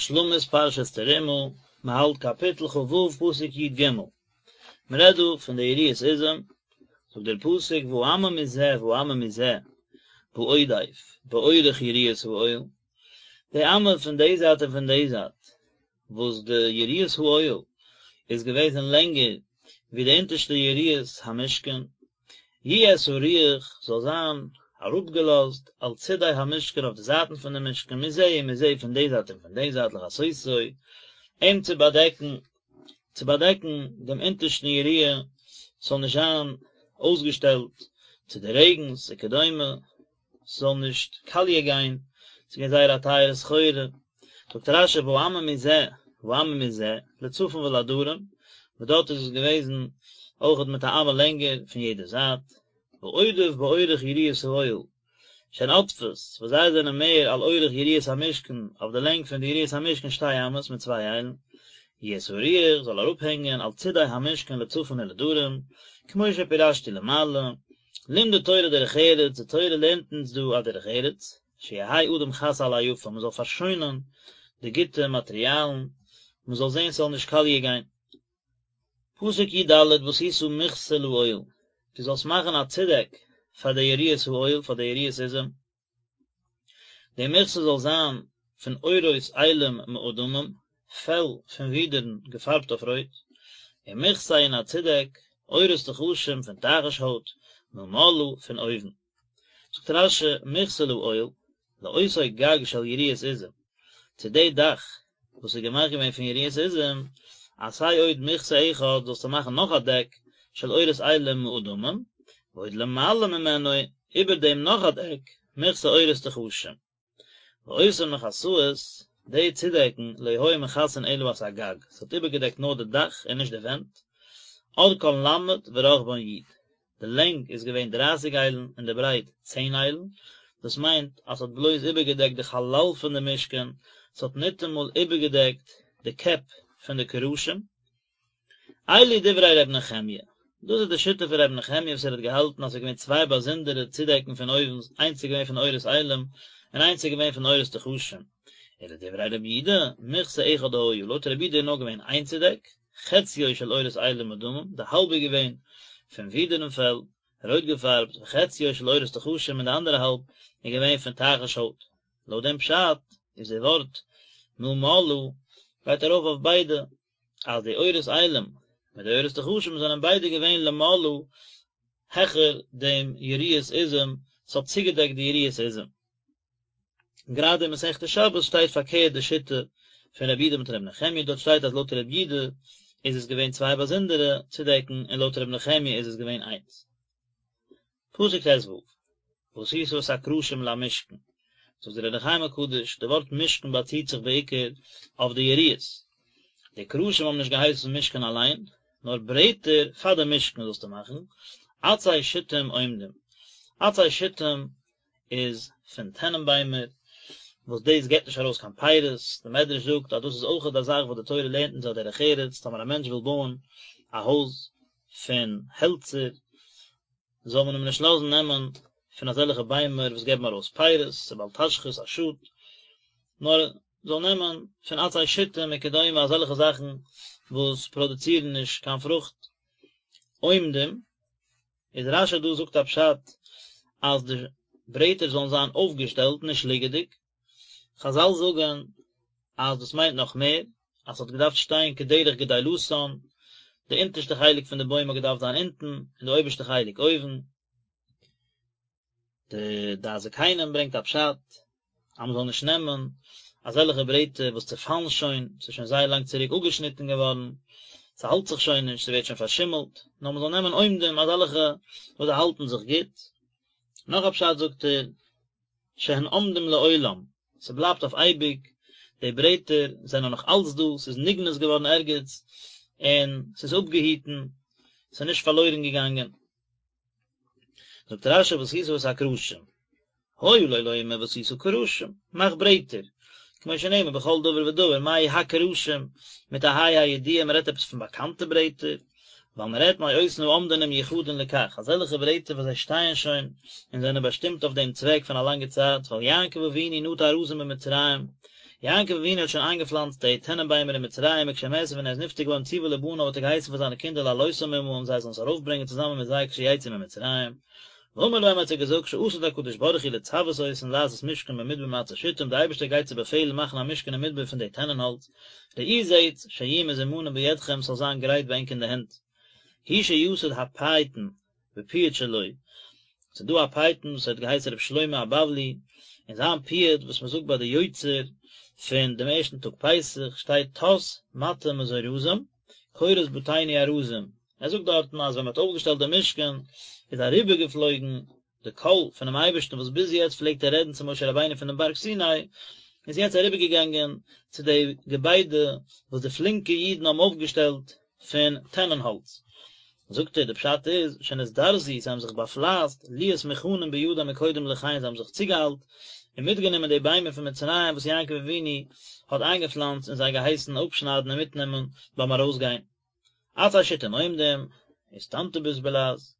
השלמת פרשת תרומה, מען האלט קאפיטל כ"ו פסוק י"ג, מען רעדט דא פון די יריעות עזים, זאגט דער פסוק והאמה מזה והאמה מזה בעודף באורך יריעות האוהל, די אמה פון די זייט און פון די זייט, וואס די יריעות האוהל איז געוועזן לענגער ווי די אונטערשטע יריעות המשכן, יהיה סרוח זאל זיין אראפגעלאזט על צידי המשכן אויף די זייטן פון די משכן מזה ומזה פון די זייט און פון די זייט לכסותו אים צו באדעקן צו באדעקן דעם אונטערשטן יריעה ס'זאל נישט זיין אויסגעשטעלט צו די רעגנס וכדומה. ס'זאל נישט קאליע גיין, ס'איז געווען זייער א טייערע סחורה, זאגט רש"י והאמה מזה והאמה מזה, לצפון ולדרום, וואס דארט איז עס געוועזן אויכעט מיט א אמה לענגער פון יעדע זייט, בעודף באורך יריעות האוהל, שהן עודפות, וואס זיי זענען מער על אורך יריעות המשכן, אויף די לענג פון די יריעות המשכן שתי אמות מיט צוויי איילן, יהיה סרוח זאל אראפהענגען על צידי המשכן לצפון ולדרום, כמו שפירשתי למעלה, לימדה תורה דרך ארץ, די תורה לערנט אונז דא א דרך ארץ, שיהא אדם חס על היפה, מען זאל פארשוינען די גוטע מאטריאלן, מען זאל זען ס'זאל נישט קאליע גיין. פסוק י"ד ועשית מכסה לאוהל, דו זאלסט מאכן א צודעק פאר די יריעות האוהל, פאר די יריעות עזים, די מכסה זאל זיין פון עורות אילים מאדמים, פעל פון ווידערן געפארבט אויף רויט, ומכסה און א צודעק, עורות תחשים פון תחש הויט, מלמעלה פון אויבן. זאגט רש"י, מכסה לאוהל, לאותו גג של יריעות עזים, צו די דאך וואס איז געמאכט געווען פון יריעות עזים, עשה עוד מכסה אחד, זאלסטו מאכן נאך א דעק של עורות אילים מאדמים, ועוד למעלה ממנו, איבער דעם נאך א דעק, מכסה עורות תחשים. ואותן מכסאות, די צודעקן, לא היו מכסין אלא את הגג, ס'האט איבערגעדעקט נאר די דאך און נישט די ווענט, ארכן ל' ורחבן י'. די לענג איז געווען דרייסיג איילן און די ברייט צען איילן, דאס מיינט אז ס'האט בלויז איבערגעדעקט די חלל פון די משכן, ס'האט ניטאמאל איבערגעדעקט די קעפ פון די קרשים. אלו דברי ר' נחמיה, דאס איז די שיטה פון ר' נחמיה וואס ער האט געהאלטן אז ס'איז געווען צוויי באזונדערע צודעקן פון אויבן, איינס איז געווען פון עורות אילים און איינס איז געווען פון עורות תחשים. ולדברי ר' יהודה, מכסה אחד היה, לויט ר' יהודה איז נאר געווען איין צודעק, חציו של עורות אילים מאדמים, די האלב איז געווען פון ווידערן פעל, רויט געפארבט, וחציו של עורות תחשים און די אנדערע האלב איז געווען פון תחש הויט. לויט דעם פשט איז די ווארט מלמעלה גייט ארויף אויף ביידע, אז די עורות אילים מיט די עורות תחשים זענען ביידע געווען למעלה העכער דעם יריעות עזים, ס'האט צוגעדעקט די יריעות עזים. גראדע אין מסכת שבת שטייט פארקערט די שיטה פון רבי יהודה מיט רבי נחמיה, דארט שטייט אז לויט רבי יהודה איז עס געווען צוויי באזונדערע צודעקן און לויט רבי נחמיה איז עס געווען איינס. פסוק ט"ו, ועשית את הקרשים למשכן, זאגט דער אור החיים הקדוש, די ווארט משכן באציט זיך בעיקר אויף די יריעות, די קרשים האבן נישט געהייסן משכן אליין, נאר ברעטער פאר די משכן זאלסטו מאכן, עצי שיטים עומדים, עצי שיטים איז פון טענענביימער, וואס דאס געבט נישט ארויס קיין פירות, די מדרש זאגט אז דאס איז אויכעט א זאך וואס די תורה לערנט אונז א דרך ארץ, טאמער א מענטש וויל בויען א הויז פון העלצער, זאל מען אים נישט לאזן נעמען פון אזעלכע ביימער וואס געבן ארויס פירות, ס'איז בל תשחית א שאד, נאר זאל נעמען פון עצי שיטים וכדומה אזעלכע זאכן וואס פראדוצירן נישט קיין פרוכט. עומדים, איז רש"י דא זאגט א פשט אז די ברעטער זאלן זיין אויפגעשטעלט נישט ליגעדיג, חזל זאגן אז דאס מיינט נאך מער, אז ס'האט געדארפט שטיין כדרך גדילתן, די אונטערשטע חלק פון די בוים האט געדארפט זיין אונטן און די אויבערשטע חלק אויבן. די דעת זקנים ברענגט א פשט אז מ'זאל נישט נעמען אזעלכע ברעטער וואס צעפאלן שוין, ס'איז שוין זייער לאנג צוריק אפגעשניטן געווארן, ס'האלט זיך שוין נישט, ס'ווערט שוין פארשימלט, נאר מ'זאל נעמען עומדים אזעלכע וואס זיי האלטן זיך גוט. נאך א פשט זאגט ער, שהן עומדים לעולם, ס'בלייבט אויף אייביג, די ברעטער זענען נאך אלץ דא, ס'איז נגנז געווארן ערגעץ, און ס'איז אפגעהיטן, ס'איז נישט פארלוירן געגאנגען. זאגט רש"י ועשית את הקרשים, היה לו לומר ועשית קרשים, מאך ברעטער, כמו שנאמר בכל דבר ודבר, מה הקרשים, מיט א ה' הידיעה, מען רעדט עפעס פון באקאנטע ברעטער, ווייל מען רעדט מאותן העומדין ומיוחדין לכך, אזעלכע ברעטער וואס זיי שטייען שוין און זענען באשטימט אויף דעם צוועק פון א לאנגע צייט, ווייל יעקב אבינו נטע ארזים במצרים. יעקב אבינו האט שוין איינגעפלאנצט די טענענביימער אין מצרים וכשמת ווען ער איז נפטר געווארן ציווה לבניו האט ער געהייסן פאר זיינע קינדער להעלותם עמהם זיי זאלן עס ארויפברענגען צוזאמען מיט זיי כשיצאו ממצרים. ואמר להם האט ער געזאגט שעתיד הקדוש ברוך הוא לצוות אותן לעשות משכן במדבר מעצי שטים די אייבערשטער גייט צו באפעלן מאכן א משכן אין מדבר פון די טענען האלץ, ראו זעטס שיהיו מזומנים בידכם ס'זאל זיין גרייט ביי ענק אין די הענט. הוא שיסד הפייטן בפיוט שלו, ס'איז דא א פייטן וואס האט געהייסן רבי שלמה הבבלי, אין זיין פיוט וואס מ'זאגט ביי די יוצר פון דעם ערשטן טאג פסח שטייט טס מטה מזורזים קורות בתינו ארזים, ער זאגט דארטן אז ווען מ'האט אויפגעשטעלט דעם משכן איז אריבערגעפלויגן די קול פונעם אייבערשטן וואס ביז יעצט פלעגט ער רעדן צו משה רבינו פונעם בארג סיני, איז יעצט אריבערגעגאנגען צו די געביידע וואס די פלינקע אידן האבן אויפגעשטעלט פון טענען האלץ. זאגט ער, די פשט איז, שנזדרזו, זיי האבן זיך באפלייסט, להיות מוכנים בידם מקודם לכן, זיי האבן זיך צוגעאיילט און מיטגענומען די ביימער פון מצרים וואס יעקב אבינו האט איינגעפלאנצט און זיי געהייסן אפשניידן און מיטנעמען ביים ארויסגיין. עצי שטים עומדים, איסטנטוביס בלע"ז,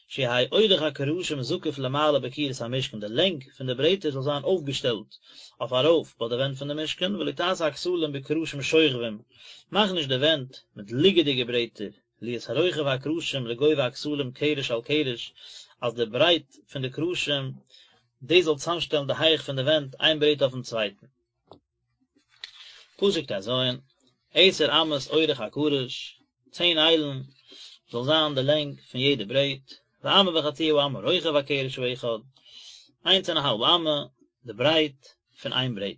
שיהא אורך הקרשים זקוף למעלה בקירות המשכן, די לענג פון די ברעטער זאל זיין אויפגעשטעלט אויף ארויף ביי די ווענט פון די משכן, ולא תעשה הכתלים בקרשים שוכבים, מאך נישט די ווענט מיט ליגעדיגע ברעטער, להיות רוחב הקרשים לגובה הכתלים קרש על קרש, אז די ברייט פון די קרשים דאס זאל צוזאמשטעלן די הייך פון די ווענט איין ברעט אויפן צווייטן. פסוק ט"ז, עשר אמות אורך הקרש, צען איילן זאל זיין די לענג פון יעדע ברעט, ואמה וחצי האמה רוחב הקרש האחד, איינס און א האלב אמה די ברייט פון איין ברעט.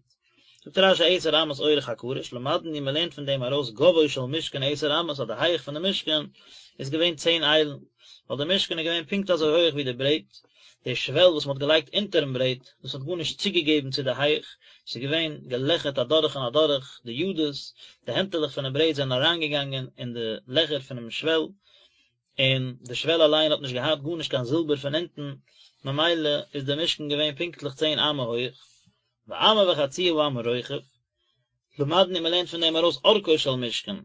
זאגט רש"י עשר אמות אורך הקרש, למדנו מען לערנט פון דעם ארויס גובהו של משכן עשר אמות אז די הייך פון די משכן איז געווען צען איילן, ווייל די משכן איז געווען פונקט אזוי הויעך ווי די ברעט, די שוועל וואס מען האט געלייגט אונטערן ברעט, דאס האט גארנישט צוגעגעבן צו די הייך, ס'איז געווען געלעכערט אדורך און אדורך, די ידות, די הענטעלעך פונעם ברעט זענען אריינגעגאנגען אין די לעכער פונעם שוועל, און די שוועל אליין האט נישט געהאט גארנישט קיין זילבער פון אונטן, ממילא איז די משכן געווען פונקטליך צען אמה הויך, ואמה וחצי האמה רוחב, למדנו מען לערנט פון דעם ארויס אורכו של משכן,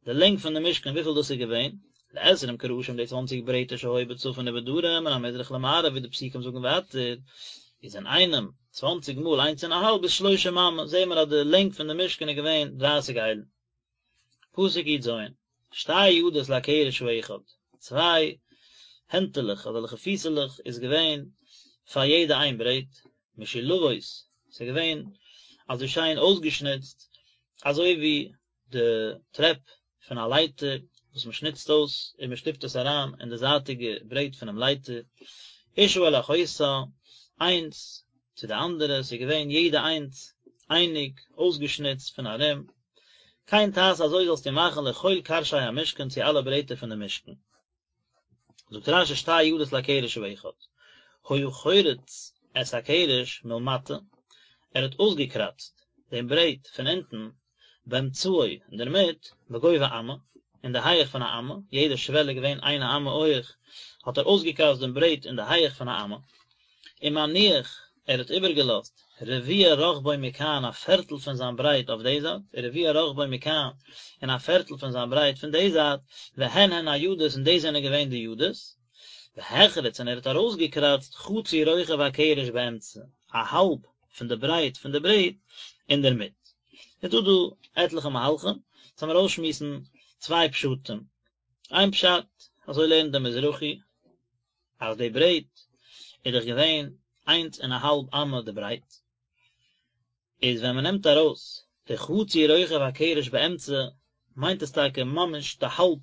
די לענג פון די משכן וויפיל דאס איז געווען, לעשרים קרשים די צוואנציג ברעטער שהיו בצפון ובדרום מן המזרח למערב ווי די פסוקים זאגן ווייטער, איז אינאיינעם צוואנציג מאל איינס און א האלב איז שלושים אמה, זעהן מיר אז די לענג פון די משכן איז געווען דרייסיג איילן. פסוק י"ז, שתי ידות לקרש האחד, צוויי הענטעלעך אזעלכע פיסעלעך איז געווען פאר יעדע איין ברעט, משולבות, ס'איז געווען אזוי שיין אויסגעשניצט, אזוי ווי די טרעפ פון א לייטער וואס מען שניצט אויס און מען שטופט עס אריין אין די זייטיגע ברעט פונעם לייטער, אשה אל אחותה, איינס צו די אנדערע, ס'איז געווען יעדע איינס אייניג אויסגעשניצט פון ארום, כן תעשה אזוי זאלסטו מאכן לכל קרשי המשכן צו אלע ברעטער פון די משכן. זאגט רש"י שתי ידות לקרש האחד, היה חורץ את הקרש מלמטה, ער האט אויסגעקראצט דעם ברעט פון אונטן באמצעו אינדערמיט בגובה אמה, אין די הייעך פון א אמה, יעדע שוועל איז געווען איין אמה הויעך, האט ער אויסגעקראצט דעם ברעט אין די הייעך פון א אמה, ומניח, ער האט איבערגעלאזט, רביע רחבו מכאן א פערטל פון זיין ברייט אויף די זייט, ורביע רחבו מכאן און א פערטל פון זיין ברייט פון די זייט, והן הן הידות און דאס זענען געווען די ידות, והחריץ און ער האט ארויסגעקראצט חצי רוחב הקרש באמצע, א האלב פון די ברייט פון די ברעט אינדערמיט. איז דא דא עטליכע מהלכים, לאמיר אויסשמועסן צוויי פשטים. איין פשט, אזוי לערנט דער מזרחי, אז די ברעט איז דאך געווען איינס און א האלב אמה די ברייט, איז ווען מען נעמט ארויס די חצי רוחב הקרש באמצע, מיינט עס טאקע ממש די האלב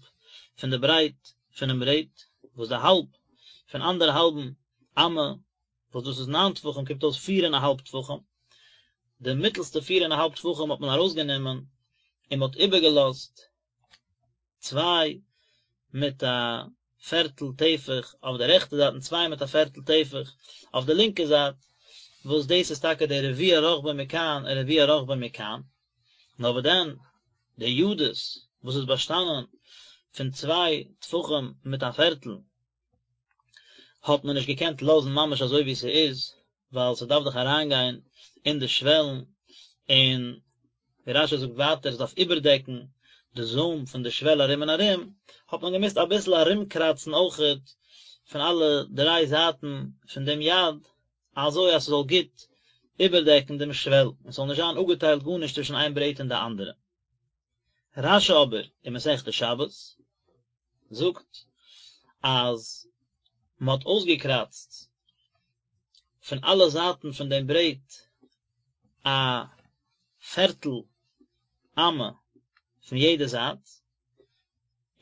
פון די ברייט פונעם ברעט, וואס די האלב פון אנדערהאלבן אמה, וואס דאס איז ניין טפחים, קומט אויס פיר און א האלב טפחים, די מיטלסטע פיר און א האלב טפחים האט מען ארויסגענומען און מען האט איבערגעלאזט צוויי מיט א פערטל טפח אויף די רעכטע זייט און צוויי מיט א פערטל טפח אויף די לינקע זייט, וואס דאס איז טאקע די רביע רחבו מכאן און רביע רחבו מכאן, נאר וואס דען די ידות וואס איז באשטאנען פון צוויי טפחים מיט א פערטל האט מען נישט געקענט לאזן ממש אזוי ווי ס'איז, ווייל ס'דארף דאך אריינגיין אין די שוועלן, און ווי רש"י זאגט ווייטער עס דארף איבערדעקן די זוים פון די שוועל ארום און ארום, האט מען געמוזט אביסל ארומקראצן אויכעט פון אלע דריי זייטן פון דעם יד, אזוי אז ס'זאל גוט. איבערדעקן דעם שוועל, און ס'זאל נישט זיין אפגעטיילט גארנישט צווישן איין ברעט און די אנדערע. רש"י אבער אין מסכת שבת זאגט אז מען האט אויסגעקראצט פון אלע זייטן פון דעם ברעט א פערטל אמה פון יעדע זייט,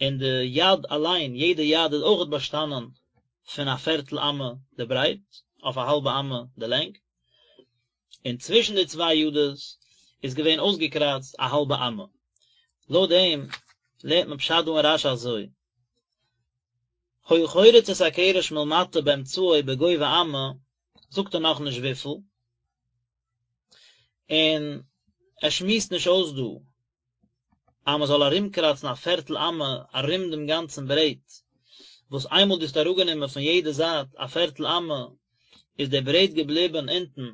און די יד אליין, יעדע יד איז אויכעט באשטאנען פון א פערטל אמה די ברייט, אויף א האלבע אמה די לענג, און צווישן די צוויי ידות איז געווען אויסגעקראצט א האלבע אמה. לויט דעם לערנט מען פשט דא אין רש"י אזוי, היה חורץ את הקרש מלמטה באמצעו בגובה אמה, זאגט ער נאכנישט וויפיל, און ער שמועסט נישט אויס דא אז מען זאל ארומקראצן א פערטל אמה ארום דעם גאנצן ברעט, וואס איינמאל דו האסט אראפגענומען פון יעדע זייט א פערטל אמה, איז דער ברעט געבליבן אונטן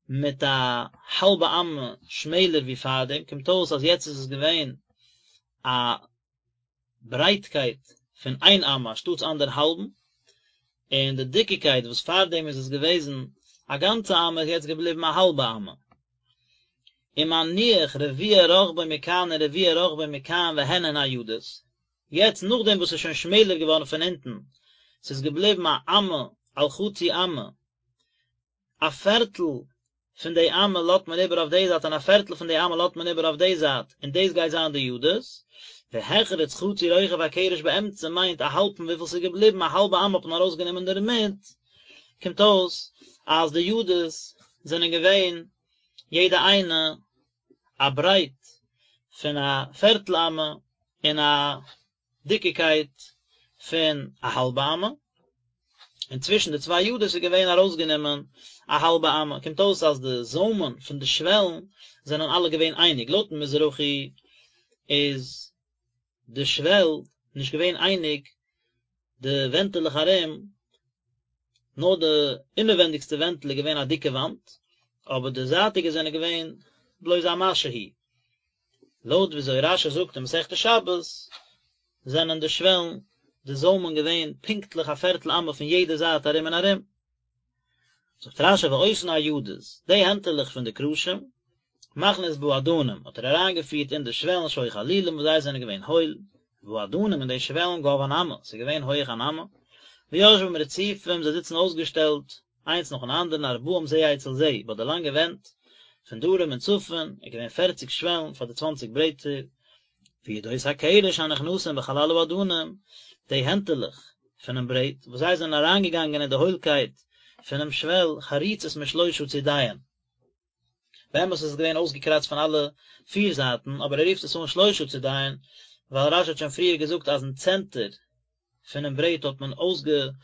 מיט א האלבע אמה שמעלער ווי פארדעם, קומט אויס אז יעצט איז עס געווען א ברייטקייט פון איין אמה אנשטאטס אנדערהאלבן, און די דיקיקייט וואס פארדעם איז עס געוועזן א גאנצע אמה איז יעצט געבליבן א האלבע אמה. ומניח רביע רחבו מכאן ורביע רחבו מכאן והן הן הידות, יעצט נאכדעם וואס ס'איז שוין שמעלער געווארן פון אונטן, ס'איז געבליבן א אמה על חצי אמה, א פערטל פון די אמה לאזט מען איבער אויף די זייט און א פערטל פון די אמה לאזט מען איבער אויף די זייט, און דאס גייט זיין די ידות, והחריץ חצי רוחב הקרש באמצע מיינט א האלב פון וויפיל ס'איז געבליבן, א האלבע אמה האט מען ארויסגענומען דערמיט, קומט אויס אז די ידות זענען געווען יעדע איינע א ברייט פון א פערטל אמה און א דיקיקייט פון א האלבע אמה, און צווישן די צוויי ידות איז געווען ארויסגענומען א האלבע אמה, קומט אויס אז די זוימען פון די שוועלן זענען אלע געווען אייניג, לויטן מזרחי איז די שוועל נישט געווען אייניג די ווענטעלעך ארום, נאר די אינעווענדיגסטע ווענטל איז געווען א דיקע וואנט, אבער די זייטיגע זענען געווען בלויז א משהו. לויט וויאזוי רש"י זאגט אין מסכת שבת, זענען די שוועלן, די זוימען געווען פונקטליך א פערטל אמה פון יעדע זייט ארום און ארום. זאגט רש"י ואותן הידות, די הענטעלעך פון די קרשים, מכניס באדנים, האט ער אריינגעפירט אין די שוועלן שהיו חלולים וואס זיי זענען געווען הויל, והאדנים און די שוועלן גבהן אמה, ס'איז געווען הויעך אן אמה, ויושבים רצופים, זיי זיצן אויסגעשטעלט איינס נאכן אנדערן ארבעים זה אצל זה, ביי די לאנגע ווענט, פון דרום און צפון, איז געווען פערציג שוועלן פאר די צוואנציג ברעטער, וידות הקרש הנכנסין בחלל האדנים, די הענטעלעך פונעם ברעט, וואס זיי זענען אריינגעגאנגען אין די הוילקייט פונעם שוועל, חרוצות משלושה צידיהן. באמת איז עס געווען אויסגעקראצט פון אלע פיר זייטן, אבער ער רופט עס אן שלושה צידיהן, ווייל רש"י האט שוין פריער געזאגט אז אין צענטער פונעם ברעט האט מען אויסגעקראצט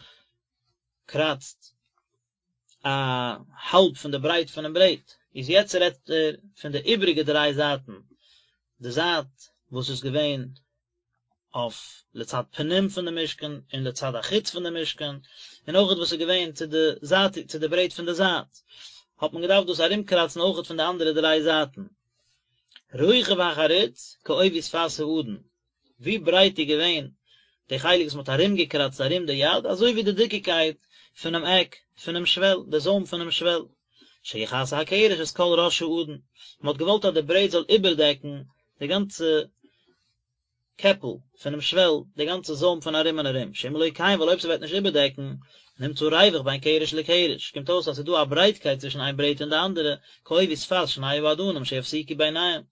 א האלב פון די ברייט פונעם ברעט, איז יעצט רעדט ער פון די איבריגע דריי זייטן, די זייט וואס איז געווען אויף לצד פנים פון די משכן און לצד החוץ פון די משכן, און אויכעט וואס איז געווען צו די זייט צו די ברעט פון די זייט, האט מען געדארפט דאס ארומקראצן אויכעט פון די אנדערע דריי זייטן. רוחב החריץ כעובי שפת האדן, ווי ברייט איז געווען די חלק וואס מען האט ארומגעקראצט ארום די יד, אזוי ווי די דיקיקייט פונעם עק פונעם שוועל, די זוים פונעם שוועל. שיכסה הקרש את כל ראש האדן, מען האט געוואלט אז די ברעט זאל איבערדעקן די גאנצע קעפל פונעם שוועל, די גאנצע זוים פון ארום און ארום, שאם לא כן, ווייל אויב ס'וועט נישט איבערדעקן, נמצא ריווח בין קרש לקרש, קומט אויס אז ס'איז דא א ברייטקייט צווישן איין ברעט און די אנדערע, כעובי שפת שני האדנים שיפסיקו ביניהם.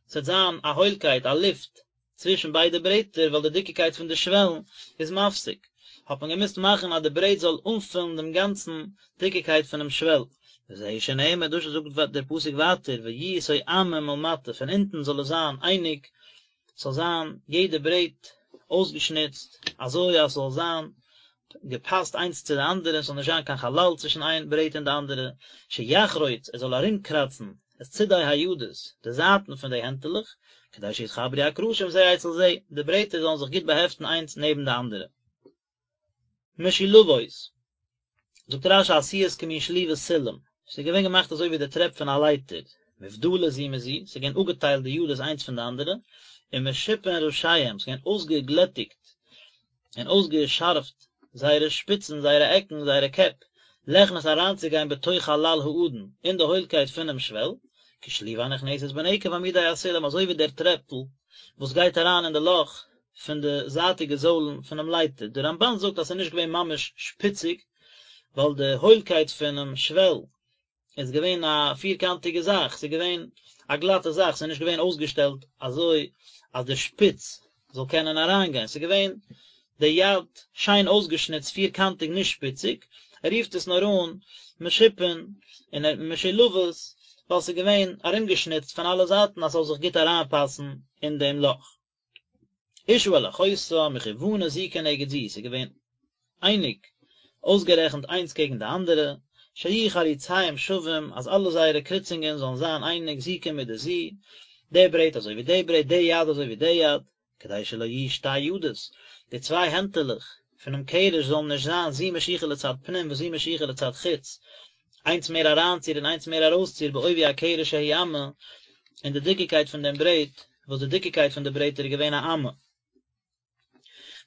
ס'וועט זיין א הוילקייט, א לופט, צווישן ביידע ברעטער ווייל די דיקיקייט פון די שוועלן איז מפסיק, האט מען געמוזט מאכן אז די ברעט זאל אנפילן דעם גאנצן דיקיקייט פונעם שוועל. וזהו שנאמר, דאס זאגט דער פסוק ווייטער, ויהיו תואמים מלמטה, פון אונטן זאל עס זיין אייניג, ס'זאל זיין יעדע ברעט אויסגעשניצט אזוי אז ס'זאל זיין געפאסט איינס צו די אנדערע, ס'זאל נישט זיין קיין חלל צווישן איין ברעט און די אנדערע, שיחרוץ, ער זאל ארומקראצן את צידי הידות, די זייטן פון די הענטעלעך, כדי שיתחברו הקרשים זה אצל זה, די ברעטער זאלן זיך גוט באהעפטן איינס נעבן די אנדערע. משולבות, זאגט רש"י עשויות כמין שליבות סולם, ס'איז געווען געמאכט אזוי ווי די טרעפ פון א לייטער, מובדלות זו מזו, ס'איז געווען אפגעטיילט די ידות איינס פון די אנדערע, ומשופין ראשיהם, ס'איז געווען אויסגעגלעטיגט און אויסגעשארפט זייערע שפיצן, זייערע עקן, זייערע קעפ, ליכנס אריינצוגיין בתוך חלל האדן, אין די הוילקייט פונעם שוועל, כשלובה הנכנסת בנקב עמודי הסולם, אזוי ווי דער טרעפל וואס גייט אריין אין די לאך פון די זייטיגע זוילן פונעם לייטער. דער רמבן זאגט אז ס'איז נישט געווען ממש שפיציג, ווייל די הוילקייט פונעם שוועל איז געווען א פירקאנטיגע זאך, ס'איז געווען א גלאטע זאך, ס'איז נישט געווען אויסגעשטעלט אזוי אז די שפיץ זאל קענען אריינגיין, ס'איז געווען די יד שיין אויסגעשניצט פירקאנטיג נישט שפיציג, ער רופט עס נאר אן משופין און משולבות ווייל ס'איז געווען ארומגעשניצט פון אלע זייטן אז ס'זאל זיך גוט אריינפאסן אין דעם לאך. אשה אל אחותה מכוונות זו כנגד זו, ס'איז געווען אייניג אויסגערעכנט איינס קעגן די אנדערע, שיהיו חריציהם שווים, אז אלע זייערע קריצונגען זאלן זיין אייניג זו כמידת זו, די ברעט אזוי ווי די ברעט, די יד אזוי ווי די יד, כדי שלא יהיו שתי ידות, די צוויי הענטעלעך פונעם קרש זאלן נישט זיין זו משוכה לצד פנים וזו משוכה לצד חוץ, איינס מער אריינציר און איינס מער ארויסציר בעובי הקרש שהוא אמה, אין די דיקיקייט פון דעם ברעט, וואס די דיקיקייט פון די ברעטער איז געווען א אמה.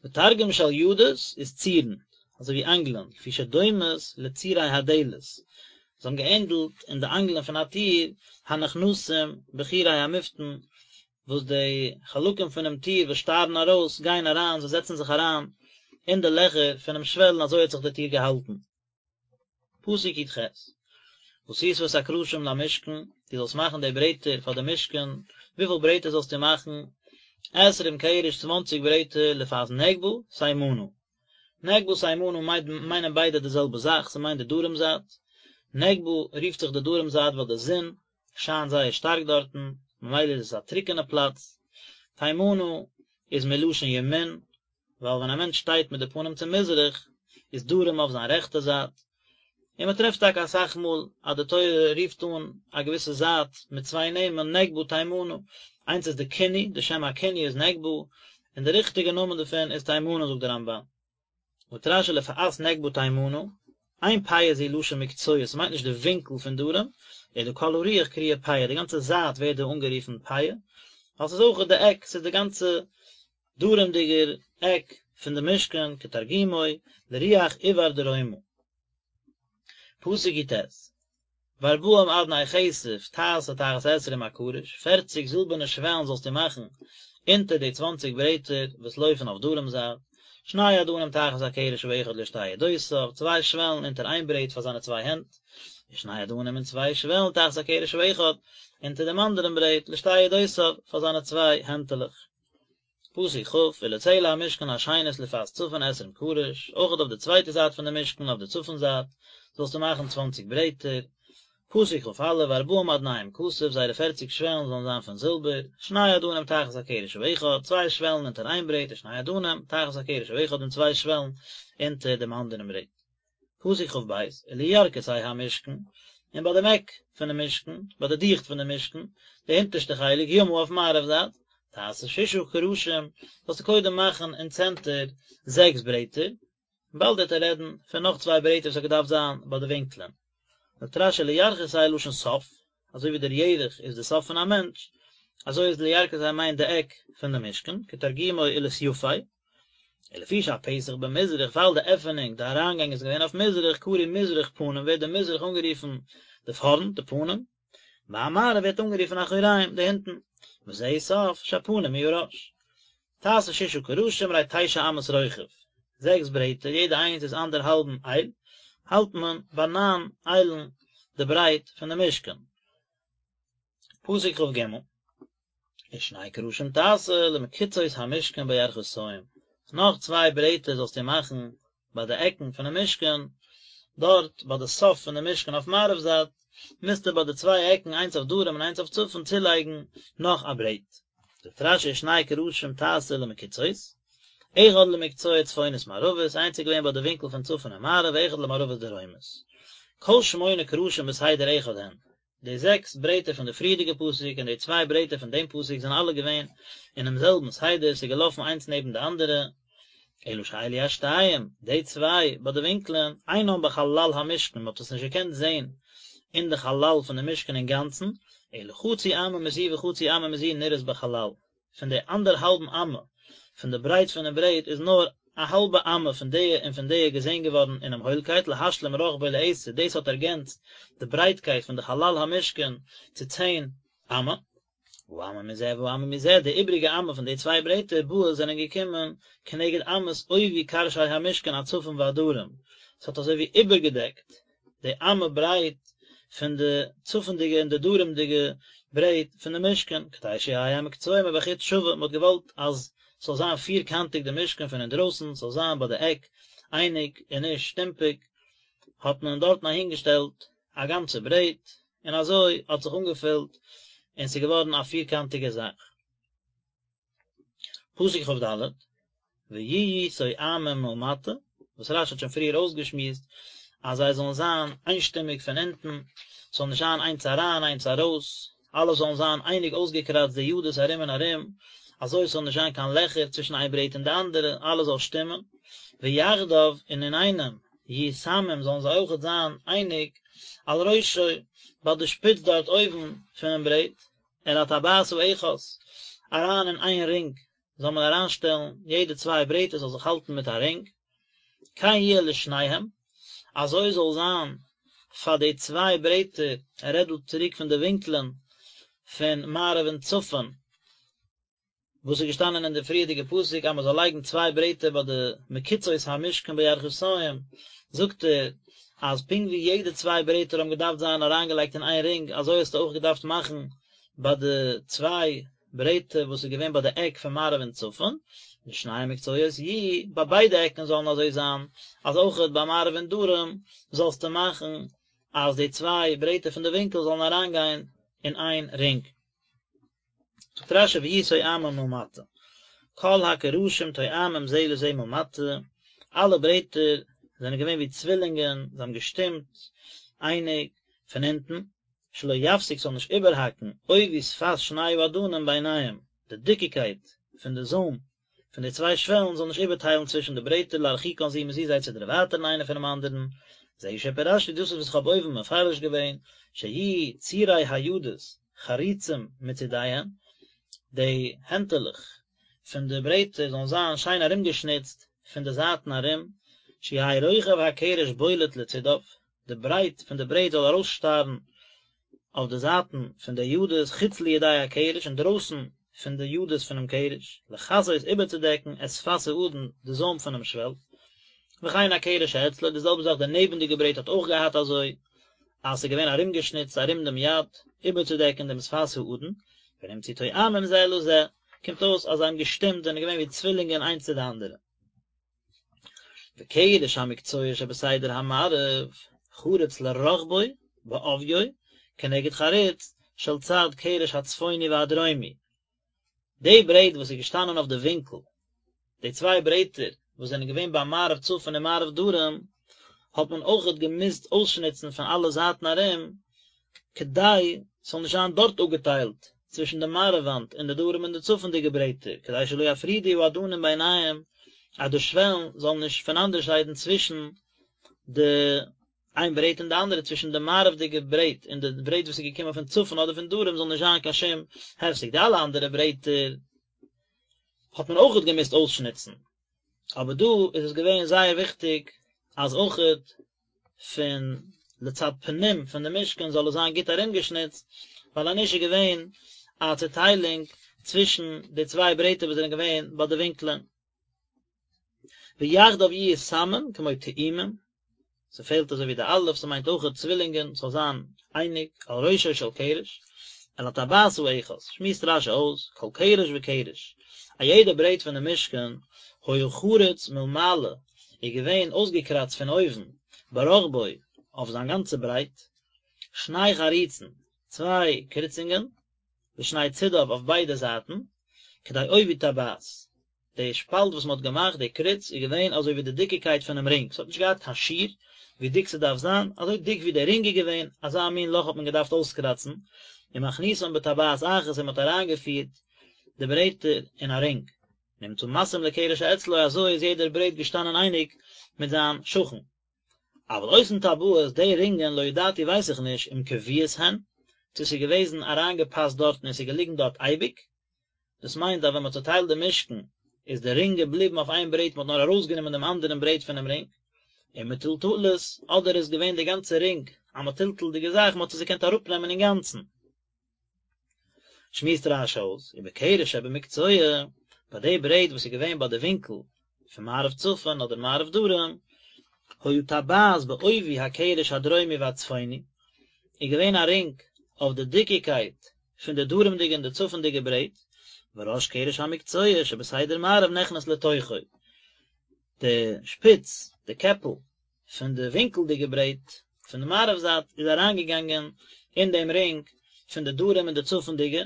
ותרגום של ידות איז צירן, אזוי ווי אנגלען, לפי שדומות לצירי הדלת, זיי האבן געענדלט אין די אנגלען פון א טיר, הנכנסים בחורי המפתן, וואס די חלקים פונעם טיר וואס שטארן ארויס גייען אריין, זיי זעצן זיך אריין אין די לעכער פונעם שוועל און אזוי האט זיך די טיר געהאלטן. פסוק י"ח, ועשית את הקרשים למשכן, דו זאלסט מאכן די ברעטער פאר די משכן, וויפיל ברעטער זאלסטו מאכן? עשרים קרש צוואנציג ברעטער לפאת נגבה תימנה. נגבה תימנה מיינען ביידע די זעלבע זאך, ס'מיינט די דרום זייט. נגבה רופט זיך די דרום זייט ווייל די זון שיינט זייער שטארק דארטן, ממילא איז עס א טרוקענע פלאץ. תימנה איז מלשון ימין, ווייל ווען א מענטש שטייט מיט די פנים צו מזרח, איז דרום אויף זיין רעכטע זייט, און מען טרעפט טאקע אסאך מאל אז די תורה רופט אן א געוויסע זייט מיט צוויי נעמען, נגבה תימנה, איינס איז די כינוי, די שם הכינוי איז נגבה, און די ריכטיגע נאמען דערפון איז תימנה זאגט די רמב"ן. זאגט רש"י לפאת נגבה תימנה, אין פאה זו לשון מקצוע, ס'מיינט נישט די ווינקל פון דרום, אלא כל הרוח קרויה פאה, די גאנצע זייט ווערט דא אנגערופן פאה, ווייל ס'איז אויך די עק, ס'איז די גאנצע דרומ'דיגער עק פון די משכן, כתרגומו, לרוח עיבר דרומה. פסוק י"ט, וארבעים אדני כסף תעשה תחת עשרים הקרש, פערציג זילבערנע שוועלן זאלסטו מאכן אונטער די צוואנציג ברעטער וואס לויפן אויף דרום זייט, שני אדנים תחת הקרש האחד לשתי ידותיו, צוויי שוועלן אונטער איין ברעט פאר זיינע צוויי הענט, ושני אדנים און צוויי שוועלן תחת הקרש האחד אונטער דעם אנדערן ברעט לשתי ידותיו פאר זיינע צוויי הענטעלעך. פסוק כ', ולצלע המשכן השנית לפאת צפון עשרים קרש, אויכעט אויף די צווייטע זייט פון די משכן אויף די צפון זייט, זאלסטו מאכן צוואנציג ברעטער. פסוק כ"א, וארבעים אדניהם כסף, זייערע פערציג שוועלן זאלן זיין פון זילבער, שני אדנים תחת הקרש האחד, צוויי שוועלן אונטער איין ברעט, ושני אדנים תחת הקרש האחד און צוויי שוועלן אונטער דעם אנדערן ברעט. פסוק כ"ב, ולירכתי המשכן, און ביי דעם עק פונעם משכן, ביי די דיכט פון דעם משכן, די הונטערשטע חלק, ימה אויף מערב זייט, תעשה ששה קרשים, זאלסטו קודם מאכן אין צענטער זעקס ברעטער, באלד וועט ער רעדן פון נאך צוויי ברעטער וואס האט געדארפט זיין ביי די ווינקלען. זאגט רש"י לירכתי לשון סוף, אזוי ווי דער ירך איז די סוף פון א מענטש, אזוי איז לירכתי מיינט די עק פון די משכן, כתרגומו ולסיפי, ולפי שהפתח במזרח ווייל די עפענונג, די אריינגאנג איז געווען אויף מזרח, קרוי מזרח פנים ווערט די מזרח אנגערופן די פארנט, די פנים, והמערב ווערט אנגערופן אחוריים, די הינטן, וזהו סוף שהפנים הוא הראש. תעשה ששה קרשים הרי תשע אמות רוחב, זעקס ברעטער, יעדע איינס איז אנדערהאלבן אייל, האלט מען ביי ניין איילן די ברייט פון די משכן. פסוק כ"ג, ושני קרשים תעשה למקצעות המשכן בירכתים, נאך צוויי ברעטער זאלסטו מאכן ביי די עקן פונעם משכן, דארט ביי די סוף פון די משכן אויף מערב זייט, מוזטו ביי די צוויי עקן איינס אויף דרום און איינס אויף צפון צולייגן נאך א ברעט. זאגט רש"י ושני קרשים תעשה למקצעות, אחד למקצוע צפונית מערבית, איינס איז געווען ביי די ווינקל פון צפון און מערב, ואחד למערבית דרומית. כל שמונה קרשים בסדר אחד הן, די זעקס ברעטער פון די פריערדיגע פסוק און די צוויי ברעטער פון דעם פסוק זענען אלע געווען אינעם זעלבן סדר, ס'איז געלאפן איינס נעבן די אנדערע, אלא שאלו השתיים, די צוויי ביי די ווינקלען, אינם בחלל המשכן, מ'האט עס נישט געקענט זען אין די חלל פון די משכן אינגאנצן, אלא חצי אמה מזו וחצי אמה מזו נראות בחלל, פון די אנדערהאלבן אמה פון די ברייט פונעם ברעט איז נאר. א האלבע אמה פון די און פון די געזען געווארן אינעם הוילקייט להשלים רחבו לעשר, דאס האט ערגענצט די ברייטקייט פון די חלל המשכן צו צען אמה. והאמה מזה והאמה מזה, די איבריגע אמה פון די צוויי ברעטער באות זענען געקומען כנגד אמות עובי קרשי המשכן הצפון והדרום, ס'האט אזוי ווי איבערגעדעקט די אמה ברייט פון די צפונדיגע און די דרומדיגע ברעט פון די משכן, כדי שיהא המקצוע מבחוץ שווה, מ'האט געוואלט אז ס'זאל זיין פירקאנטיג די משכן פון אינדרויסן, ס'זאל זיין ביי די עק אייניג און נישט שטומפיג, האט מען דארטן אהינגעשטעלט א גאנצע ברעט, און אזוי האט זיך אנגעפילט און ס'איז געווארן א פירקאנטיגע זאך. פסוק כ"ד, ויהיו תואמים מלמטה, וואס רש"י האט שוין פריער אויסגעשמועסט אז זיי זאלן זיין איינשטימיג פון אונטן, ס'זאל נישט זיין איינס אריין איינס ארויס, אלע זאלן זיין אייניג אויסגעקראצט די ידות ארום און ארום, אזוי ס'זאל נישט זיין קיין לעכער צווישן איין ברעט און די אנדערע, אלעס זאל שטימען, ויחדיו, און אינאיינעם, יהיו תמים זאלן זיי אויכעט זיין אייניג, על ראשו, ביי די שפיץ דארט אויבן פונעם ברעט, אל הטבעת האחת, אריין אין איין רינג זאל מען אריינשטעלן יעדע צוויי ברעטער זאל זיך האלטן מיט א רינג, כן יהיה לשניהם, אזוי זאל זיין פאר די צוויי ברעטער, ער רעדט דא צוריק פון די ווינקלען פון מערב און צפון, וואס איז געשטאנען אין די פריערדיגע פסוק אז מען זאל לייגן צוויי ברעטער ביי די מחיצות המשכן בירכתים, זאגט ער אז פונקט ווי יעדע צוויי ברעטער האבן געדארפט זיין אריינגעלייגט אין איין רינג אזוי האסטו אויך געדארפט מאכן ביי די צוויי ברעטער וואס איז געווען ביי די עק פון מערב און צפון, לשני המקצועות יהיו, ביי ביידע עקן זאלן אזוי זיין, אז אויכעט ביי מערב און דרום זאלסטו מאכן אז די צוויי ברעטער פון די ווינקל זאלן אריינגיין אין איין רינג. זאגט רש"י ויהיו תואמים מלמטה, כל הקרשים תואמים זה לזה מלמטה, אלע ברעטער זענען געווען ווי צווילינגען, זיי האבן געשטימט אייניג פון אונטן, שלא יפסיק ס'זאל נישט איבערהאקן עובי שפת שני האדנים ביניהם, די דיקיקייט פון די זוים פון די צוויי שוועלן זאל נישט איבערטיילן צווישן די ברעטער להרחיקן זו מזו זיי צו דערווייטערן איינער פונעם אנדערן, זהו שפירשתי דאס איז וואס איך האב אויבן מפרש געווען, שיהיו צירי הידות חרוצים מצידיהם, די הענטעלעך פון די ברעטער זאלן זיין שיין ארומגעשניצט פון די זייטן ארום, שיהא רוחב הקרש בולט לצידיו, די ברייט פון די ברעט זאל ארויסשטארן אויף די זייטן פון די ידות חוץ לידי הקרש אינדרויסן פון די ידות פונעם קרש, לכסות איבערצודעקן את שפת האדן די זוים פונעם שוועל, וכן הקרש שאצלו, די זעלבע זאך די נעבנדיגע ברעט האט אויך געהאט אזוי אז ס'איז געווען ארומגעשניצט ארום דעם יד איבערצודעקן דעם שפת האדן, ונמצאו תואמים זה לזה, קומט אויס אז זיי האבן געשטימט זענען געווען ווי צווילינגען איינס צו די אנדערע. וקרש המקצוע שבסדר המערב חרוץ לרחבו בעוביו כנגד חריץ של צד קרש הצפוני והדרומי, די ברעט וואס איז געשטאנען אויף די ווינקל, די צוויי ברעטער וואס זענען געווען ביי מערב צפון און מערב דרום, האט מען אויכעט געמוזט אויסשניצן פון אלע זייטן ארום, כדי ס'זאל נישט זיין דארט אפגעטיילט צווישן די מערב וואנט און די דרום און די צפונ'דיגע ברעטער, כדי שלא יפרידו האדנים ביניהם, אז די שוועלן זאלן נישט פונאנדערשיידן צווישן די איין ברעט און די אנדערע, צווישן די מערב'דיגע ברעט און די ברעט וואס איז געקומען פון צפון אדער פון דרום זאל נישט זיין קיין שום הפסק, די אלע אנדערע ברעטער האט מען אויכעט געמוזט אויסשניצן. אבער דא איז עס געווען זייער וויכטיג אז אויכעט פון לצד פנים פון די משכן זאל עס זיין גוט ארומגעשניצט, ווייל אנישט איז געווען א צוטיילונג צווישן די צוויי ברעטער וואס זענען געווען ביי די ווינקלען. ויחדיו יהיו תמים כמו תאומים, ס'פעלט אזוי ווי די אלף, ס'מיינט אויכעט צווילינגען, ס'זאל זיין אייניג, על ראשו של קרש, אל הטבעת האחת, שמועסט רש"י אויס, כל קרש וקרש, א יעדע ברעט פון די משכן, היה חרוץ מלמעלה, איז געווען אויסגעקראצט פון אויבן, ברחבו, אויף זיין גאנצע ברייט, שני חריצין, צוויי קריצונגען, לשני צידיו אויף ביידע זייטן, כדי עובי טבעת. די שפאלט וואס מען האט געמאכט, די קריץ, איז געווען אזוי ווי די דיקיקייט פונעם רינג, ס'האט נישט געהאט קיין שיעור ווי דיק ס'דארף זיין, אזוי דיק ווי דער רינג איז געווען, אזא מין לאך האט מען געדארפט אויסקראצן, ומכניסן בטבעת אחת און מען האט אריינגעפירט די ברעטער אין א רינג. נמצא מתאים לקרש שאצלו אזוי איז יעדער ברעט געשטאנען אייניג מיט זיין שכן. אבל אותן טבעות, די רינגען, לא ידעתי ווייס איך נישט, אם קבועות הן, צו ס'איז געוועזן אריינגעפאסט דארטן און ס'איז געליגן דארט אייביג, דאס מיינט אז ווען מ'האט צוטיילט די משכן. איז די רינג געבליבן אויף איין ברעט מען האט נאר ארויסגענומען דעם אנדערן ברעט פונעם רינג, ומטולטלות, אדער איז געווען די גאנצע רינג א מטולטל'דיגע זאך מען האט עס געקענט אראפנעמען אינגאנצן. שמועסט רש"י אויס, ובקרש שבמקצוע, ביי די ברעט וואס איז געווען ביי די ווינקל פון מערב צפון אדער מערב דרום, היה טבעת בעובי הקרש הדרומי והצפוני, איז געווען א רינג אויף די דיקיקייט פון די דרומ'דיגע און די צפונ'דיגע ברעט, וראש קרש המקצוע שבסדר מערב נכנס לתוכו, די שפיץ, די קעפל, פון די ווינקלדיגע ברעט פון די מערב זייט איז אריינגעגאנגען אין דעם רינג פון די דרום און די צפונ'דיגע,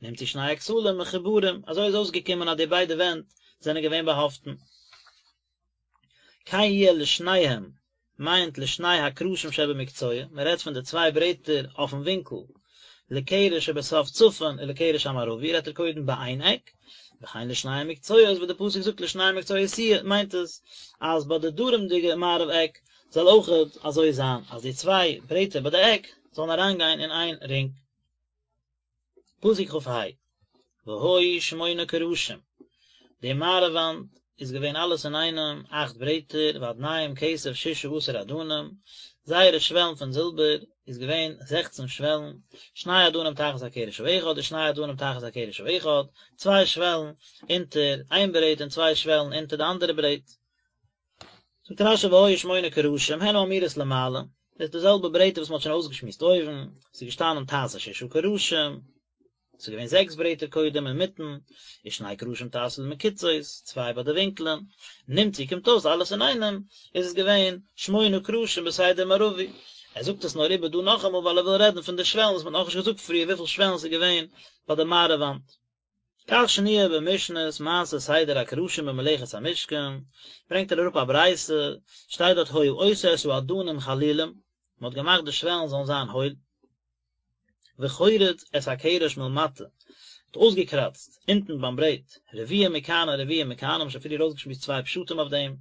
נמצאו שני הכתלים מחוברים, אזוי איז אויסגעקומען אז די ביידע ווענט זענען געווען באהאפטן. כן יהיה לשניהם מיינט לשני הקרשים שבמקצוע, מען רעדט פון די צוויי ברעטער אויפן ווינקל, לקרש שבסוף צפון ולקרש המערבי רעדט ער קודם ביי איין עק, וכן לשני המקצועות וואס די פסוק זאגט לשני המקצועות יהיה מיינט עס אז ביי די דרומ'דיגע מערב עק זאל אויכעט אזוי זיין אז די צוויי ברעטער ביי די עק זאלן אריינגיין אין איין רינג. פסוק כ"ה, והיו שמונה קרשים, די מערב וואנט איז געווען אלעס אינאיינעם אכט ברעטער, ואדניהם כסף ששה עשר אדנים, זייערע שוועלן פון זילבער איז געווען זעכצן שוועלן, שני אדנים תחת הקרש האחד ושני אדנים תחת הקרש האחד, צוויי שוועלן אונטער איין ברעט און צוויי שוועלן אונטער די אנדערע ברעט. זאגט רש"י והיו שמונה קרשים הן האמורות למעלה, דאס איז די זעלבע ברעטער וואס מען האט שוין אויסגעשמועסט אויבן, ס'איז געשטאנען תעשה ששה קרשים, ס'איז געווען זעקס ברעטער קודם אינמיטן, ושני קרשים תעשה למקצעות, צוויי ביי די ווינקלען, נמצאו קומט אויס אלעס אינאיינעם איז עס געווען שמונה קרשים בסדר מערבי, ער זאגט עס נאר איבער דא נאכאמאל ווייל ער וויל רעדן פון די שוועלן וואס מען האט נאכנישט געזאגט פריער וויפיל שוועלן ס'איז געווען ביי די מערב וואנט. כך שנויה במשנת מעשה סדר הקרשים במלאכת המשכן, ברענגט ער אראפ א ברייתא, שטייט דארט היה עושה את האדנים חלולים, מען האט געמאכט די שוועלן זאלן זיין הויל, וחורץ את הקרש מלמטה, האט אויסגעקראצט אונטן ביים ברעט, רביע מכאן ורביע מכאן, האבן שוין פריער אויסגעשמועסט צוויי פשטים אויף דעם,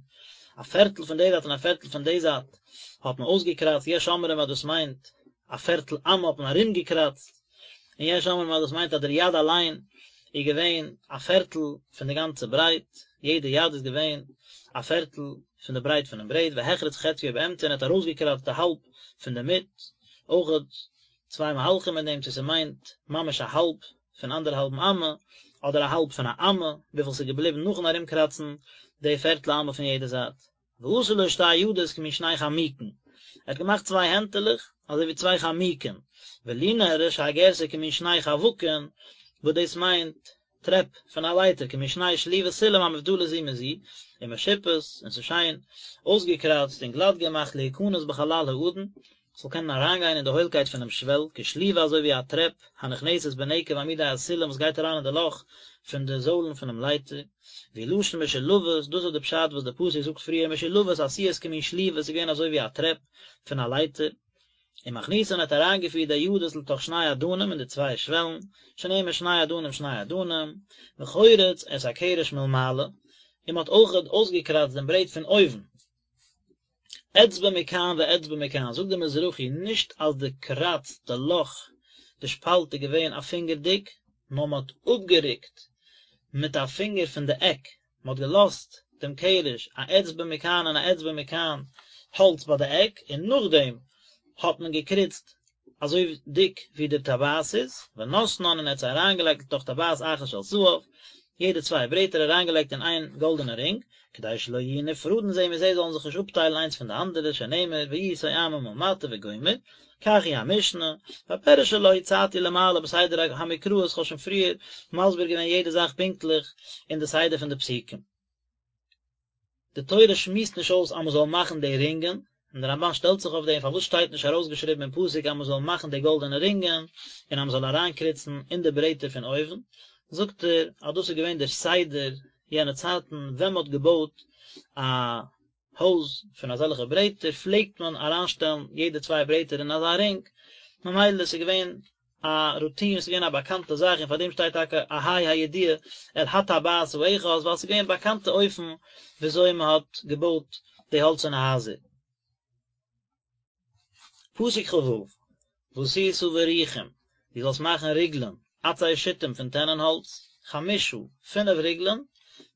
א פערטל פון די זייט און א פערטל פון די זייט האט מען אויסגעקראצט, יש אומרים אז דאס מיינט א פערטל אמה האט מען ארומגעקראצט, און יש אומרים אז דאס מיינט אז דער יד אליין איז געווען א פערטל פון די גאנצע ברייט, יעדע יד איז געווען א פערטל פון די ברייט פונעם ברעט, והחריץ חציו באמצע און ער האט ארויסגעקראצט די האלב פון די מיט, אויכעט צוויי מהלכים אין דעם צו ס'מיינט ממש א האלב פון אנדערהאלבן אמה, אדער א האלב פון א אמה, וויפיל ס'איז געבליבן נאכן ארומקראצן די פערטל אמה פון יעדע זייט. ועשה לו שתי ידות כמין שני חמוקין, ער האט געמאכט צוויי הענטעלעך אזוי ווי צוויי חמוקין, ולי נראה שהגירסא כמין שני חווקין, וואס דאס מיינט טרעפ פון א לייטער כמין שני שליבות סולם המובדלות זו מזו, ומשופות, און ס'איז שיין אויסגעקראצט און גלאט געמאכט להיכנס בחלל האדן, ס'זאל קענען אריינגיין אין די הוילקייט פונעם שוועל, כשליבה אזוי ווי א טרעפ, הנכנסת בנקב עמודי הסולם וואס גייט אריין אין די לאך פון די זוילן פונעם לייטער, והוא לשון משולבות, דאס איז די פשט וואס די פסוק זאגט פריער משולבות עשויות כמין שליבה, ס'איז געווען אזוי ווי א טרעפ פון א לייטער. ומכניסן האט אריינגעפירט די ידות לתוך שני אדנים אין די צוויי שוועלן, שנאמר שני אדנים שני אדנים, וחורץ את הקרש מלמעלה, און מען האט אויכעט אויסגעקראצט דעם ברעט פון אויבן. אצבע מכאן ואצבע מכאן, זאגט דער מזרחי, נישט אז די קראץ, די לאך, די שפאלט איז געווען א פינגער דיק, נאר מען האט אפגערוקט מיט א פינגער פון די עק, מען האט געלאזט דעם קרש א אצבע מכאן און א אצבע מכאן האלץ ביי די עק, און נאכדעם האט מען געקריצט אזוי דיק ווי די טבעת איז, ונתנן און ער האט זיי אריינגעלייגט לתוך טבעת אחת של זהב, יעדע צוויי ברעטער אריינגעלייגט אין איין גאלדענע רינג, כדי שלא יהיו נפרדין זה מזה זאלן זיך נישט אפטיילן איינס פון די אנדערע, שנאמר ויהיו תואמים מלמטה וגומר, כך היא המשנה, והפירוש שלה הצעתי למעלה בסדר המקראות, כ'האב שוין פריער מסביר געווען יעדע זאך פונקטליך אין די סדר פון די פסוקים. די תורה שמועסט נישט אויס אז מ'זאל מאכן די רינגען, און די רמב"ן שטעלט זיך אויף דעם פארוואס שטייט נישט ארויסגעשריבן אין פסוק אז מ'זאל מאכן די גאלדענע רינגען און אז מ'זאל אריינקריצן אין די ברעטער פון אויבן, זאגט ער אז דאס איז געווען דער סדר יענע צייטן ווען מ'האט געבויט א הויז פון אזעלכע ברעטער פלעגט מען אריינשטעלן יעדע צוויי ברעטער אין אזא רינג, ממילא ס'איז געווען א רוטין, ס'איז געווען א באקאנטע זאך און פאר דעם שטייט טאקע אהי' הידיעה אל הטבעת האחת ווייל ס'איז געווען באקאנטע אופן וויאזוי מ'האט געבויט די האלצערנע הייזער. פסוק כ"ו, ועשית בריחים, דו זאלסט מאכן ריגלען, עצי שיטים פון טענען האלץ, חמשה, פינף ריגלען,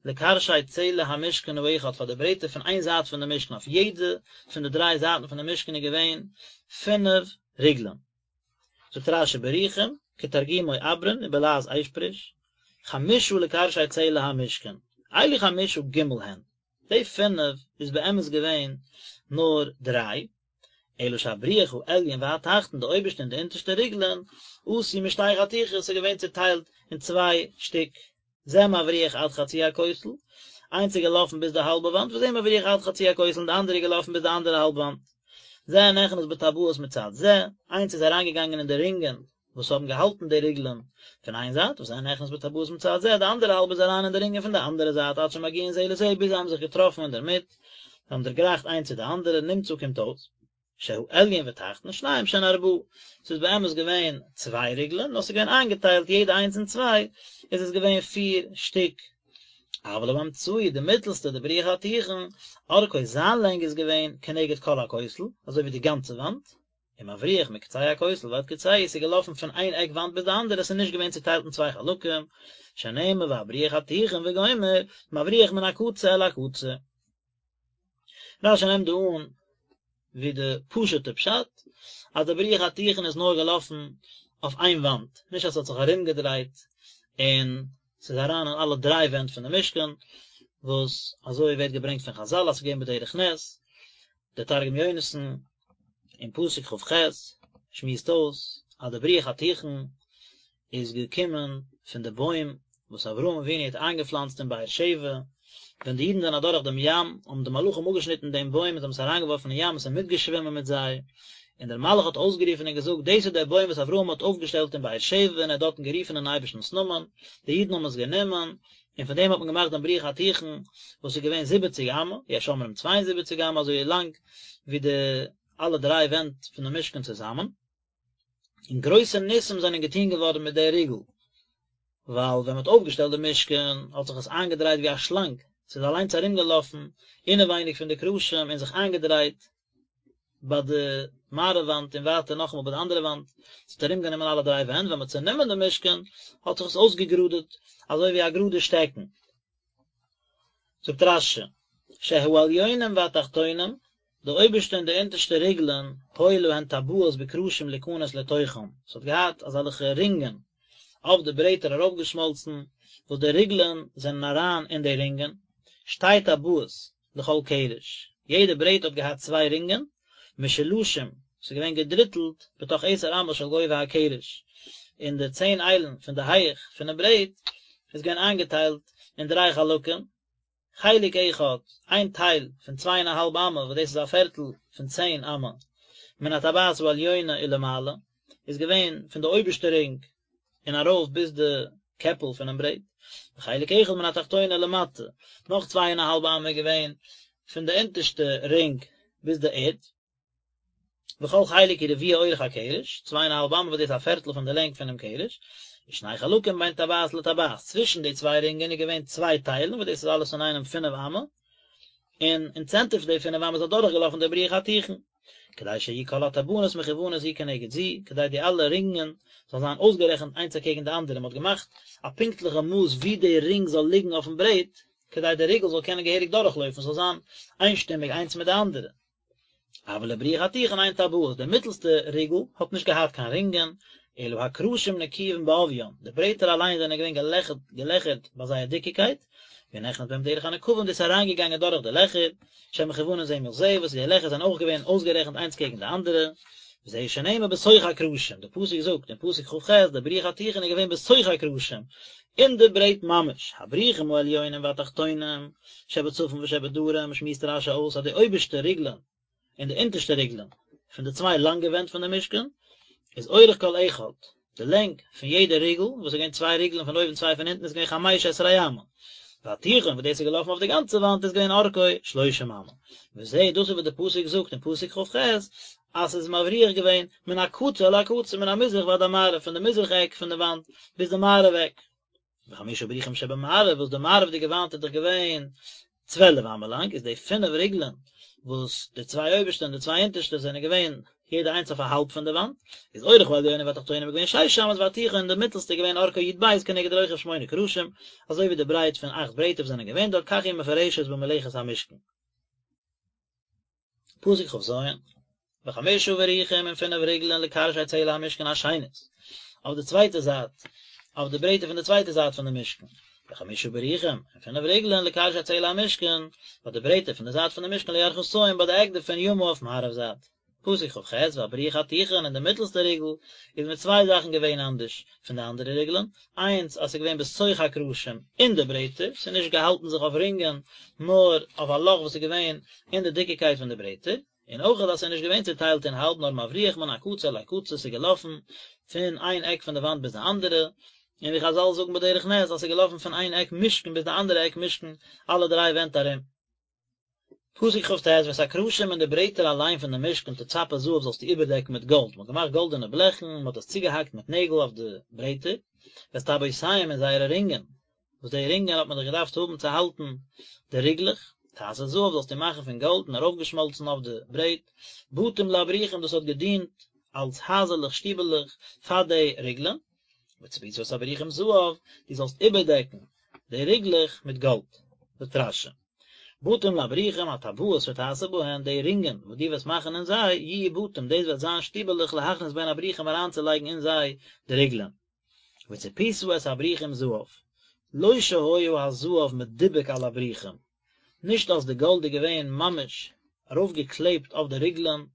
לקרשי צלע המשכן האחד פאר די ברעטער פון איין זייט פון די משכן, אויף יעדע פון די דריי זייטן פון די משכן איז געווען פינף ריגלען. זאגט רש"י בריחים, כתרגומו אברין ובלעז אשפריש, חמשה לקרשי צלע המשכן, אלו חמשה ג' הן, די פינף איז באמת געווען נאר דריי, אלא שהבריח העליון והתחתון, די אויבערשטע און די אונטערשטע ריגלען, עשוי משתי חתיכות, ס'איז געווען צוטיילט אין צוויי שטיק, זה מבריח עד חצי הכותל, איינס איז געלאפן ביז די האלבע וואנט, וזה מבריח עד חצי הכותל, און די אנדערע איז געלאפן ביז די אנדערע האלב וואנט. זה נכנס בטבעות מצד זה, איינס איז אריינגעגאנגען אין די רינגען וואס האבן געהאלטן די ריגלען פון איין זייט, וזה נכנס בטבעות מצד זה, די אנדערע האלב איז אריין אין די רינגען פון די אנדערע זייט, עד שמגיעין זה לזה, ביז זיי האבן זיך געטראפן אינדערמיט, זיי האבן דערגרייכט איינס צו די אנדערע, נמצא קומט אויס, שהעליון ותחתון שניים שהן ארבעה, ס'איז באמת געווען צוויי ריגלען, נאר ס'איז געווען איינגעטיילט יעדע איינס אין צוויי, איז עס געווען פיר שטיק. אבל האמצעי, די מיטלסטע, די בריח התיכון, אורכו זיין לענג איז געווען כנגד כל הכותל, אזוי ווי די גאנצע וואנט, ומבריח מקצה הכותל ועד קצהו, ס'איז געלאפן פון איין עק וואנט ביז די אנדערע, ס'איז נישט געווען צוטיילט אין צוויי חלקים, שנאמר והבריח התיכון וגומר, מבריח מן הקצה אל הקצה. רש"י נעמט דא אן ווי די פשוט'ע פשט, אז די בריח התיכון איז נאר געלאפן אויף איין וואנט, נישט אז ס'האט זיך ארומגעדרייט און ס'איז אריין אין אלע דריי ווענט פון די משכן, וואס אזוי ווערט געברענגט פון חז"ל אז ס'איז געווען בדרך נס, דער תרגום יונתן אין פסוק כ"ח שמועסט אויס אז די בריח התיכון איז געקומען פון די בוים וואס אברהם אבינו האט איינגעפלאנצט אין באר שבע, ווען די אידן זענען אדורך דעם ים האבן די מלאכים אפגעשניטן דעם בוים און זיי האבן עס אריינגעווארפן אין ים, עס איז מיטגעשווימען מיט זיי, און דער מלאך האט אויסגערופן און געזאגט, דאס איז דער בוים וואס אברהם האט אויפגעשטעלט אין באר שבע און ער האט דארטן גערופן אין אייבערשטנ'ס נאמען, די אידן האבן עס גענומען, און פון דעם האט מען געמאכט דעם בריח התיכון, וואס איז געווען זיבעציג אמה, יש אומרים צוויי און זיבעציג אמה, אזוי לאנג ווי די אלע דריי ווענט פון דעם משכן צוזאמען. און גרויסע ניסים זענען געטון געווארן מיט דער ריגל, ווייל ווען מען האט אויפגעשטעלט די משכן האט זיך עס איינגעדרייט ווי א שלאנג, ס'איז אליינס ארומגעלאפן אינעווייניג פון די קרשים און זיך איינגעדרייט ביי די מערב וואנט און ווייטער נאכאמאל ביי די אנדערע וואנט, ס'האט ארומגענומען אלע דריי ווענט, ווען מען האט צענומען די משכן האט זיך עס אויסגעגראדעט אזוי ווי א גראדע שטעקן. זאגט רש"י, שהעליונים והתחתונים, די אויבערשטע און די אונטערשטע ריגלען, היו להן טבעות בקרשים להיכנס לתוכם, ס'האט געהאט אזעלכע רינגען אויף די ברעטער ארויפגעשמאלצן, וואס די ריגלען זענען אריין אין די רינגען, שתי טבעות לכל קרש, יעדע ברעט האט געהאט צוויי רינגען, משולשים, ס'איז געווען געדריטלט בתוך עשר אמות של גובה הקרש, אין די צען איילן פון די הייך פונעם ברעט איז געווען איינגעטיילט אין דריי חלקים, חלק אחד, איין טייל פון צוויי און א האלב אמה וואס דאס איז א פערטל פון צען אמה, מן הטבעת העליונה ולמעלה, איז געווען פון די אויבערשטע רינג און ארויף ביז די קעפל פונעם ברעט, וחלק אחד מן התחתונה ולמטה, נאך צוויי און א האלב אמה איז געווען פון די אונטערשטע רינג ביז די ערד, וכל חלק הוא רביע אורך הקרש, צוויי און א האלב אמה וואס דאס איז א פערטל פון די לענג פונעם קרש, ושני חלקים בין טבעת לטבעת, צווישן די צוויי רינגען איז געווען צוויי טיילן וואס דאס איז אלעס אינאיינעם פינף אמה, און אין צענטער פון די פינף אמה איז אדורכגעלאפן דער בריח התיכון. כדי שיהיו כל הטבעות מכוונות זו כנגד זו, כדי די אלע רינגען זאלן זיין אויסגערעכנט איינס אקעגן די אנדערע, מען האט געמאכט א פונקטליכע מאס ווי די רינג זאל ליגן אויפן ברעט, כדי די ריגל זאל קענען געהעריג דורכלויפן, ס'זאל זיין איינשטימיג איינס מיט די אנדערע. אבל לבריח התיכון אין טבעות, די מיטלסטע ריגל האט נישט געהאט קיין רינגען, אלא הקרשים נקובין בעוביין, די ברעטער אליין זענען געווען געלעכערט געלעכערט ביי זייער דיקיקייט, והוא נכנס בהם דרך הנקבים דאס איז אריינגעגאנגען דורך די לעכער, שהן מכוונין זה מול זה, וואס די לעכער זענען אויך געווען אויסגערעכנט איינס קעגן די אנדערע, וזה שנאמר בתוך הקרשים, די פסוק זאגט אין פסוק כ"ח, די בריח התיכון איז געווען בתוך הקרשים, אין די ברעט ממש, הבריחים העליונים והתחתונים, שבצפון ושבדרום, שמועסט רש"י אויס אז די אויבערשטע ריגלען און די אונטערשטע ריגלען פון די צוויי לאנגע ווענט פון די משכן, איז אורך כל אחד, די לענג פון יעדע ריגל, וואס איז געווען צוויי ריגלען פון אויבן צוויי פון אונטן איז געווען חמש עשרה אמה, והתיכון וואס דאס איז געלאפן אויף די גאנצע וואנט איז געווען אורכו שלושים אמה, וזה דאס איז וואס די פסוק זאגט אין פסוק כ"ח אז ס'איז מבריח געווען מן הקצה אל הקצה מן המזרח ועד המערב פון די מזרח עק פון די וואנט ביז די מערב עק. וחמשה בריחים שבמערב וואס די מערב'דיגע וואנט איז דאך געווען צוועלף אמה לאנג איז די פינף ריגלען וואס די צוויי אויבערשטע און די צוויי אונטערשטע זענען געווען. יעדע איינס אויף א האלב פון די וואנט, איז אורך העליונה והתחתונה איז געווען שש אמות והתיכון די מיטעלסטע איז געווען ארכו י"ב כנגד רוחב שמונה קרשים, אזוי ווי די ברייט פון אכט ברעטער וואס זענען געווען דארט כך היא מפורשת במלאכת המשכן. פסוק כ"ז, וחמשה בריחים און פינף ריגלען לקרשי צלע המשכן השנית, אויף די צווייטע זייט, אויף די ברעטער פון די צווייטע זייט פון די משכן, וחמשה בריחים און פינף ריגלען לקרשי צלע המשכן, ביי די ברעטער פון די זייט פון די משכן לירכתים ביי די עק דערפון ימה אויף מערב זייט. פסוק כ"ח, והבריח התיכון און די מיטלסטע ריגל איז מיט צוויי זאכן געווען אנדערש פון די אנדערע ריגלען, איינס אז ס'איז געווען בתוך הקרשים אין די ברעטער, ס'איז נישט געהאלטן זיך אויף רינגען, נאר אויף א לאך וואס איז געווען אין די דיקיקייט פון די ברעטער, און אויך אז ס'איז נישט געווען צוטיילט אין האלב נאר מבריח מן הקצה אל הקצה ס'איז געלאפן פון איין עק פון די וואנט ביז די אנדערע, און ווי חזל זאגן בדרך נס אז ס'איז געלאפן פון איין עק משכן ביז די אנדערע עק משכן אלע דריי ווענט ארום. פסוק כ"ט, ואת הקרשים און די ברעטער אליין פון די משכן תצפה זהב זאלסטו איבערדעקן מיט גאלד, מ'האט געמאכט גאלדענע בלעכן, מ'האט עס צוגעהאקט מיט נעגל אויף די ברעטער, ואת טבעותיהם און זייערע רינגען, וואס די רינגען האט מען דאך געדארפט האבן צו האלטן די ריגלעך, תעשה זהב זאלסטו מאכן פון גאלד און ארויפגעשמאלצן אויף די ברעט, בתים לבריחים דאס האט געדינט אלס הייזעלעך שטיבעלעך פאר די ריגלען, וצפית את הבריחים זהב, דו זאלסט איבערדעקן די ריגלעך מיט גאלד. זאגט רש"י, בתים לבריחים הטבעות שתעשה בהן, די רינגען וואס דו וועסט מאכן אין זיי, יהיו בתים, דאס וועט זיין שטיבעלעך להכניס בהן הבריחים אריינצולייגן אין זיי די ריגלען. וצפית את הבריחים זהב, לא שהיה הזהב מדובק על הבריחים, נישט אז די גאלד איז געווען ממש ארויפגעקלעבט אויף די ריגלען,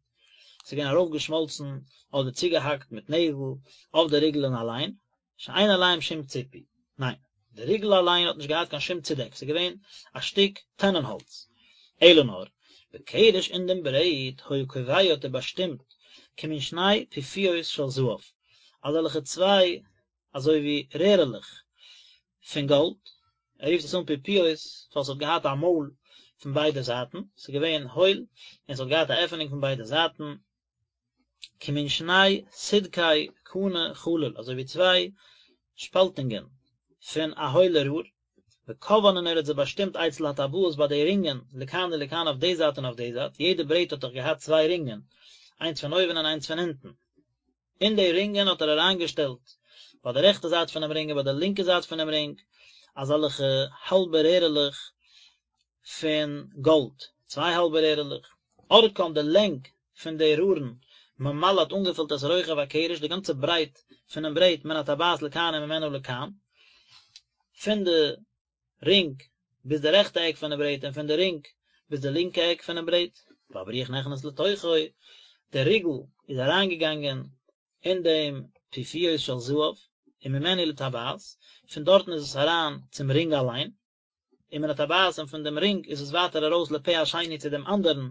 ס'איז געווען ארויפגעשמאלצן אדער צוגעהאקט מיט נעגל אויף די ריגלען אליין, שאין עליהם שום ציפוי, ניין, די ריגל אליין האט נישט געהאט קיין שום צודעק, ס'איז געווען א שטיק טענענהאלץ, אלא נאר, בקרש אין דעם ברעט היה קובע האט ער באשטימט כמין שני פיפיות של זהב, אזעלכע צוויי אזוי ווי רערעלעך פון גאלד, ער רופט עס אן פיפיות ווייל ס'האט געהאט א מויל פון ביידע זייטן, ס'איז געווען הויל און ס'האט געהאט א עפענונג פון ביידע זייטן, כמין שני סדקי קנה חלול, אזוי ווי צוויי שפאלטונגען פון א הוילע רור, וקבען און ער האט זיי באשטימט אצל הטבעות ביי די רינגען, לכאן ולכאן אויף די זייט און אויף די זייט, יעדע ברעט האט דאך געהאט צוויי רינגען, איינס פון אויבן און איינס פון אונטן. אין די רינגען האט ער אריינגעשטעלט, ביי די רעכטע זייט פונעם רינג און ביי די לינקע זייט פונעם רינג, אזעלכע האלבע רערעלעך פון גאלד, צוויי האלבע רערעלעך, ארכן די לענג פון די רארן, ממלא האט אנגעפילט את רוחב הקרש, די גאנצע ברייט פונעם ברעט מן הטבעת לכאן וממנה לכאן, פון די רינג ביז די רעכטע עק פונעם ברעט און פון די רינג ביז די לינקע עק פונעם ברעט, והבריח נכנס לתוכו, דער ריגל איז אריינגעגאנגען אין דעם פיפיות של זהב, וממנו לטבעת, פון דארטן איז עס אריין צום רינג אליין, ומן הטבעת און פון דעם רינג איז עס ווייטער ארויס לפה השני צו דעם אנדערן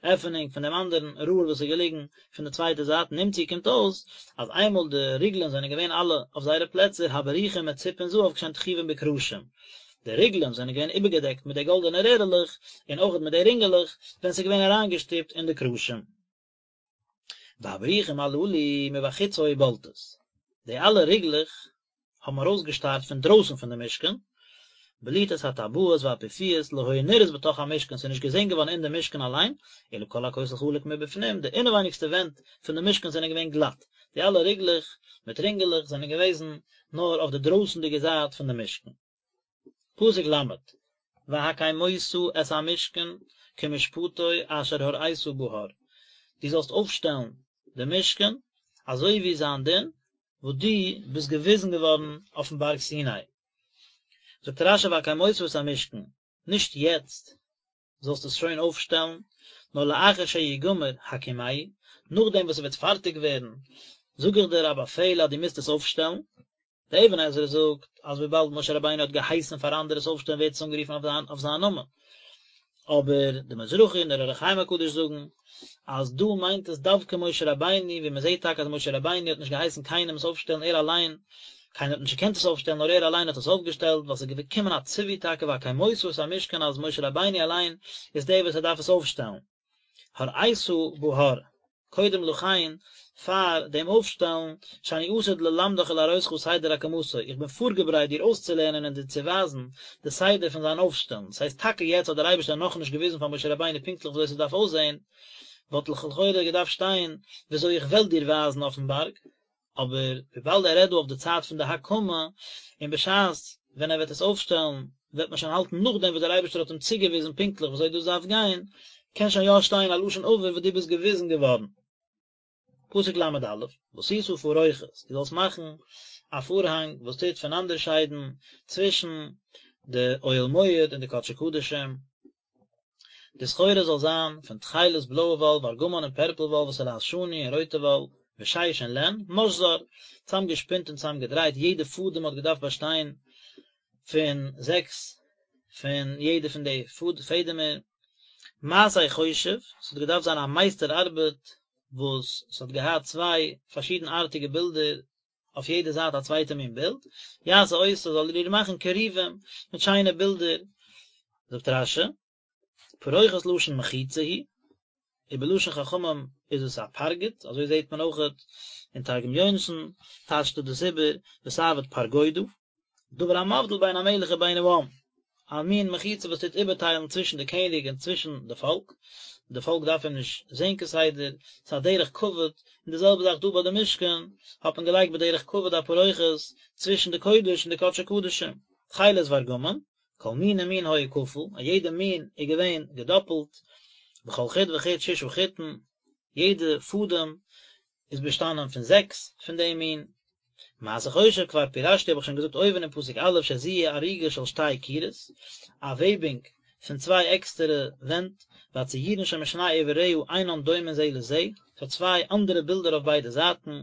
עפענונג פון דעם אנדערן ראר וואס איז געליגן פון די צווייטע זייט נמצאו קומט אויס אז איינמאל די ריגלען זענען געווען אלע אויף זייערע פלעצער הבריחים מצופין זהב כשהן תחובין בקרשים די ריגלען זענען געווען איבערגעדעקט מיט די גאלדענע רערעלעך און אויכעט מיט די רינגעלעך ווען ס'איז געווען אריינגעשטופט אין די קרשים. והבריחים הללו מבחוץ היו בולטות, די אלע ריגלעך האבן ארויסגעשטארט פון דרויסן פון די משכן, בליטת הטבעות והפיפיות לא היו נראות בתוך המשכן, ס'איז נישט געזען געווארן אין די משכן אליין, אלא כל הכותל חלק מבפנים, די אינעווייניגסטע ווענט פון די משכן זענען געווען גלאט, די אלע ריגלעך מיט רינגעלעך זענען געוועזן נאר אויף די דרויסנדיגע זייט פון די משכן. פסוק ל', והקמות את המשכן כמשפטו אשר הראית בהר, דו זאלסט אויפשטעלן די משכן אזוי ווי זיין דין וואס דו ביסט געוויזן געווארן אויפן בארג סיני. זאגט רשי והקמות את המשכן, נישט יעצט זאלסט עס שוין אויפשטעלן, נאר לאחר שיגמר הקימהו, נאכדעם וואס עס וועט פארטיג ווערן, זאג איך דיר א באפעל אז דו מוזט עס אויפשטעלן. דער אבן עזרא זאגט אז וויבאלד משה רבינו האט געהייסן פאר אנדערע עס אויפשטעלן ווערט עס אנגערופן אויף זיין נאמען. אבער די מזרחי און דער אור החיים הקדוש זאגן אז דא מיינט עס דווקא משה רבינו, ווי מען זעט טאקע אז משה רבינו האט נישט געהייסן קיינעם עס אויפשטעלן ער אליין, קיינער האט נישט געקענט עס אויפשטעלן נאר ער אליין האט עס אויפגעשטעלט, ווייל עס איז געקומען א ציווי טאקע והקמות את המשכן אז משה רבינו אליין איז דער וואס ער דארף עס אויפשטעלן. הראית בהר, קודם לכן, פאר דעם אויפשטעלן, שאני עתיד ללמדך ולהראותך סדר הקמתו, איך בין פארגעברייט דיר אויסצולערנען און דיר צו ווייזן די סדר פון זיין אויפשטעלן, ס'הייסט טאקע יעצט האט דער אייבערשטער נאכנישט געוויזן פאר משה רבינו פונקטליך וויאזוי ס'דארף אויסזען. וואלט לכאורה געדארפט שטיין וויאזוי איך וועל דיר ווייזן אויפן בארג, אבער וויבאלד ער רעדט דא אויף די צייט פון די הקמה, און בשעת ווען ער וועט עס אויפשטעלן וועט מען שוין האלטן נאכדעם וואס דער אייבערשטער האט אים צוגעוויזן פונקטליך וויאזוי דאס דארף גיין, קען שוין יא שטיין א לשון עבר וואס דו ביסט געוויזן געווארן. פסוק ל' א', ועשית פרוכת, דו זאלסט מאכן א פארהאנג וואס טוט פונאנדערשיידן צווישן די אוהל מועד און די קדשי קדשים, די סחורה זאל זיין פון תכלת בלויע וואל, וארגמן און פערפל וואל, ותולעת שני און רויטע וואל, ושש און לען, משזר, צאמגעשפינט און צאמגעדרייט, יעדע פאדעם האט געדארפט באשטיין פון זעקס פון יעדע פון די פעדעמער, מעשה חושב, ס'האט געדארפט זיין א מייסטער ארבעט וואס ס'האט געהאט צוויי פארשידנארטיגע בילדער, אויף יעדע זייט א צווייטע מין בילד, יעשה אותה זאל ער איר מאכן כרובים מיט שיינע בילדער, זאגט רש"י, פרוכת לשון מחיצה היא, ובלשון חכמים איז עס א פרגוד, אזוי זעט מען אויכעט אין תרגום יונתן טייטשט ער דאס איבער ותעביד פרגודא. דבר המבדיל בין המלך ובין העם, א מין מחיצה וואס טוט איבערטיילן צווישן די קעניג און צווישן די פאלק, די פאלק דארף אים נישט זען כסדר, ס'איז א דרך כבוד, און די זעלבע זאך דא ביי די משכן, האט מען געלייגט בדרך כבוד א פרוכת צווישן די קודש און די קדשי קדשים, תכלת וארגמן, כל מין ומין היה כפול, א יעדע מין איז געווען געדאפלט, בכל חוט וחוט ששה חוטין, יעדע פאדעם איז באשטאנען פון זעקס פון דעם מין. מעשה חושב כבר פירשתי האב איך שוין געזאגט אויבן אין פסוק א' שזו היא אריגה של שתי קירות, א וועבינג פון צוויי עקסטערע ווענט, והציורין שמשני עבריה אינן דומין זה לזה, ס'האט צוויי אנדערע בילדער אויף ביידע זייטן.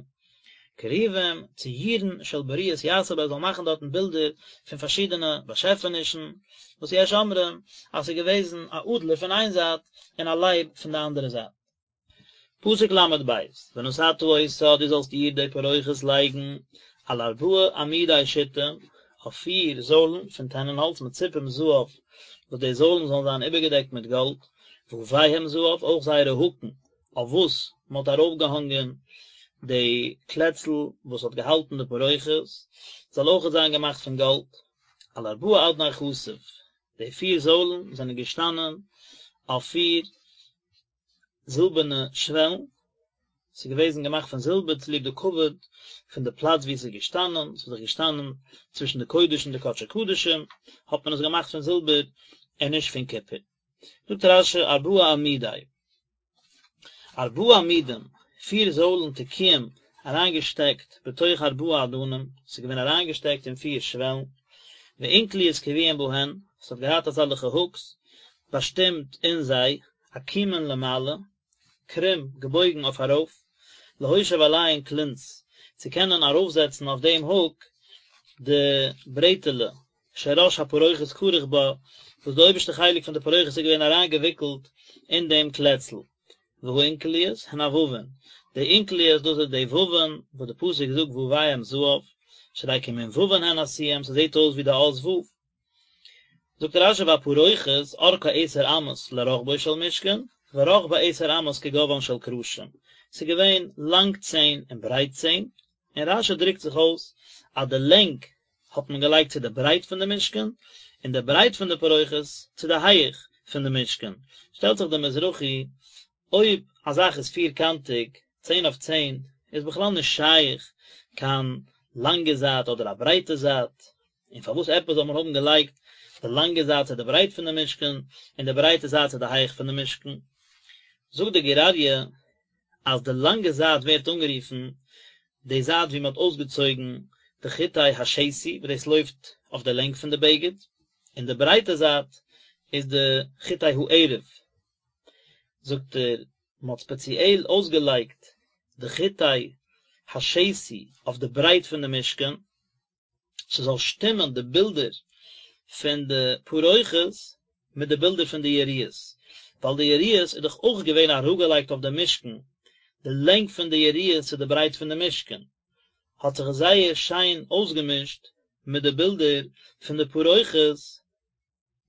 כרובים, ציורין של בריות יעשה בה ער זאל מאכן דארטן בילדער פון פארשידענע באשעפענישן, וואס יש אומרים אז ס'איז געוועזן א אדלער פון איין זייט און א לייב פון די אנדערע זייט. פסוק ל' ב', ונתתה אותה דו זאלסט איר די פרוכת לייגן על ארבעה עמודי שיטים, אויף פיר זוילן פון טענענהאלץ מצופים זהב, וואס די זוילן זאלן זיין איבערגעדעקט מיט גאלד, וויהם זהב, אויך זייערע האקן, אויף וואס מען האט ארויפגעהאנגען די קלעצל וואס האט געהאלטן די פרוכת, זאל אויכעט זיין געמאכט פון גאלד, על ארבעה אדני כסף, די פיר זוילן זענען געשטאנען אויף פיר זילבערנע שוועלן, ס'איז געוועזן געמאכט פון זילבער צוליב די כבוד פון די פלאץ וואו עס איז געשטאנען, ס'איז דאך געשטאנען צווישן די קודש און די קדשי קדשים, האט מען עס געמאכט פון זילבער און נישט פון קופער. זאגט רש"י ארבעה עמודי, ארבעה עמודים, פיר זוילן תקועים אריינגעשטעקט בתוך ארבעה אדנים, ס'איז געווען אריינגעשטעקט אין פיר שוועלן, ואונקליות קבועים בהן, ס'האט געהאט אזעלכע הוקס באשטימט אין זיי, עקומין למעלה, קרום, געבויגן אויף ארויף, להושיב עליהן כלונס, צו קענען ארויפזעצן אויף דעם הוק די ברעטעלע, שראש הפרוכת כרוך בה, וואס די אויבערשטע חלק פון די פרוכת איז געווען אריינגעוויקלט אין דעם קלעצל. והאונקליות הן הווין, די אונקליות דאס איז די ווין וואס די פסוק זאגט וויהם זהב, שהרי כמין ווין הן עשויים, ס'זעט אויס ווי די אות וו. זאגט רש"י והפרוכת ארכה עשר אמות לרחבו של משכן, ורחבה עשר אמות כגובהן של קרשים, ס'איז געווען לאנג צען און ברייט צען, און רש"י דרוקט זיך אויס אז די לענג האט מען געלייגט צו די ברייט פון די משכן, און די ברייט פון די פרוכת צו די הייעך פון די משכן, שטעלט זיך די מזרחי, אויב א זאך איז פירקאנטיג, צען אויף צען, איז בכלל נישט שייך קיין לאנגע זייט אדער א ברייטע זייט, און פארוואס עפעס זאל מען האבן געלייגט די לאנגע זייט צו די ברייט פון די משכן, און די ברייטע זייט צו די הייך פון די משכן? זאגט די גור אריה אז די לאנגע זייט ווערט אנגערופן די זייט ווי מען האט אויסגעצויגן די חוטי השתי וואס דאס לויפט אויף די לענג פון די בגד, און די ברייטע זייט איז די חוטי הערב, זאגט ער, מען האט ספעציעל אויסגעלייגט די חוטי השתי אויף די ברייט פון די משכן, ס'זאל שטימען די בילדער פון די פרוכת מיט די בילדער פון די יריעות, ווייל די יריעות איז דאך אויך געווען אראפגעלייגט אויף די משכן, די לענג פון די יריעות צו די ברייט פון די משכן, האט זיך עס זייער שיין אויסגעמישט מיט די בילדער פון די פרוכת,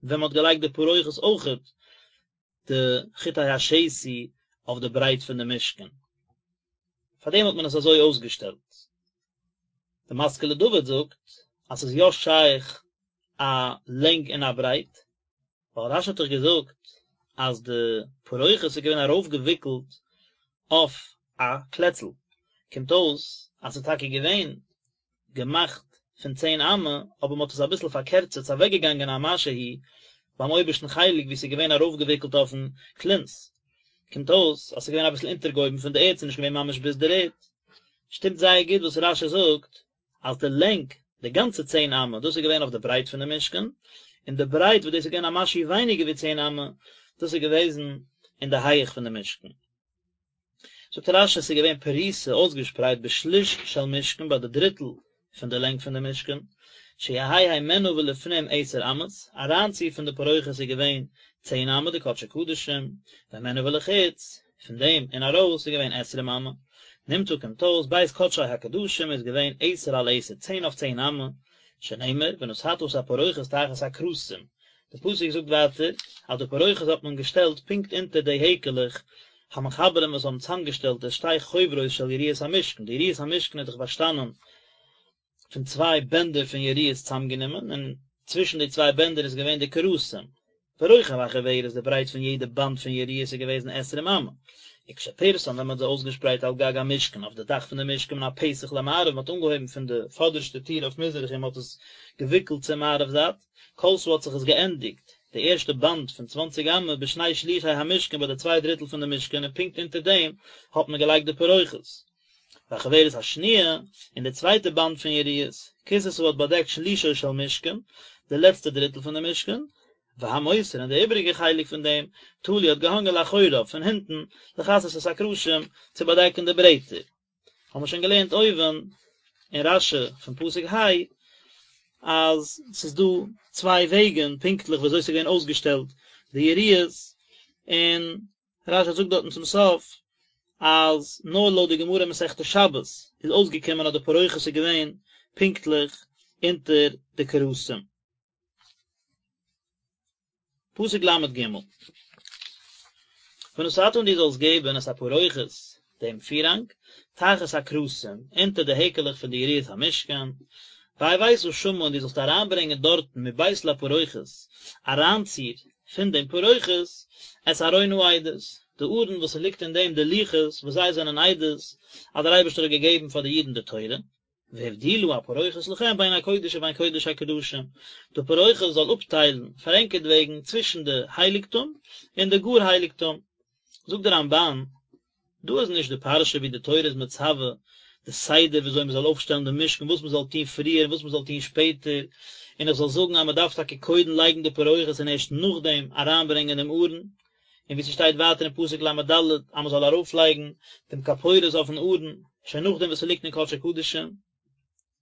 ווען מ'האט געלייגט די פרוכת אויכעט די חוטי השתי אויף די ברייט פון די משכן, פארדעם האט מען עס אזוי אויסגעשטעלט. די משכיל לדוד זאגט אז ס'איז יא שייך א לענג און א ברייט, ווייל רש"י האט דאך געזאגט. אז די פרוכת איז געווען ארויפגעוויקלט אויף א קלעצל, קומט אויס אז ס'איז טאקע געווען געמאכט פון צען אמה, אבער מ'האט עס אביסל פארקערצערט, ס'איז אוועקגעגאנגען א משהו ביים אויבערשטן חלק וואו ס'איז געווען ארויפגעוויקלט אויפן כלונס', קומט אויס אז ס'איז געווען אביסל אונטערגעהויבן פון די ערד, ס'איז נישט געווען ממש ביז דער ערד. שטימט זייער גוט וואס רש"י זאגט אז די לענג, די גאנצע צען אמה, דאס איז געווען אויף די ברייט פון די משכן, און די ברייט וואס דאס איז געווען א משהו ווייניגער ווי צען אמה, דאס איז געוועזן אין די הייעך פון די משכן. זאגט רש"י עס איז געווען פרוסה אויסגעשפרייט בשליש של משכן ביי די דריטל פון די לענג פון די משכן, שיהא הימנה ולפנים עשר אמות, אריינצו פון די פרוכת איז געווען צען אמה די קדשי קדשים, והימנה ולחוץ, פון דעם און ארויס איז געווען עשרים אמה, נמצא קומט אויס בית קדשי הקדשים איז געווען עשר על עשר צען אויף צען אמה, שנאמר ונתתה את הפרוכת תחת הקרסים, די פסוק זאגט ווייטער אז די פרוכת האט מען געשטעלט פונקט אונטער די העקעלעך המחברים וואס האבן צוזאמגעשטעלט די שתי חוברות של יריעות המשכן, די יריעות המשכן איז דאך באשטאנען פון צוויי בענדער פון יריעות צוזאמגענומען, און צווישן די צוויי בענדער איז געווען די קרסים. ורוחב החוברת, די ברייט פון יעדע באנד פון יריעות איז געוועזן עשרים אמה. וכשפרסן ווען מען האט זיי אויסגעשפרייט על גג המשכן אויף די דאך פון די משכן מן הפתח למערב, מען האט אנגעהויבן פון די פאדערשטע טיר אויף מזרח און מען האט עס געוויקלט צו מערב זייט, כלתה האט זיך עס געענדיגט, די ערשטע באנד פון צוואנציג אמה בשני שלישי המשכן ביי די צוויי דריטל פון די משכן און פונקט אונטער דעם האט מען געלייגט די פרוכת. והחוברת השניה, און די צווייטע באנד פון יריעות, כסתה האט באדעקט שלישו של משכן, די לעצטע דריטל פון די משכן, והמותר און די איבעריגע חלק פון דעם, תלוי האט געהאנגען לאחוריו, פון הינטן, לכסות את הקרשים, צו באדעקן די ברעטער. האבן מיר שוין געלערנט אויבן אין רש"י פון פסוק ה', אז ס'איז דא צוויי וועגן פונקטליך ווי אזוי ס'איז געווען אויסגעשטעלט די יריעות, און רש"י זאגט דארטן צום סוף אז נאר לויט די גמרא אין מסכת שבת איז אויסגעקומען אז די פרוכת איז געווען פונקטליך אונטער די קרסים. פסוק ל"ג ונתתה און דו זאלסט געבן את הפרוכת דעם פירהאנג תחת הקרסים אונטער די העקעלעך פון די יריעות המשכן, והבאת שמה און דו זאלסט אריינברענגען דארטן מבית לפרוכת אריינציר פון דעם פרוכת את ארון העדות, די ארון וואס ס'ליגט אין דעם די לוחות וואס זיי זענען עדות אז דער אייבערשטער האט געגעבן פאר די אידן די תורה, והבדילה הפרוכת לכם בין הקודש ובין קודש הקדשים, די פרוכת זאל אפטיילן פאר ענקערטוועגן צווישן די הייליגטום און די גאר הייליגטום. זאגט דער רמב"ן, דא איז נישט די פרשה ווי די תורה איז מצווה די סדר ווי אזוי מען זאל אויפשטעלן די משכן, וואס מען זאל טון פריער און וואס מען זאל טון שפעטער, און איך זאל זאגן אז מען דארף טאקע קודם לייגן די פרוכת און ערשט נאכדעם אריינברענגען דעם ארון, און ווי ס'שטייט ווייטער אין פסוק ל"ד אז מען זאל ארויפלייגן דעם כפורת אויפן ארון שוין נאכדעם וואס ס'ליגט אין קדשי קדשים.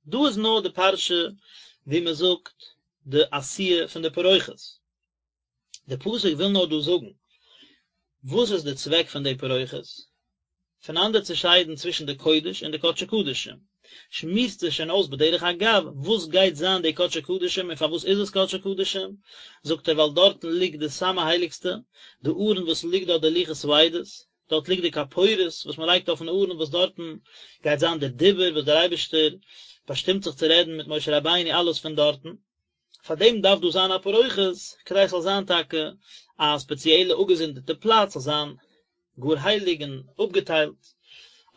דא איז נאר די פרשה ווי מען זאגט די עשיה פון די פרוכת. די פסוק וויל נאר דא זאגן וואס איז די צוועק פון די פרוכת, פונאנדערצושיידן צווישן די קודש און די קדשי קדשים, שמועסט זיך שוין אויס בדרך אגב וואס גייט זיין די קדשי קדשים און פארוואס איז עס קדשי קדשים, זאגט ער ווייל דארטן ליגט די סאמע הייליגסטע, די ארון וואס ליגט דארט די לוחות העדות, דארט ליגט די כפורת וואס מען לייגט אויפן ארון וואס דארטן גייט זיין דער דיבור וואס דער אייבערשטער באשטימט זיך צו רעדן מיט משה רבינו אלעס פון דארטן. פאר דעם דארף דא זיין א פרוכת, כדי עס זאל זיין טאקע א ספעציעלע אפגעזונדערטע פלאץ, זאל זיין גאר הייליג און אפגעטיילט,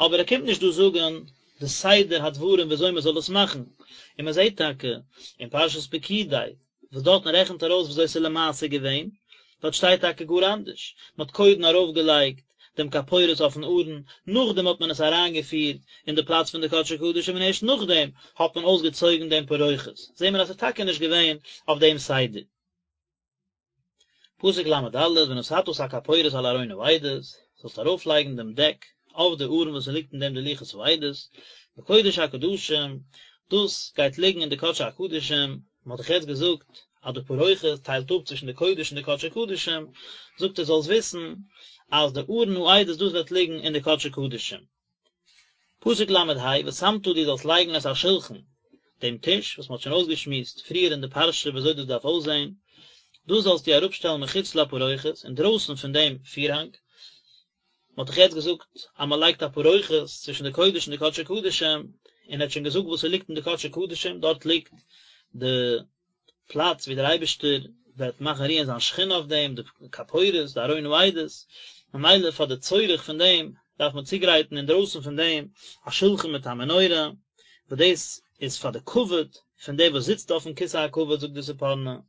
אבער ער קומט נישט דא זאגן די סדר הדברים ווי אזוי מען זאל עס מאכן, און מען זעט טאקע אין פרשת פקודי וואס דארטן רעכנט ער אויס ווי אזוי עס איז למעשה געווען, דארט שטייט טאקע גאר אנדערש, מען האט קודם ארויפגעלייגט דעם כפורת אויפן ארון, נאכדעם האט מען עס אריינגעפירט אין די פלאץ פון די קדשי קדשים און ערשט נאכדעם האט מען אויסגעצויגן דעם פרוכת, זעהן מיר אז עס איז טאקע נישט געווען אויף דעם סדר. פסוק ל"ד, ונתתה את הכפורת על ארון העדות, זאלסט ארויפלייגן דעם דעק אויף די ארון וואס עס ליגט אין דעם די לוחות העדות, בקודש הקדשים, דאס גייט ליגן אין די קדשי הקדשים, מען האט דאך יעצט געזאגט אז די פרוכת טיילט אפ צווישן די קודש און די קדשי קדשים, זאגט ער זאלסט וויסן אז די ארון העדות דאס וועט ליגן אין די קדשי קדשים. פסוק ל"ה, ושמת דו זאלסט לייגן את השלחן, דעם טיש, וואס מען האט שוין אויסגעשמועסט פריער אין די פרשה ווי אזוי דאס דארף אויסזען, דאס זאלסטו אראפשטעלן מחוץ לפרוכת, אינדרויסן פון דעם פירהאנג, מען האט דאך יעצט געזאגט אז מען לייגט א פרוכת צווישן די קודש און די קדשי קדשים, און ער האט שוין געזאגט וואס ס'ליגט אין די קדשי קדשים, דארט ליגט די פלאץ ווי דער אייבערשטער וועט מאכן רוען זיין שכינה אויף דעם, די כפורת, די ארון העדות, ממילא פאר די צורך פון דעם דארף מען צוגרייטן אינדרויסן פון דעם א שולחן מיט א מנורה, וואס דאס איז פאר די כבוד פון דער וואס זיצט אויפן כסא הכבוד זאגט די ספורנו, און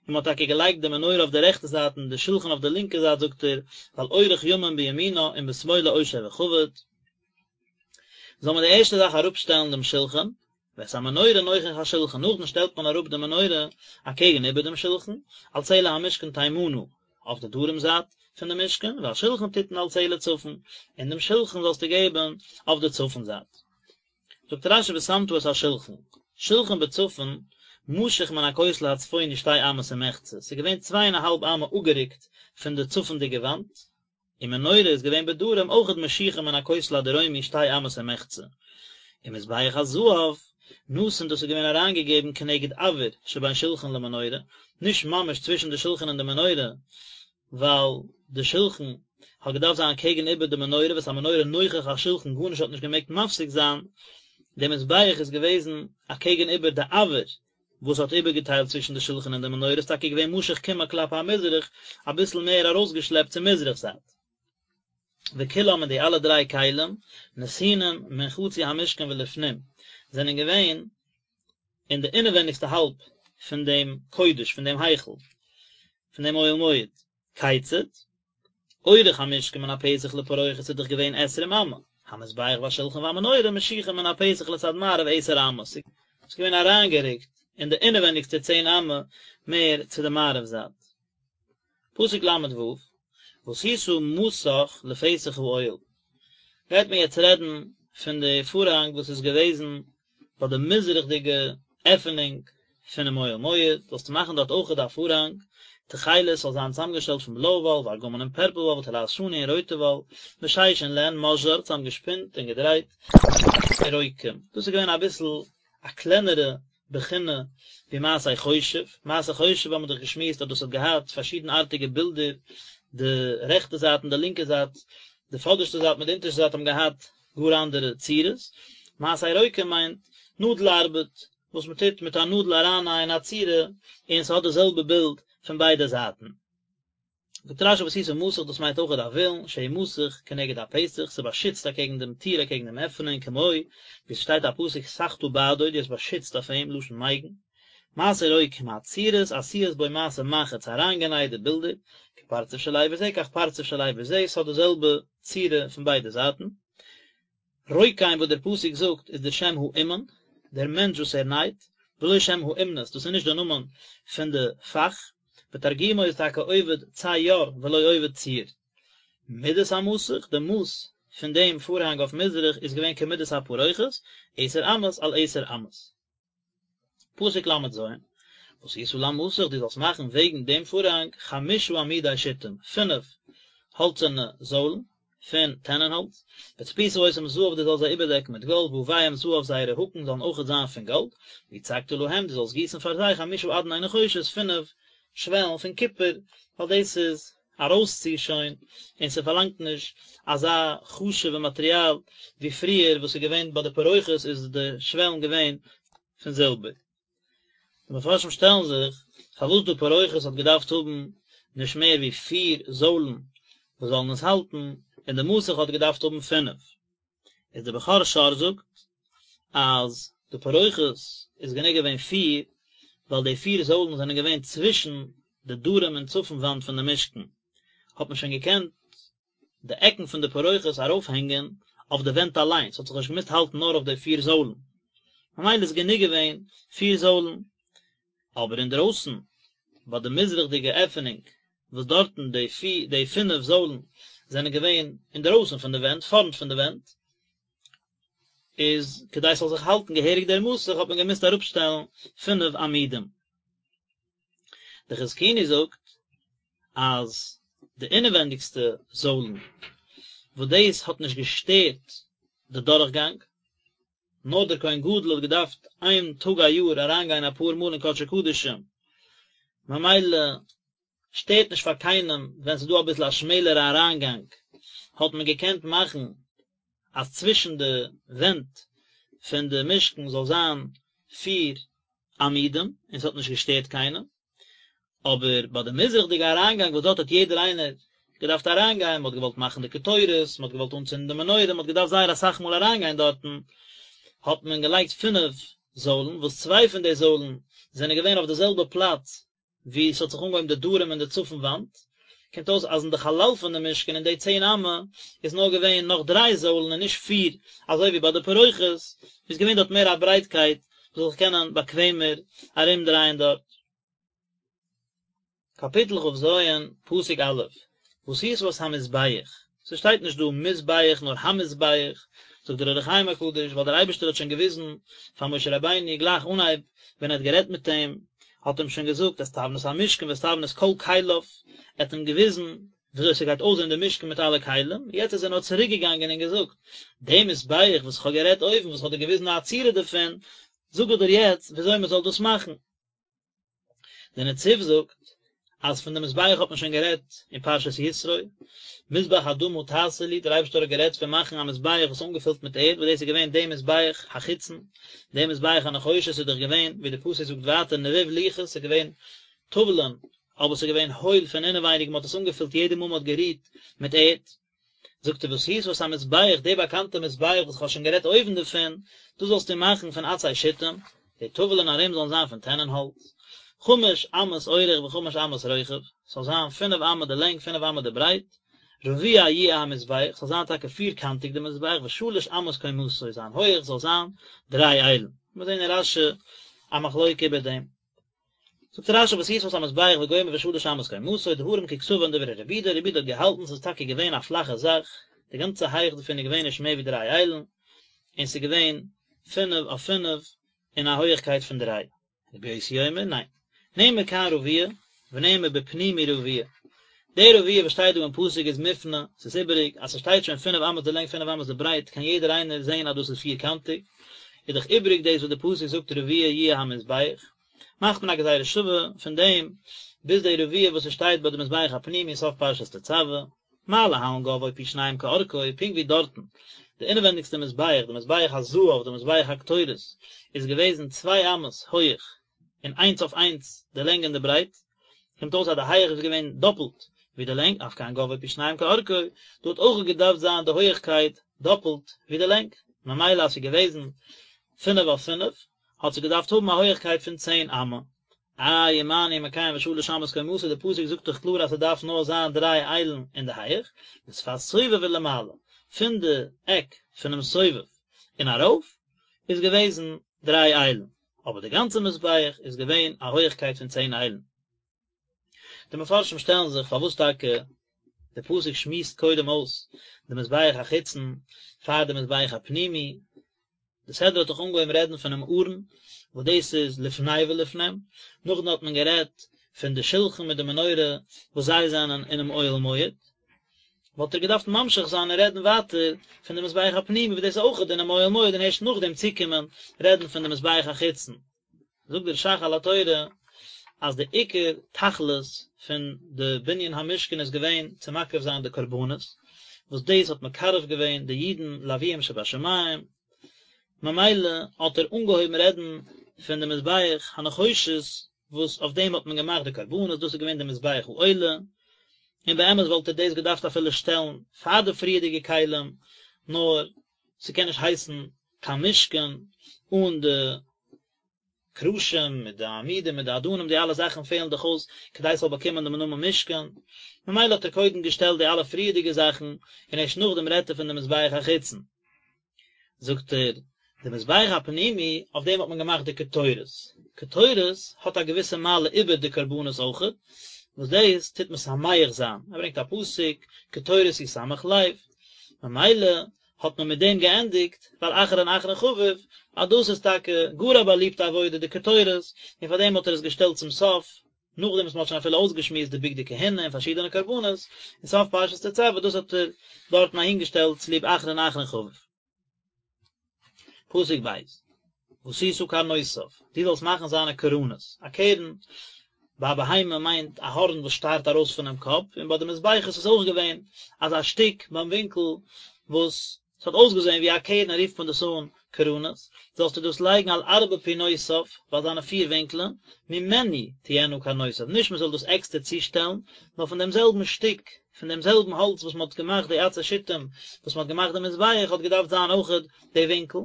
מען האט טאקע געלייגט די מנורה אויף די רעכטע זייט און די שולחן אויף די לינקע זייט זאגט ער, ווייל אורך ימים בימינה און בשמאלה עושר וכבוד. זאל מען די ערשטע זאך אראפשטעלן דעם שולחן, ואת המנורה נוכח השולחן, נאכדעם שטעלט מען אראפ די מנורה אקעגן איבער דעם שולחן, על צלע המשכן תימנה, אויף די דרום זייט פון די משכן, והשולחן תתן על צלע צפון, און דעם שולחן זאלסטו געבן אויף די צפון זייט. זאגט רשי ושמת את השולחן, שולחן בצפון, משוך מן הכותל הצפוני שתי אמות ומחצה, ס'איז געווען צוויי און א האלב אמה אפגערוקט פון די צפונדיגע וואנט, און מנורה איז געווען בדרום אויכעט משוכה מן הכותל הדרומי שתי אמות ומחצה, און מזבח הזהב נתון דאס איז געווען אריינגעגעבן כנגד אויר שבין שלחן למנורה, נישט ממש צווישן די שלחן און די מנורה, ווייל די שלחן האט געדארפט זיין קעגן איבער די מנורה ואת המנורה נוכח השלחן גארנישט האט נישט געמעגט מפסיק זיין, די מזבח איז געוועזן אקעגן איבער די אויר וואס האט איבערגעטיילט צווישן די שלחן און די מנורה איז טאקע געווען משוך קמעא כלפי המזרח, אביסל מער ארויסגעשלעפט צו מזרח זייט. וכולם און די אלע דריי כלים, נתונים מן חצי המשכן ולפנים, זענען געווען אין די אינעווענדיגסטע האלב פון דעם קודש, פון דעם היכל, פון דעם אוהל מועד. כיצד? אורך המשכן מן הפתח לפרוכת איז דאך געווען עשרים אמה, המזבח והשולחן והמנורה משוחים מן הפתח לצד מערב עשר אמות, ס'איז געווען אריינגערוקט אין די אינעווענדיגסטע צען אמה מער צו די מערב זייט. פסוק ל ו, ועשית מסך לפתח האוהל, גייט מען יעצט רעדן פון די פארהאנג וואס איז געוועזן ביי די מזרח'דיגע עפענונג פונעם אוהל מועד, זאלסטו מאכן דארט אויכעט א פארהאנג, תכלת זאל זיין צוזאמגעשטעלט פון בלויע וואל, וארגמן און פערפל וואל, ותולעת שני און רויטע וואל, ושש און לען, משזר, צוזאמגעשפינט און געדרייט, רוקם, דאס איז געווען אביסל א קלענערע בחינה ווי מעשה חושב, מעשה חושב האבן מיר דאך געשמועסט אז דאס האט געהאט פארשידנארטיגע בילדער, די רעכטע זייט און די לינקע זייט, די פאדערשטע זייט מיט די אונטערשטע זייט האבן געהאט גאר אנדערע צורות, מעשה רוקם מיינט נאדל ארבעט, וואס מען טוט מיט א נאדל ארייננייען א צורה און ס'האט די זעלבע בילד פון ביידע זייטן. זאגט רשי ועשית מסך דאס מיינט אויכעט א וילון שהוא מסך כנגד הפתח ס'באשיצט אקעגן דעם טיר אקעגן דעם עפענונג כמו ווי ס'שטייט א פסוק סכת בעדו דו האסט באשיצט אויף אים לשון מגן מעשה רוקם הצורות עשויות בו מעשה מחט ס'אריינגענייט די בילדער כפרצוף של אבר זה כך פרצוף של אבר זה ס'האט די זעלבע צורה פון ביידע זייטן. רוקם וואס דער פסוק זאגט איז דער שם האומן, דער מענטש וואס ער נייט, ולא שם האומנות, דאס איז נישט דער נאמען פון די פאך, ותרגומו איז טאקע עובד צייר ולא עובד ציור. מדת המסך, די מאס פון דעם פארהאנג אויף מזרח איז געווען כמדת הפרוכת, עשר אמות על עשר אמות. פסוק ל' ז, ועשית למסך דו זאלסט מאכן וועגן דעם פארהאנג חמשה עמודי שטים, פינף האלצערנע זוילן פון טענענהאלץ, וצפית אותם זהב דו זאלסט זיי איבערדעקן מיט גאלד, וויהם זהב זייערע האקן זאלן אויכעט זיין פון גאלד, ויצקת להם דו זאלסט גיסן פאר זיי חמשה אדני נחושת, פינף שוועלן פון קופער, ווייל דאס איז ארויסצו שוין, און ס'פארלאנגט נישט אזא חשוב'ע מאטריאל ווי פריער וואס איז געווען ביי די פרוכת איז די שוועלן געווען פון זילבער. די מפרשים שטעלן זיך פארוואס די פרוכת האט געדארפט האבן נישט מער ווי פיר זוילן וואס זאלן עס האלטן, און די מסך האט געדארפט האבן פינף. איז דער בכור שור זאגט אז די פרוכת איז גענוג געווען פיר, ווייל די פיר זוילן זענען געווען צווישן די דרום און צפון וואנט פון די משכן, האט מען שוין געקענט די עקן פון די פרוכת ארויפהענגען אויף די ווענט אליין, ס'האט זיך נישט געמוזט האלטן נאר אויף די פיר זוילן, ממילא איז גענוג געווען פיר זוילן. אבער אינדרויסן ביי די מזרח'דיגע עפענונג וואס דארטן די פיר די פינף זוילן זענען געווען אינדרויסן פון די ווענט, פארנט פון די ווענט, איז כדי ס'זאל זיך האלטן געהעריג דער מסך האט מען געמוזט אראפשטעלן פינף עמודים. די חזקוני זאגט אז די אינעווענדיגסטע זוילן וואס דאס האט נישט געשטערט די דורכגאנג, נאר דער כהן גדול האט געדארפט איין טאג א יאר אריינגיין אפאר מאל אין קדשי קדשים, ממילא שטערט נישט פאר קיינעם ווען ס'איז דא אביסל א שמעלערע אריינגאנג, האט מען געקענט מאכן אז צווישן די ווענט פון די משכן זאל זיין פיר עמודים און ס'האט נישט געשטערט קיינעם. אבער ביי די מזרח'דיגע אריינגאנג וואס דארט האט יעדער איינער געדארפט אריינגיין, מען האט געוואלט מאכן די קטורת, מען האט געוואלט אנצינדן די מנורה, מען האט געדארפט זייער אסאך מאל אריינגיין דארטן, האט מען געלייגט פינף זוילן, וואס צוויי פון די זוילן זענען געווען אויף די זעלבע פלאץ וואו ס'האט זיך אנגעהויבן די דרום און די צפון וואנט, קומט אויס אז אין די חלל פון די משכן אין די צען אמה איז נאר געווען נאך דריי זוילן און נישט פיר אזוי ווי ביי די פרוכת, איז געווען דארט מער א ברייטקייט מ'זאל זיך קענען באקוועמער ארומדרייען דארט. קאפיטל כ"ז, פסוק א', ועשית את המזבח, ס'שטייט נישט דא מזבח נאר המזבח, זאגט דער אור החיים הקדוש, ווייל דער אייבערשטער האט שוין געוויזן פאר משה רבינו גלייך אנהייב ווען ער האט גערעדט מיט אים, האט אים שוין געזאגט את תבנית המשכן ואת תבנית כל כליו, ער האט אים געוויזן וויאזוי ס'גייט אויסזען די משכן מיט אלע כלים, יעצט איז ער נאר צוריק געגאנגען און געזאגט, די מזבח וואס איך האב גערעדט אויבן, וואס איך האב דיר געוויזן א צורה דערפון, זאג איך דיר יעצט וויאזוי מ'זאל דאס מאכן. דער נציב זאגט אז פון די מזבח האט מען שוין גערעדט אין פרשת יתרו, מזבח אדמה תעשה לי, דער אייבערשטער האט גערעדט פון מאכן א מזבח וואס איז אנגעפילט מיט ערד, וואס דאס איז געווען די מזבח החיצון, די מזבח הנחושת איז דאך געווען, ווי די פסוק זאגט ווייטער נבוב לוחות, ס'איז געווען טאוולען, אבער ס'איז געווען הויל פון אינעווייניג, מען האט עס אנגעפילט יעדע מאל מען האט גערוהט מיט ערד. זאגט ער ועשית את המזבח, די באקאנטע מזבח וואס איך האב שוין גערעדט אויבן דערפון, דאס זאלסטו מאכן פון עצי שיטים, די טאוולען ארום זאלן זיין פון טענען האלץ, חמש אמות אורך וחמש אמות רוחב, ס'זאל זיין פינף אמה די לענג פינף אמה די ברייט, רבוע יהיה המזבח, ס'זאל זיין טאקע פירקאנטיג די מזבח, ושלש אמות קומתו, זיין הויעך זאל זיין דריי איילן. מיר זעהן אין רש"י א מחלוקה איבער דעם. זאגט רש"י ועשית את המזבח וגומר ושלש אמות קומתו דברים ככתבן דברי רבי יהודה, רבי יהודה האט געהאלטן ס'איז טאקע געווען א פלאכע זאך, די גאנצע הייך דערפון איז געווען נישט מער ווי דריי איילן, און ס'איז געווען פינף אויף פינף אין א הויעכקייט פון דריי. רבי יוסי אומר, ניין. נאמר כאן רבוע, ונאמר בפנימי רבוע. די רבוע וואס שטייט דא אין פסוק איז מופנה, ס'איז איבעריג, אז ס'שטייט שוין פינף אמות די לענג פינף אמות די ברייט קען יעדער איינער זען אז דאס איז פירקאנטיג, איז דאך איבעריג דאס וואס די פסוק זאגט רבוע יהיה המזבח, מאכט מען א גזירה שווה פון דעם ביז די רבוע וואס ס'שטייט ביי די מזבח הפנימי סוף פרשת תצוה, מה להלן גובהו פי שניים כארכו, פונקט ווי דארטן די אינעווענדיגסטע מזבח, די מזבח הזהב, די מזבח הקטורת, איז געוועזן צוויי אמות הויעך און איינס אויף איינס די לענג און די ברייט, קומט אויס אז די הייעך איז געווען דאפלט ווי די לענג, אף כאן גובהו פי שניים כארכו, דא האט אויך געדארפט זיין די הויעכקייט דאפלט ווי די לענג, ממילא אז ס'איז געוועזן פינף אויף פינף, האט זי געדארפט האבן א הויעכקייט פון צען אמה. איי ומה אני מקיים ושלש אמות קומתו, די פסוק זאגט דאך קלאר אז ס'דארף נאר זיין דריי איילן אין די הייעך, משפת סובב ולמעלה, פון די עק פונעם סובב און ארויף, איז געוועזן דריי איילן. אבער די גאנצע מזבח איז געווען א הויעכקייט פון צען איילן. די מפרשים שטעלן זיך פארוואס טאקע די פסוק שמועסט קודם אויס די מזבח החיצון פאר די מזבח הפנימי, די סדרה האט דאך אנגעהויבן רעדן פונעם ארון וואס דאס איז לפני ולפנים, נאכדעם האט מען גערעדט פון די שלחן מיט די מנורה וואס זיי זענען אינעם אוהל מועד, וואלט ער געדארפט ממשיך זיין און רעדן ווייטער פון די מזבח הפנימי וואס דאס איז אויכעט אינעם אוהל מועד און הערשט נאכדעם צוקומען רעדן פון די מזבח החיצון. זאגט דער ש"ך על התורה אז די עיקר תכלית פון די בנין המשכן איז געווען צו מקריב זיין די קרבנות, וואס דאס האט מקרב געווען די אידן לאביהם שבשמים, ממילא האט ער אנגעהויבן רעדן פון די מזבח הנחושת וואס אויף דעם האט מען געמאכט די קרבנות, דאס איז געווען די מזבח העולה, און באמת וואלט ער דאס געדארפט אפילו שטעלן פאר די פריערדיגע כלים, נאר ס'קען נישט הייסן קיין משכן אן די קרשים מיט די עמודים מיט די אדנים, די אלע זאכן פעלן דאך אויס כדי ס'זאל באקומען דעם נאמען משכן, ממילא האט ער קודם געשטעלט די אלע פריערדיגע זאכן, און ערשט נאכדעם רעדט ער פון די מזבח החיצון. זאגט ער, די מזבח הפנימי, אויף דעם האט מען געמאכט די קטורת, קטורת האט א געוויסע מעלה איבער די קרבנות אויכעט, וואס דאס טוט משמח זיין, ער ברענגט א פסוק, קטורת ישמח לב, ממילא האט מען מיט דעם געענדיגט, ווייל אחרון אחרון חביב, אז דאס איז טאקע גאר א באליבטע עבודה די קטורת, און פאר דעם האט ער עס געשטעלט צום סוף, נאכדעם וואס מען האט שוין אפילו אויסגעשמועסט די בגדי כהונה און פארשידענע קרבנות, אין סוף פרשת תצוה, דאס האט ער דארטן אהינגעשטעלט צוליב אחרון אחרון חביב. פסוק ב', ועשית קרנותיו, דו זאלסט מאכן זיינע קרנות, א קרן ביי א בהמה מיינט א הארן וואס שטארט ארויס פונעם קאפ, און ביי די מזבחות איז אויך געווען אזא שטיק ביים ווינקל וואס. ס'האט אויסגעזען ווי א קרן רופט מען דאס אן קרנות, זאלסטו דאס לייגן על ארבע פינותיו, ביי זיינע פיר ווינקלען, ממנו תהיינה קרנותיו, נישט מען זאל דאס עקסטער צושטעלן, נאר פון דעם זעלבן שטיק, פון דעם זעלבן האלץ וואס מען האט געמאכט די עצי שיטים, וואס מען האט געמאכט די מזבח, האט געדארפט זיין אויכעט די ווינקל.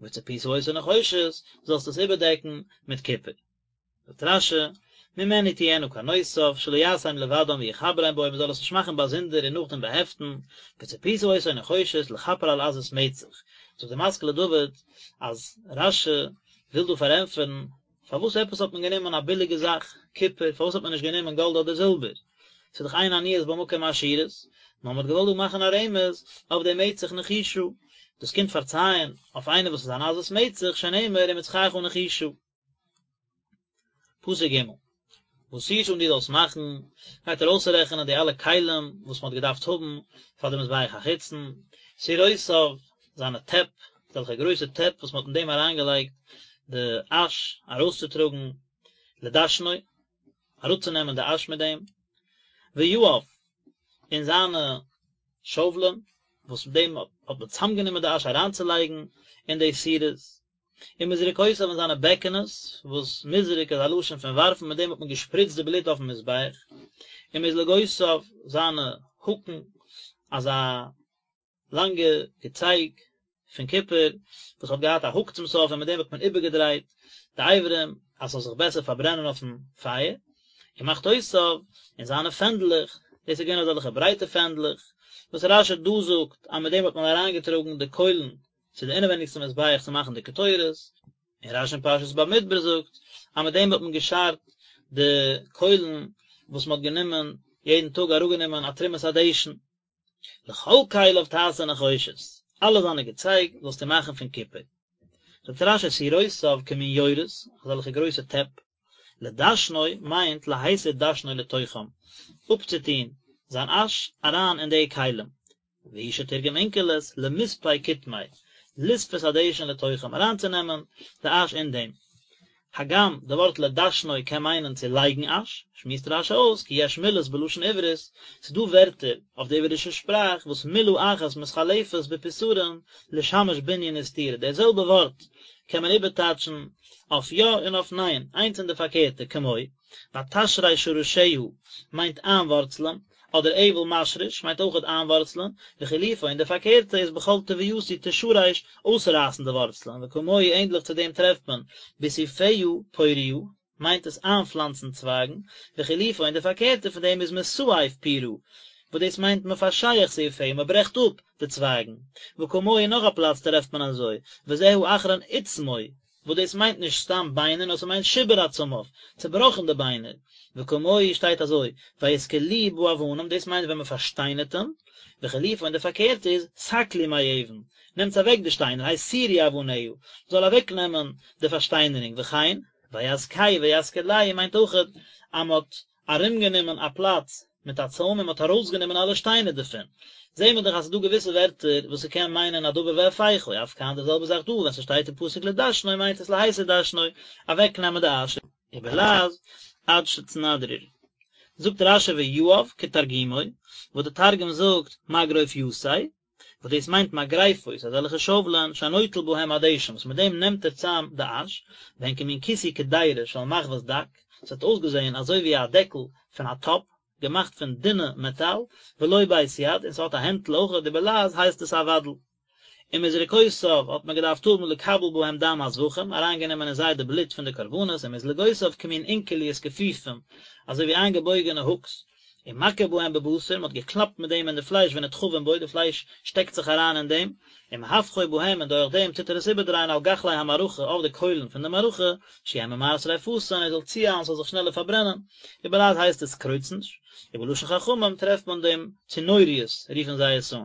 וצפית אותו נחושת, זאלסט עס איבערדעקן מיט קופער. זאגט רש"י, ממנו תהיינה קרנותיו, שלא יעשם לבדם ויחברם בו, מען זאל עס נישט מאכן באזונדער און נאכדעם באהעפטן, וצפית אותו נחושת לכפר על עזות מצח. זאגט די משכיל לדוד אז רש"י וויל דא פארענטפערן פארוואס עפעס האט מען גענומען א ביליגע זאך, קופער, פארוואס האט מען נישט גענומען גאלד אדער זילבער? ס'איז דאך אין עניות במקום עשירות, נאר מען האט געוואלט דא מאכן א רמז אויף די מצח נחושה, דאס קומט פארצייען אויף איינער וואס איז אן עזות מצח, שנאמר ומצחך נחושה. פסוק ג' ועשית און דו זאלסט מאכן, גייט ער אויסרעכענען די אלע כלים וואס מען האט געדארפט האבן פאר די מזבח החיצון, סירותיו, זיינע טעפ, אזעלכע גרויסע טעפ וואס מען האט אין דעם אריינגעלייגט די אש ארויסצוטראגן, לדשנו, אראפצונעמען די אש מיט דעם, ויעיו, און זיינע שאוולען, וואס מיט דעם האט מען צוזאמגענומען די אש אריינצולייגן אין די סירות, ומזרקותיו און זיינע בעקענעס, וואס מזרק איז א לשון פון ווארפן, מיט דעם האט מען געשפריצט די בלוט אויפן מזבח, ומזלגותיו, זיינע האקן, אזא לאנגע געצייג פון קופער, וואס האט געהאט א האק צום סוף, און מיט דעם האט מען איבערגעדרייט די אברים, אז ס'זאל זיך בעסער פארברענען אויפן פייער, ומחתותיו, און זיינע פענדלעך, דאס איז געווען אזעלכע ברייטע פענדלעך, וואס רש"י דא זאגט אז מיט דעם האט מען אריינגעטראגן די קוילן צו די אינעווייניגסטע מזבח צו מאכן די קטורת, און רש"י אין פרשת במדבר זאגט אז מיט דעם האט מען געשארט די קוילן וואס מען האט גענומען יעדן טאג אראפגענומען א תרומת הדשן. לכל כליו תעשה נחושת, אלע זיינע געצייג זאלסטו מאכן פון קופער. זאגט רש"י סירותיו כמין יורות, אזעלכע גרויסע טעפ, לדשנו מיינט להסיר דשנו לתוכם, אפצוטון זיין אש אריין אין די כלים, והוא שתרגם אונקלוס למספי קטמיה, לספות הדשן לתוכם, אריינצונעמען די אש אין דעם. הגם די ווארט לדשנו קען מיינען צו לייגן אש, שמועסט רש"י אויס כי יש מילות בלשון עברית, ס'איז דא ווערטער אויף די עברישע שפראך וואס מילה אחת מתחלפת בפתרון לשמש בנין וסתירה, דער זעלבע ווארט קען מען איבערטייטשן אויף יא און אויף ניין, איינס און די פארקערטע, כמו, ותשרש שרשיה מיינט איינווארצלען, אדער אבל משריש מיינט אויכעט איינווארצלען, וחילופו און די פארקערטע איז בכל תבואתי תשרש אויסרייסן די ווארצלען, וכמוהו ענדליך צו דעם טרעפט מען בסעיפיה פוריה מיינט עס איינפלאנצן צווייגן, וחילופו און די פארקערטע פון דעם איז מסעף פירא וואס דאס מיינט מפשח סעיפיה מען ברעכט אפ די צווייגן, וכמוהו נאך א פלאץ טרעפט מען אזוי, וזה האחרון עצמו וואס דאס מיינט נישט סתם ביינער נאר ס'מיינט שיבר עצמיו, צובראכן די ביינער, וכמוהו שטייט אזוי, ויסקלוהו באבנים, דאס מיינט ווען מ'פארשטיינערט אים, וחילופו און די פארקערטע איז, סקלו מאבן, נעמטס אוועק די שטיינער, הסירו אבניה, מ'זאל אוועק נעמען די פארשטיינערונג, וכן, ויזכהו ויסקלהו מיינט אויכעט אז מ'האט ארומגענומען א פלאץ מיט א צוים און מען האט ארויסגענומען אלע שטיינער דערפון, זעהן מיר דאך אז ס'איז דא געוויסע ווערטער וואס ס'קען מיינען א דבר והיפוכו, אף כאן די זעלבע זאך דא, ווען ס'שטייט אין פסוק לדשנו מיינט עס להסיר דשנו, אוועקנעמען די אש. ובלעז אדשצנדריר. זאגט רש"י ויעיו כתרגומו, וואס די תרגום זאגט מגרופיתיה, וואס דאס מיינט מגרפות, אזעלכע שאוולען, שנוטל בהם הדשן, וואס מיט דעם נעמט ער צאם די אש, והן כמין כיסוי קדירה של מחבת דק, עס האט אויסגעזען אזוי ווי א דעקל פון א טאפ, געמאכט פון דינע מעטאל, ולו בית יד, און ס'האט א הענטל אויך, ובלעז הייסט עס א ודל. ומזרקותיו האט מען געדארפט האבן לקבל בהם דם הזבחים, אריינגענומען אין זיי די בלוט פון די קרבנות, ומזלגותיו כמין אונקליות כפופים, אזוי ווי איינגעבויגענע האקס, ומכה בהם בבשר, מען האט געקלאפט מיט דעם אין די פלייש ונדחפים בו, די פלייש שטעקט זיך אריין אין דעם, ומהפכו בהם און דורך דעם טוט ער עס איבערדרייען על גחלי המערכה אויף די קוילן פון די מערכה, שיהא ממהר שריפתן, ער זאל צואיילן ס'זאל זיך שנעלער פארברענען, ובלעז הייסט עס קרוצנש, ובלשון חכמים טרעפט מען דעם צנוריות רופן זיי עס אן.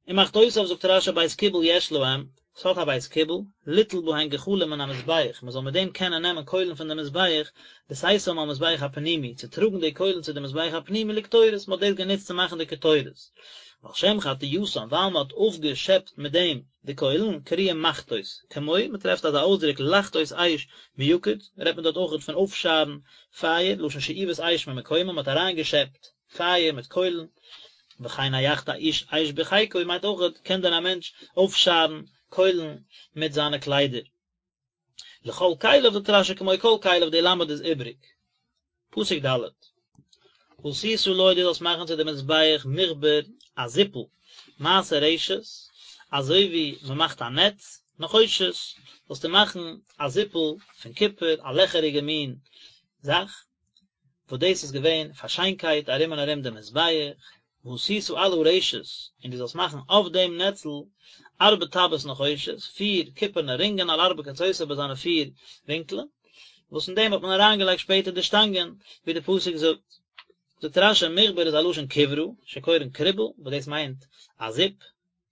ומחתותיו זאגט רש"י בית קיבול יש להם, ס'האט א בית קיבול, ליטול בהן גחלים מן המזבח, מ'זאל מיט דעם קענען נעמען קוילן פון די מזבח, לשאתם על מזבח הפנימי, צו טראגן די קוילן צו די מזבח הפנימי לקטורת, מ'האט דאס גענוצט צו מאכן די קטורת. ועל שם חטייתן, ווייל מ'האט אויפגעשעפט מיט דעם די קוילן, קרויים מחתות, כמו, מ'טרעפט אזא אויסדרוק לחתות אש מיקוד, רעדט מען דארט אויכעט פון אויפשארן פייער, לשון שאיבת אש ממקומה, מ'האט אריינגעשעפט פייער מיט קוילן. וכן היחתה איש אש בחיקו מיינט אויכעט קען דען א מענטש אויפשארן קוילן מיט זיינע קליידער. לכל כליו זאגט רשי כמו כל כליו די למד איז איבריג. פסוק ד'. ועשית לו דו זאלסט מאכן צו די מזבח מכבר א זיפל מעשה רשת אזוי ווי מען מאכט א נעץ נחושת זאלסטו מאכן א זיפל פון קופער א לעכעריגע מין זאך וואס דאס איז געווען פאר שיינקייט ארום און ארום דעם מזבח, ועשית על הרשת, און דו זאלסט מאכן אויף דעם נעצל ארבע טבעות נחושת, פיר קופערנע רינגען על ארבע קצותיו ביי זיינע פיר ווינקלען, וואס אין דעם האט מען אריינגעלייגט שפעטער די שטאנגען, ווי די פסוק זאגט. זאגט רשי, מכבר איז א לשון כברה, שקורין קריבל, וואס דאס מיינט א זיפ,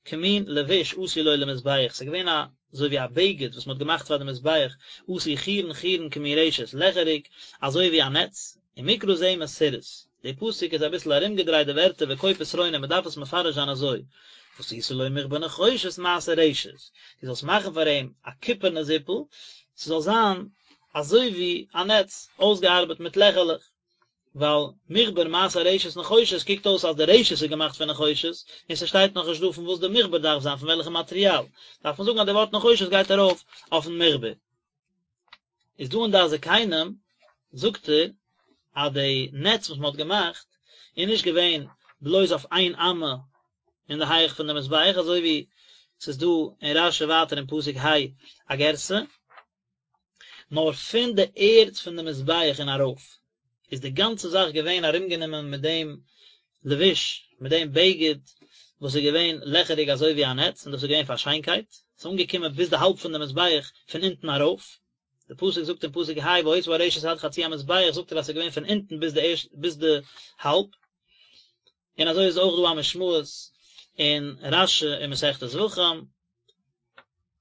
כמין לבוש עשו לו למזבח, ס'איז געווען א אזוי ווי א בגד וואס מ'האט געמאכט פאר די מזבח, עשוי חורין חורין כמין רשת, לעכעריג אזוי ווי א נעץ, ומקרא זה מסורס, די פסוק איז אביסל ארומגעדרייט די ווערטער וכה פתרונו מ'דארף עס מפרש זיין אזוי, ועשית לו מכבר נחושת מעשה רשת, דו זאלסט מאכן פאר אים א קופערנע זיפל, ס'זאל זיין אזוי ווי א נעץ, אויסגעארבעט מיט לעכערלעך. ווייל מכבר מעשה רשת נחושת קוקט אויס אז די רשת איז געמאכט פון נחושת, און ס'שטייט נאך נישט דא פון וואס די מכבר דארף זיין פון וועלכע מאטריאל, דארף מען זאגן אז די ווארט נחושת גייט ארויף אויפן מכבר. איז דא אין דעת זקנים זאגט ער אז די נעץ וואס מען האט געמאכט איז נישט געווען בלויז אויף איין אמה אין די הייך פון די מזבח אזוי ווי ס'איז דא אין רשי ווייטער אין פסוק ה א גירסא, נאר פון די ערד פון די מזבח און ארויף איז די גאנצע זאך געווען ארומגענומען מיט דעם לבוש, מיט דעם בגד וואס איז געווען לעכעריג אזוי ווי א נעץ, און דאס איז געווען פאר שיינקייט, עס איז אנגעקומען ביז די האלב פון די מזבח פון אונטן ארויף, די פסוק זאגט אין פסוק ה והיתה הרשת עד חצי המזבח זאגט ער אז עס איז געווען פון אונטן ביז די ערשט ביז די האלב, און אזוי איז אויך דא א משמעות אין רשי אין מסכת זבחים.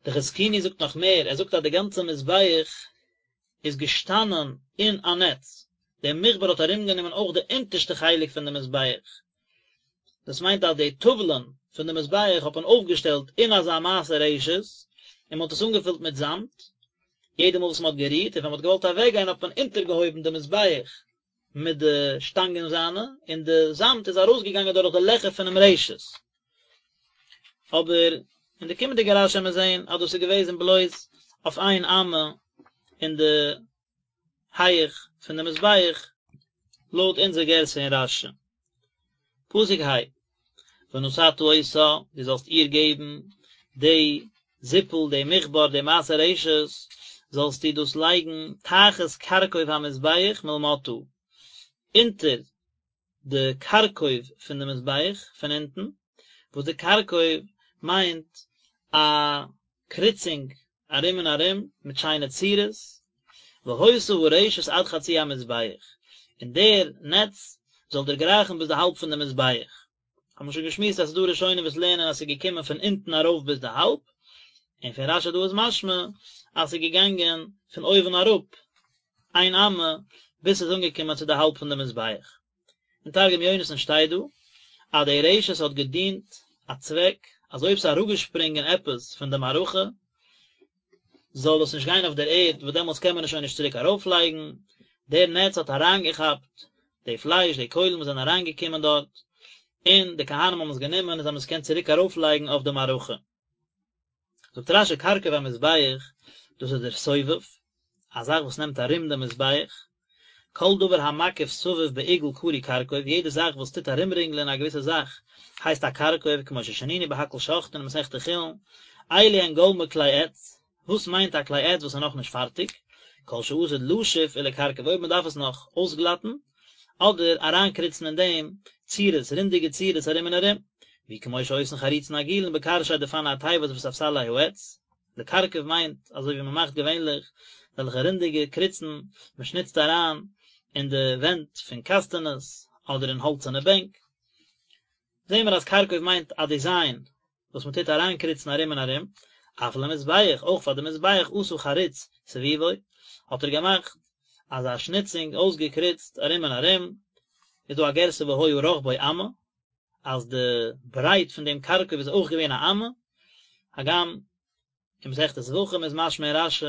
די חזקוני זאגט נאך מער, ער זאגט אז די גאנצע מזבח איז געשטאנען אין א נעץ, דער מכבר האט ארומגענומען אויך די אונטערשטע חלק פון די מזבח, דאס מיינט אז די טאוולען פון די מזבח האט מען אויפגעשטעלט אין אזא מעשה רשת, און מען האט עס אנגעפילט מיט זאמד, יעדע מאל וואס מען האט גערוהט און ווען מען האט געוואלט אוועקגיין האט מען אונטערגעהויבן די מזבח מיט די שטאנגען זיינע, און די זאמד איז ארויסגעגאנגען דורך די לעכער פונעם רשת. אבער אין די קומענדיגע רשי וועלן מיר זען אז דאס איז געוועזן בלויז אויף איין אמה אין די הייך פון די מזבח, לויט אונזער גירסא אין רשי. פסוק ה, ונתתה אותה, דו זאלסט איר געבן די זיפל, די מכבר, די מעשה רשת, זאלסטו דאס לייגן תחת כרכוב המזבח מלמטה, אונטער די כרכוב פון די מזבח פון אונטן, וואס די כרכוב מיינט א קריצונג ארום און ארום מיט שיינע צורות, והיתה הרשת עד חצי המזבח, און דער נעץ זאל דערגרייכן ביז די האלב פון די מזבח. האבן מיר שוין געשמועסט אז ס'איז דא ראשונים וואס לערנען אז ס'איז געקומען פון אונטן ארויף ביז די האלב, און פון רשי דא איז משמע אז ס'איז געגאנגען פון אויבן אראפ איין אמה ביז ס'איז אנגעקומען צו די האלב פון די מזבח. אין תרגום יונתן שטייט דא אז די רשת האט געדינט א צוועק אז אויב ס'איז אראפגעשפרינגען עפעס פון די מערכה זאל עס נישט גיין אויף דער ערד וואס דעמאלטס קען מען עס שוין נישט צוריק ארויפלייגן, דער נעץ האט אריינגעכאפט די פלייש, די קוילן וואס זענען אריינגעקומען דארט, און די כהנים האבן עס גענומען און זיי האבן עס געקענט צוריק ארויפלייגן אויף די מערכה. זאגט רשי כרכוב המזבח, דאס איז דער סובב, א זאך וואס נעמט ארום דעם מזבח, כל דבר המקיף סביב בעיגול קרוי כרכוב, יעדע זאך וואס טוט ארומרינגלען א געוויסע זאך הייסט א כרכוב, כמו ששנינו בהכל שוחטין אין מסכת חולין, אלו הן גולמי כלי עץ, וואס מיינט א כלי עץ וואס איז נאכנישט פארטיג? כל שעתיד לשוף ולכרכב אויב מען דארף עס נאך אויסגלאטן, אדער אריינקריצן אין דעם צורות, רונדיגע צורות ארום און ארום, והוא כמו שעושין חריצין עגולין בקרשי דפני התיבות וספסלי העץ, לכרכב מיינט אזוי ווי מען מאכט געווענליך אזעלכע רונדיגע קריצן, מען שניצט אריין אין די ווענט פון קאסטענעס אדער אין האלצערנע בענק, זעהן מיר אז כרכוב מיינט א דיזיין וואס מען טוט אריינקריצן ארום און ארום, אף למזבח, אויך פאר די מזבח עשה חריץ סביבו, האט ער געמאכט אזא שניצונג אויסגעקריצט ארום און ארום, איז דא א גירסא והיה רחבו אמה, אז די ברייט פון דעם כרכוב איז אויך געווען א אמה, הגם אין מסכת זבחים איז משמע אין רשי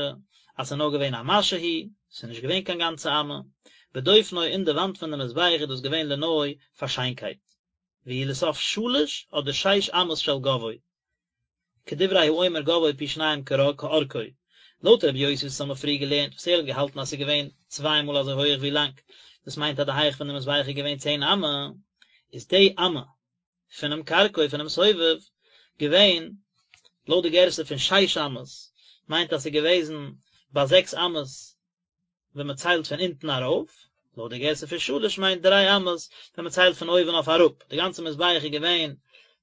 אז ס'איז נאר געווען א משהו, ס'איז נישט געווען קיין גאנצע אמה, בדופנו אין די וואנט פון די מזבח איז דאס געווען לנוי פאר שיינקייט. והוא לסוף שלש אדער שש אמות של גבהו, כדברי האומר גבהו פי שניים כארכו, לויט רבי יוסי וואס האמיר פריער געלערנט וואס ער האט געהאלטן אז ס'איז געווען צוויי מאל אזוי הויעך ווי לאנג, דאס מיינט אז די הייך פון די מזבח איז געווען צען אמה, איז די אמה פונעם כרכוב פונעם סובב געווען לויט די גירסא פון שש אמות, מיינט אז ס'איז געוועזן ביי זעקס אמות ווען מען ציילט פון אונטן ארויף, לויט די גירסא פון שלש מיינט דריי אמות ווען מען ציילט פון אויבן אויף אראפ, די גאנצע מזבח איז געווען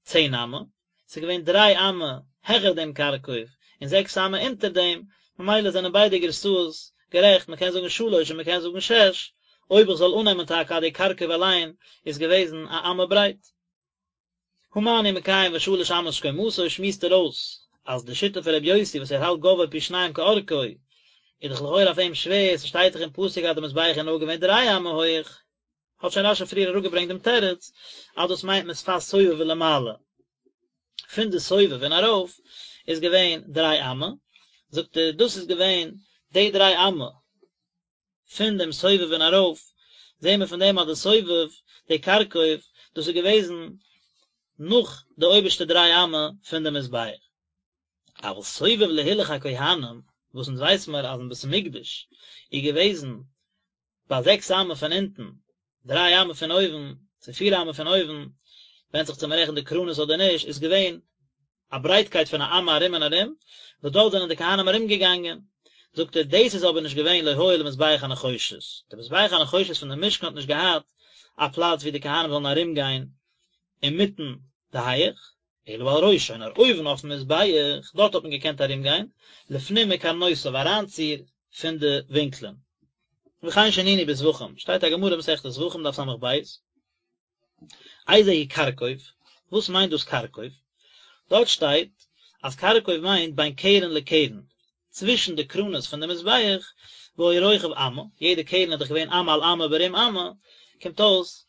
צען אמה, ס'איז געווען דריי אמה העכער דעם כרכוב און זעקס אמה אונטער דעם, ממילא זענען ביידע גירסאות גערעכט, מען קען זאגן שלש און מען קען זאגן שש, אויב איך זאל אננעמען טאקע אז די כרכוב אליין איז געוועזן א אמה ברייט. הא מה אני מקיים ושלש אמות קומתו שמועסט ער אויס אז די שיטה פון רבי יוסי וואס ער האלט גבהו פי שניים כארכו איז דאך לכאורה אויף אים שווער, ס'שטייט דאך אין פסוק אז די מזבח איז נאר געווען דריי אמה הויעך, האט שוין רשי פריער אראפגעברענגט דעם תירוץ אז דאס מיינט משפת סובב ולמעלה, פון די סובב און ארויף איז געווען דריי אמה, זאגט ער דאס איז געווען די דריי אמה פון דעם סובב און ארויף, זעהן מיר פון דעם אז די סובב, די כרכוב, דאס איז געוועזן נאך די אויבערשטע דריי אמה פון די מזבח. אבל סובב להילוך הכהנים, וואס אונז ווייס מיר אז אין בית המקדש איז געוועזן ביי זעקס אמה פון אונטן, דריי אמה פון אויבן, צו פיר אמה פון אויבן, ווענדט זיך צו מען רעכנט די קרנות אדער נישט, איז געווען א ברייטקייט פון א אמה ארום און ארום, וואס דארט זענען די כהנים ארום געגאנגען. זאגט ער, דאס איז אבער נישט געווען לא היה למזבח הנחושת, די מזבח הנחושת פון די משכן האט נישט געהאט א פלאץ ווי די כהנים זאלן ארום גיין אינמיטן די הייעך, אלא על ראשו, נאר אויבן אויפן מזבח, דארט האט מען געקענט ארום גיין, לפנים מקרנותיו אריינציר פון די ווינקלען. וכן שנינו בזבחים, שטייט א גמרא מסכת זבחים דף ס"ב, איזהו כרכוב, וואס מיינט דאס כרכוב? דארט שטייט אז כרכוב מיינט בין קרן לקרן, צווישן די קרנות פון די מזבח, והיה רוחב אמה, יעדע קרן איז דאך געווען אמה על אמה ברום אמה, קומט אויס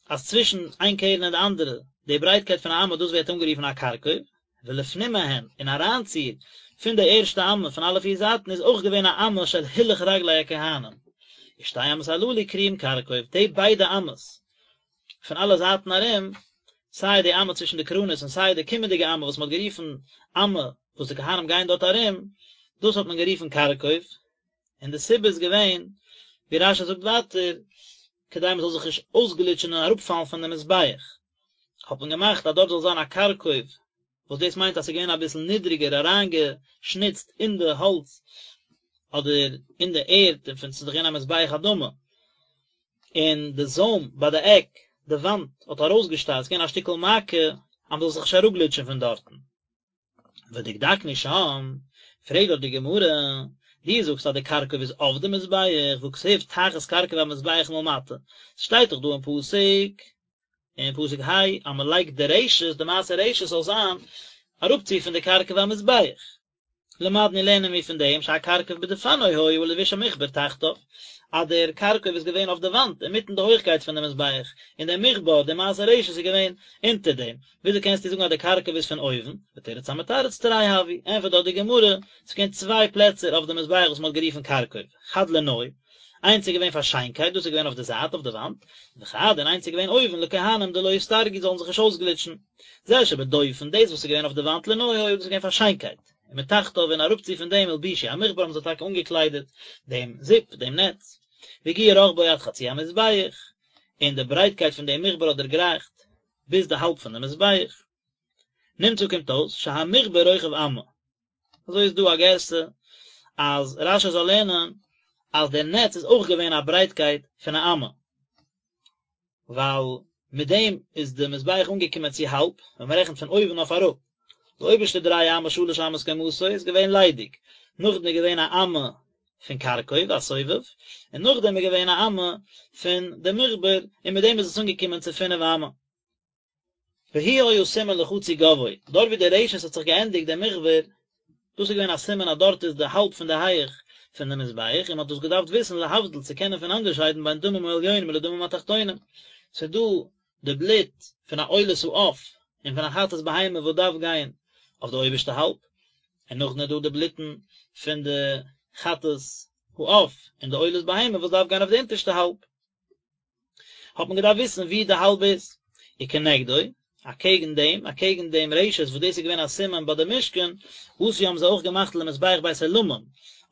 אז צווישן איין קרן און די אנדערע, די ברייטקייט פון א אמה דאס ווערט אנגערופן א כרכוב, ולפנים מהן, און אריינציר פון די ערשטע אמה פון אלע פיר זייטן איז אויך געווען א אמה של הילוך רגלי הכהנים, ושתי אמות הללו קרויים כרכוב, די ביידע אמות פון אלע זייטן ארום, סיי די אמה צווישן די קרנות און סיי די קומענדיגע אמה וואס מען האט גערופן אמה וואס די כהנים גייען דארט ארום, דאס האט מען גערופן כרכוב, און די סיבה איז געווען, ווי רש"י זאגט ווייטער, כדי מען זאל זיך נישט אויסגליטשן און אראפפאלן פון די מזבח, האט מען געמאכט אז דארט זאל זיין א כרכוב, וואס דאס מיינט אז ס'איז געווען אביסל נידריגער אריינגעשניצט אין די האלץ אדער אין די ערד, און פון ס'איז דאך געווען א מזבח אדמה, און די זוים ביי די עק, די וואנט, האט ארויסגעשטארט, ס'איז געווען א שטיקל מעקה אז מ'זאל זיך נישט אראפגליטשן פון דארטן. ודקדקנו שם, פרעגט דארט די גמרא, דו זאגסט אז די כרכוב איז אויף די מזבח, והכתיב תחת כרכוב המזבח מלמטה, ס'שטייט דאך דא אין פסוק, אין פסוק ה', אז מ'לייגט די רשת, די מעשה רשת זאל זיין אראפצו פון די כרכוב המזבח. למדנו לערנען מיר פון דעם שהכרכוב בדפנו היה ולבוש המכבר תחתיו, אז דער כרכוב איז געווען אויף די וואנט אינמיטן די הויכקייט פון די מזבח, און דער מכבר, די מעשה רשת איז געווען אונטער דעם, וויאזוי קענסטו זאגן אז דער כרכוב איז פון אויבן? ותרץ המתרץ תרי הוו, ענפערט דארט די גמרא, ס'איז געווען צוויי פלעצער אויף די מזבח וואס מ'האט גערופן כרכוב, חד לנוי, איינס איז געווען פאר שיינקייט, דאס איז געווען אויף די זייט אויף די וואנט, וחד און איינס איז געווען אויבן לכהנים דלא יסתרגו זאלן זיך נישט אויסגליטשן. זה שבדופן, דאס וואס איז געווען אויף די וואנט לנוי היה, דאס איז געווען פאר שיינקייט, ומתחתיו און אראפצו פון דעם הלבישו המכבר האבן זיי טאקע אנגעקליידעט דעם זיפ, דעם נעץ, והגיע רחבו עד חצי המזבח, און די ברייטקייט פון דעם מכבר האט דערגרייכט ביז די האלב פון די מזבח. נמצא קומט אויס שהמכבר רוחב אמה. אזוי איז דא א גירסא אז רש"י זאל לערנען אז דער נעץ איז אויך געווען א ברייטקייט פון א אמה. ווייל מיט דעם איז די מזבח אנגעקומען צו האלב, ווען מען רעכנט פון אויבן אויף אראפ. די אויבערשטע דריי אמה שלש אמות קומתו איז געווען ליידיג, נאכדעם איז געווען א אמה פון כרכוב, א סובב, און נאכדעם איז געווען א אמה פון די מכבר, און מיט דעם איז עס אנגעקומען צו פינף אמה. והוא היה סימן לחצי גבהו, דארט ווי די רשת האט זיך געענדיגט דער מכבר, דאס איז געווען א סימן אז דארט איז די האלב פון די הייעך פון די מזבח, און מען האט דאס געדארפט וויסן להבדיל צו קענען פונאנדערשיידן בין דמים העליונים לדמים התחתונים, ס'איז דא די בלוט פון א עולת העוף און פון א חטאת בהמה וואס דארף גיין אויף די אויבערשטע האלב, און נאכדעם איז דא די בלוטן פון די חטאת העוף און די עולת בהמה וואס דארף גיין אויף די אונטערשטע האלב. האט מען געדארפט וויסן ווי די האלב איז. וכנגדו, אקעגן דעם, אקעגן דעם רשת וואס דאס איז געווען א סימן ביי די משכן, עשו האבן זיי אויך געמאכט למזבח בית עולמים,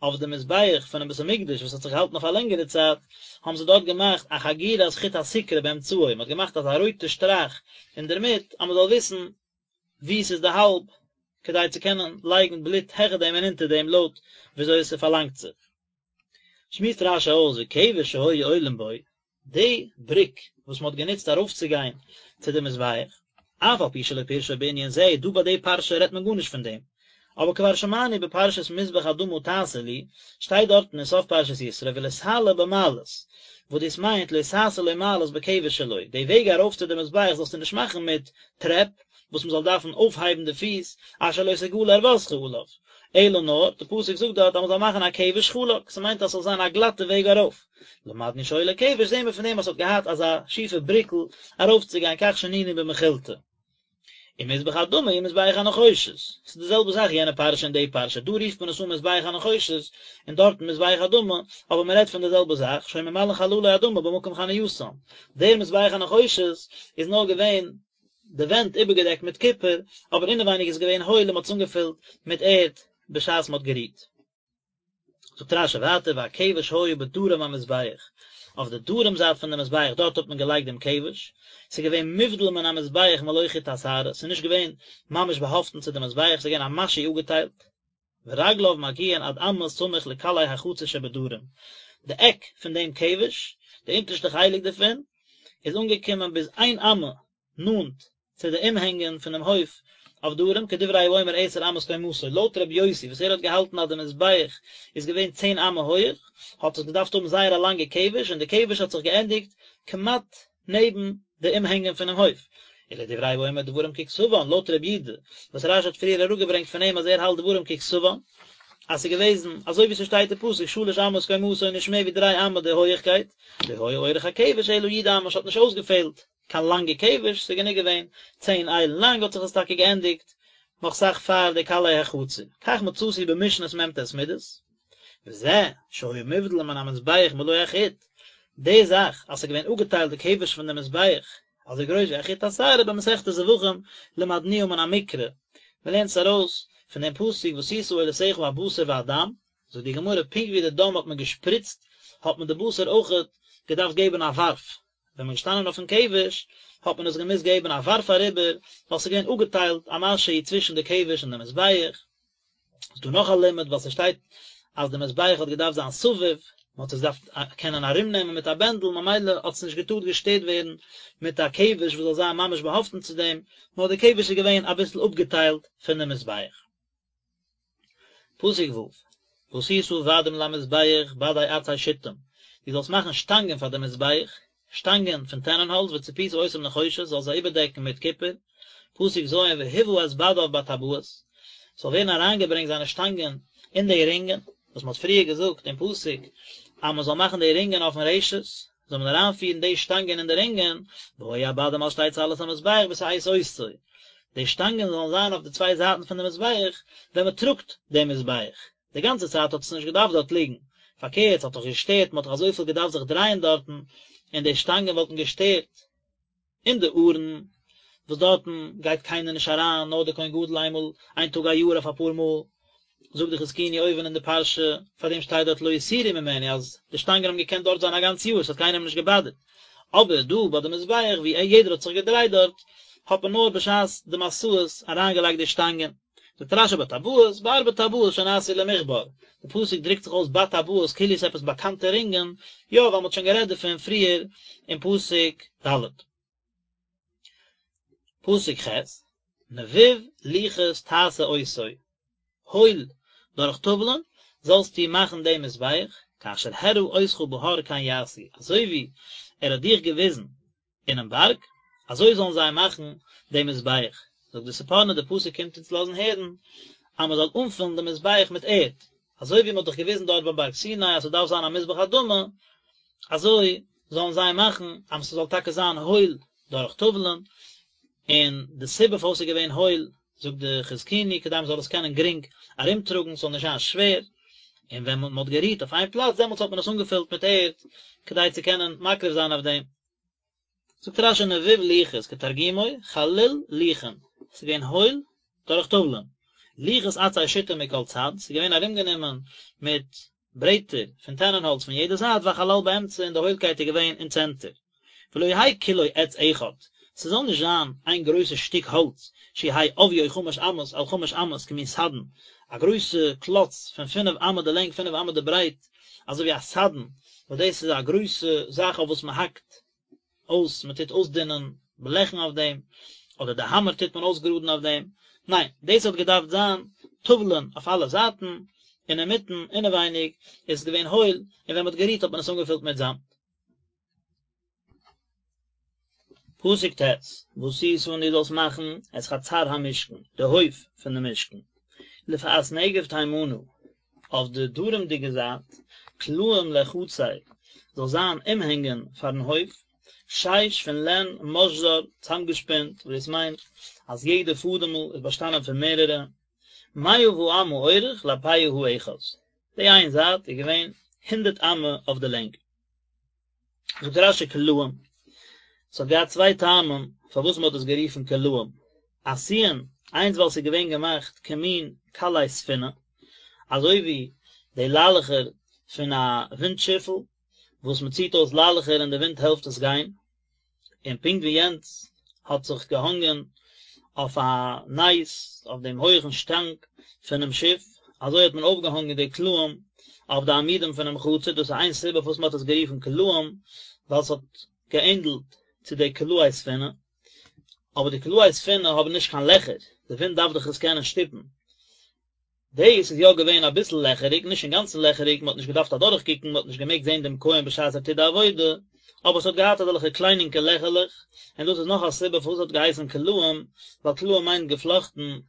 אויף די מזבח פונעם בית המקדש וואס האט זיך געהאלטן אויף א לענגערע צייט, האבן זיי דארט געמאכט א חגירת חוט הסיקרא באמצעו, מען האט געמאכט אזא רויטע שטראך אינדערמיט אז מען זאל וויסן וואו ס'איז די האלב, כדי צו קענען לייגן בלוט העכער דעם און אונטער דעם לויט וויאזוי עס פארלאנגט זיך. שמועסט רש"י אויס וכבש שהיו עולין בו, די בריק וואס מען האט גענוצט ארויפצוגיין צו די מזבח, אף על פי שלא פירשו בענין זה, דא ביי די פרשה רעדט מען גארנישט פון דעם, אבער כבר שמענו בפרשת מזבח אדמה תעשה לי, שטייט דארטן אין סוף פרשת יתרו ולא תעלה במעלות, וואס דאס מיינט לא תעשה לו מעלות בכבש שלו, די וועג ארויף צו די מזבח זאלסטו נישט מאכן מיט טרעפ, וואס מען זאל דארפן אויפהייבן די פיס, אשר לא תגלה ערותך עליו, אלא נאר, די פסוק זאגט דארט אז מען זאל מאכן א כבש חלק, ס'מיינט אז ס'זאל זיין א גלאטע וועג ארויף. למדנו שהיה לו כבש זעהן מיר פון דעם אז ס'האט געהאט אזא שיפע בריקל ארויפצוגיין כך שנינו במכילתא. ומזבח האדמה הוא מזבח הנחושת, ס'איז די זעלבע זאך יענע פרשה און די פרשה, דא רופט מען עס אן מזבח הנחושת און דארטן מזבח אדמה, אבער מען רעדט פון די זעלבע זאך, שהיו ממלאין חללו אדמה במקום חנייתן, דער מזבח הנחושת איז נאר געווען די ווענט איבערגעדעקט מיט קופער, אבער אינעווייניג איז געווען הויל און מען האט עס אנגעפילט מיט ערד בשעת מען האט גערוהט. זאגט רש"י ווייטער והכבש היה בדרום המזבח, אויף די דרום זייט פון די מזבח דארט האט מען געלייגט דעם כבש, ס'איז געווען מובדל מן המזבח מלא חוט השערה, ס'איז נישט געווען ממש באהאפטן צו די מזבח, ס'איז געווען א משהו אפגעטיילט, ורגליו מגיעין עד אמה סמוך לקלעי החצר שבדרום, די עק פון דעם כבש, די אונטערשטע חלק דערפון, איז אנגעקומען ביז איין אמה נאנט צו די אומהענגען פונעם הויף אויף דרום, כדברי האומר עשר אמות קומתו, לויט רבי יוסי וואס ער האט געהאלטן אז די מזבח איז געווען צען אמה הויעך, האט עס געדארפט האבן זייער א לאנגע כבש, און די כבש האט זיך געענדיגט כמעט נעבן די אומהענגען פונעם הויף. ולדברי האומר דברים ככתבן, לויט רבי יודא, וואס רש"י האט פריער אראפגעברענגט פון אים אז ער האלט דברים ככתבן, אז ס'איז געוועזן אזוי ווי ס'שטייט אין פסוק שלש אמות קומתו נישט מער ווי דריי אמה די הויעכקייט, לא היה אורך הכבש אלא י' אמה, ס'האט נישט אויסגעפעלט קיין לאנגע כבש, ס'איז גענוג געווען צען איילן לאנג האט זיך עס טאקע געענדיגט נאך סאך פאר די קלעי החצר, כך מצאתי במשנת מ"ט מידות, וזה שהיה מובדל מן המזבח מלא החוט, די זאך אז ס'איז געווען אפגעטיילט די כבש פון די מזבח אזוי גרויס ווי א חוט השערה במסכת זבחים למדנוה מן המקרא, מ'לערנט עס ארויס פון דעם פסוק ועשית עולתך הבשר והדם, זאגט די גמרא פונקט ווי די דם האט מען געשפריצט האט מען די בשר אויכעט געדארפט געבן א ווארף, ווען מ'איז געשטאנען אויפן כבש האט מען עס געמוזט געבן א ווארף אריבער, ווייל ס'איז געווען אפגעטיילט א משהו צווישן די כבש און די מזבח. ס'איז דא נאך א לימוד ווייל ס'שטייט אז די מזבח האט געדארפט זיין סביב, מ'האט עס געדארפט קענען ארומנעמען מיט א בענדל, ממילא האט עס נישט געטארט געשטערט ווערן מיט א כבש וואס זאל זיין ממש באהאפטן צו דעם, נאר די כבש איז געווען אביסל אפגעטיילט פון די מזבח. פסוק ו', ועשית בדים למזבח בדי עצי שטים, דו זאלסט מאכן שטאנגען פאר די מזבח, שטאנגען פון טענענהאלץ וצפית אותם נחושת, זאלסט זיי איבערדעקן מיט קופער, פסוק ז', והובא את בדיו בטבעות, ס'זאל ווערן אריינגעברענגט זיינע שטאנגען אין די רינגען, וואס מ'האט פריער געזאגט אין פסוק אז מ'זאל מאכן די רינגען אויפן רשת, זאל מען אריינפירן די שטאנגען אין די רינגען, והיו הבדים על שתי צלעות המזבח בשאת אותו, די שטאנגען זאלן זיין אויף די צוויי זייטן פון די מזבח ווען מען טראגט דעם מזבח, די גאנצע צייט האט עס נישט געדארפט דארט ליגן, פארקערט ס'האט דאך געשטערט, מען האט דאך אזויפיל געדארפט זיך דרייען דארטן, און די שטאנגען וואלטן געשטערט. אין די ארון, וואס דארטן גייט קיינער נישט אריין, נאר דער כהן גדול איינמאל, איין טאג א יאר אויף אפאר מאל, זאגט די חזקוני אויבן אין די פרשה, פאר דעם שטייט דארט לא יסורו ממנו, אז די שטאנגען האבן געקענט דארט זיין א גאנץ יאר, עס האט קיינעם נישט געבאדערט. אבער דא ביי די מזבח ווי יעדער האט זיך געדרייט דארט, האט מען נאר בשעת די מסעות אריינגעלייגט די שטאנגען. זאגט רש"י בטבעות, בארבע טבעות שנעשו למכבר, די פסוק דרוקט זיך אויס בטבעות כאילו עס איז עפעס באקאנטע רינגען, יא ווייל מען האט שוין גערעדט דערפון פריער אין פסוק ד'. פסוק ח', נבוב לוחות תעשה אותו, הויל דורך טאוולען זאלסטו מאכן דעם מזבח, כאשר הראה אותך בהר כן יעשו, אזוי ווי ער האט דיך געוויזן אינעם בארג, אזוי זאלן זיי מאכן דעם מזבח. זאגט די ספורנו, די פסוק קומט אונז לאזן הערן אז מען זאל אנפילן דעם מזבח מיט ערד, אזוי ווי מען האט דאך געוויזן דארט ביים בארג סיני אז ס'דארף זיין א מזבח אדמה, אזוי זאלן זיי מאכן אז ס'זאל טאקע זיין הויל דורך טאוולען, און די סיבה פארוואס ס'איז געווען הויל, זאגט די חזקוני, כדי מען זאל עס קענען גרינג ארומטראגן, ס'זאל נישט זיין שווער, און ווען מען האט גערוהט אויף איין פלאץ, דעמאלטס האט מען עס אנגעפילט מיט ערד, כדי צו קענען מקריב זיין אויף דעם. זאגט רשי נבוב לוחות כתרגומו חליל לוחין, ס'איז געווען הויל דורך טאוולען, לוחות עצי שיטים מכל צד, ס'איז געווען ארומגענומען מיט ברעטער פון טענענהאלץ פון יעדע זייט והחלל באמצע און די הוילקייט איז געווען אין צענטער. ולא יהא כולו עץ אחד, ס'זאל נישט זיין איין גרויסע שטיק האלץ, שיהא עביו חמש אמות על חמש אמות כמין סדן, א גרויסע קלאץ פון פינף אמה די לענג פינף אמה די ברייט, אזוי ווי א סדן, וואס דאס איז א גרויסע זאך אויף וואס מען האקט אויס, מען טוט אויסדינען בלעכן אויף דעם, אדער די האמער טוט מען אויסגראדן אויף דעם, ניין, דאס האט געדארפט זיין טאוולען אויף אלע זייטן, און אינמיטן, אינעווייניג, איז עס געווען הויל, און ווען מען האט גערוהט האט מען עס אנגעפילט מיט זאמד. פסוק ט', ועשית און דו זאלסט מאכן את חצר המשכן, די הויף פון די משכן, לפאת נגב תימנה, אויף די דרומ'דיגע זייט, קלעים לחצר, זאל זיין אומהענגען פארן הויף, שש פון לען משזר, צאמגעשפינט, וואס דאס מיינט אז יעדע פאדעמל איז באשטאנען פון מערערע, מאה באמה אורך לפאה האחת, די איין זייט איז געווען הונדערט אמה אויף די לענג. זאגט רשי קלעים, ס'האט געהאט צוויי טעמים פארוואס מ'האט עס גערופן קלעים, עשויין, איינס ווייל ס'איז געווען געמאכט כמין קלעי ספינה, אזוי ווי די ליילעכער פון א ווינט שיפל, וואס מ'ציט אויס ליילעכער און די ווינט העלפט עס גיין, און פונקט ווי יענץ האט זיך געהאנגען אויף א נס אויף דעם הויעכן שטאנג פונעם שיף, אזוי האט מען אויפגעהאנגען די קלעים אויף די עמודים פונעם חצר, דאס איז איין סיבה פארוואס מען האט עס גערופן קלעים, ווייל עס האט געענדלט צו די קלעי ספינה, אבער די קלעי ספינה האבן נישט קיין לעכער, די ווינט דארף דאך עס קענען שטופן, דאס איז יא געווען אביסל לעכעריג, נישט אינגאנצן לעכעריג, מען האט נישט געדארפט אדורכקוקן, מען האט נישט געמעגט זען דעם כהן בשעת ער טוט די עבודה, אבער עס האט געהאט אזעלכע קליינינקע לעכערלעך, און דאס איז נאך א סיבה פארוואס עס האט געהייסן קלעים, ווייל קלעים מיינט געפלאכטן,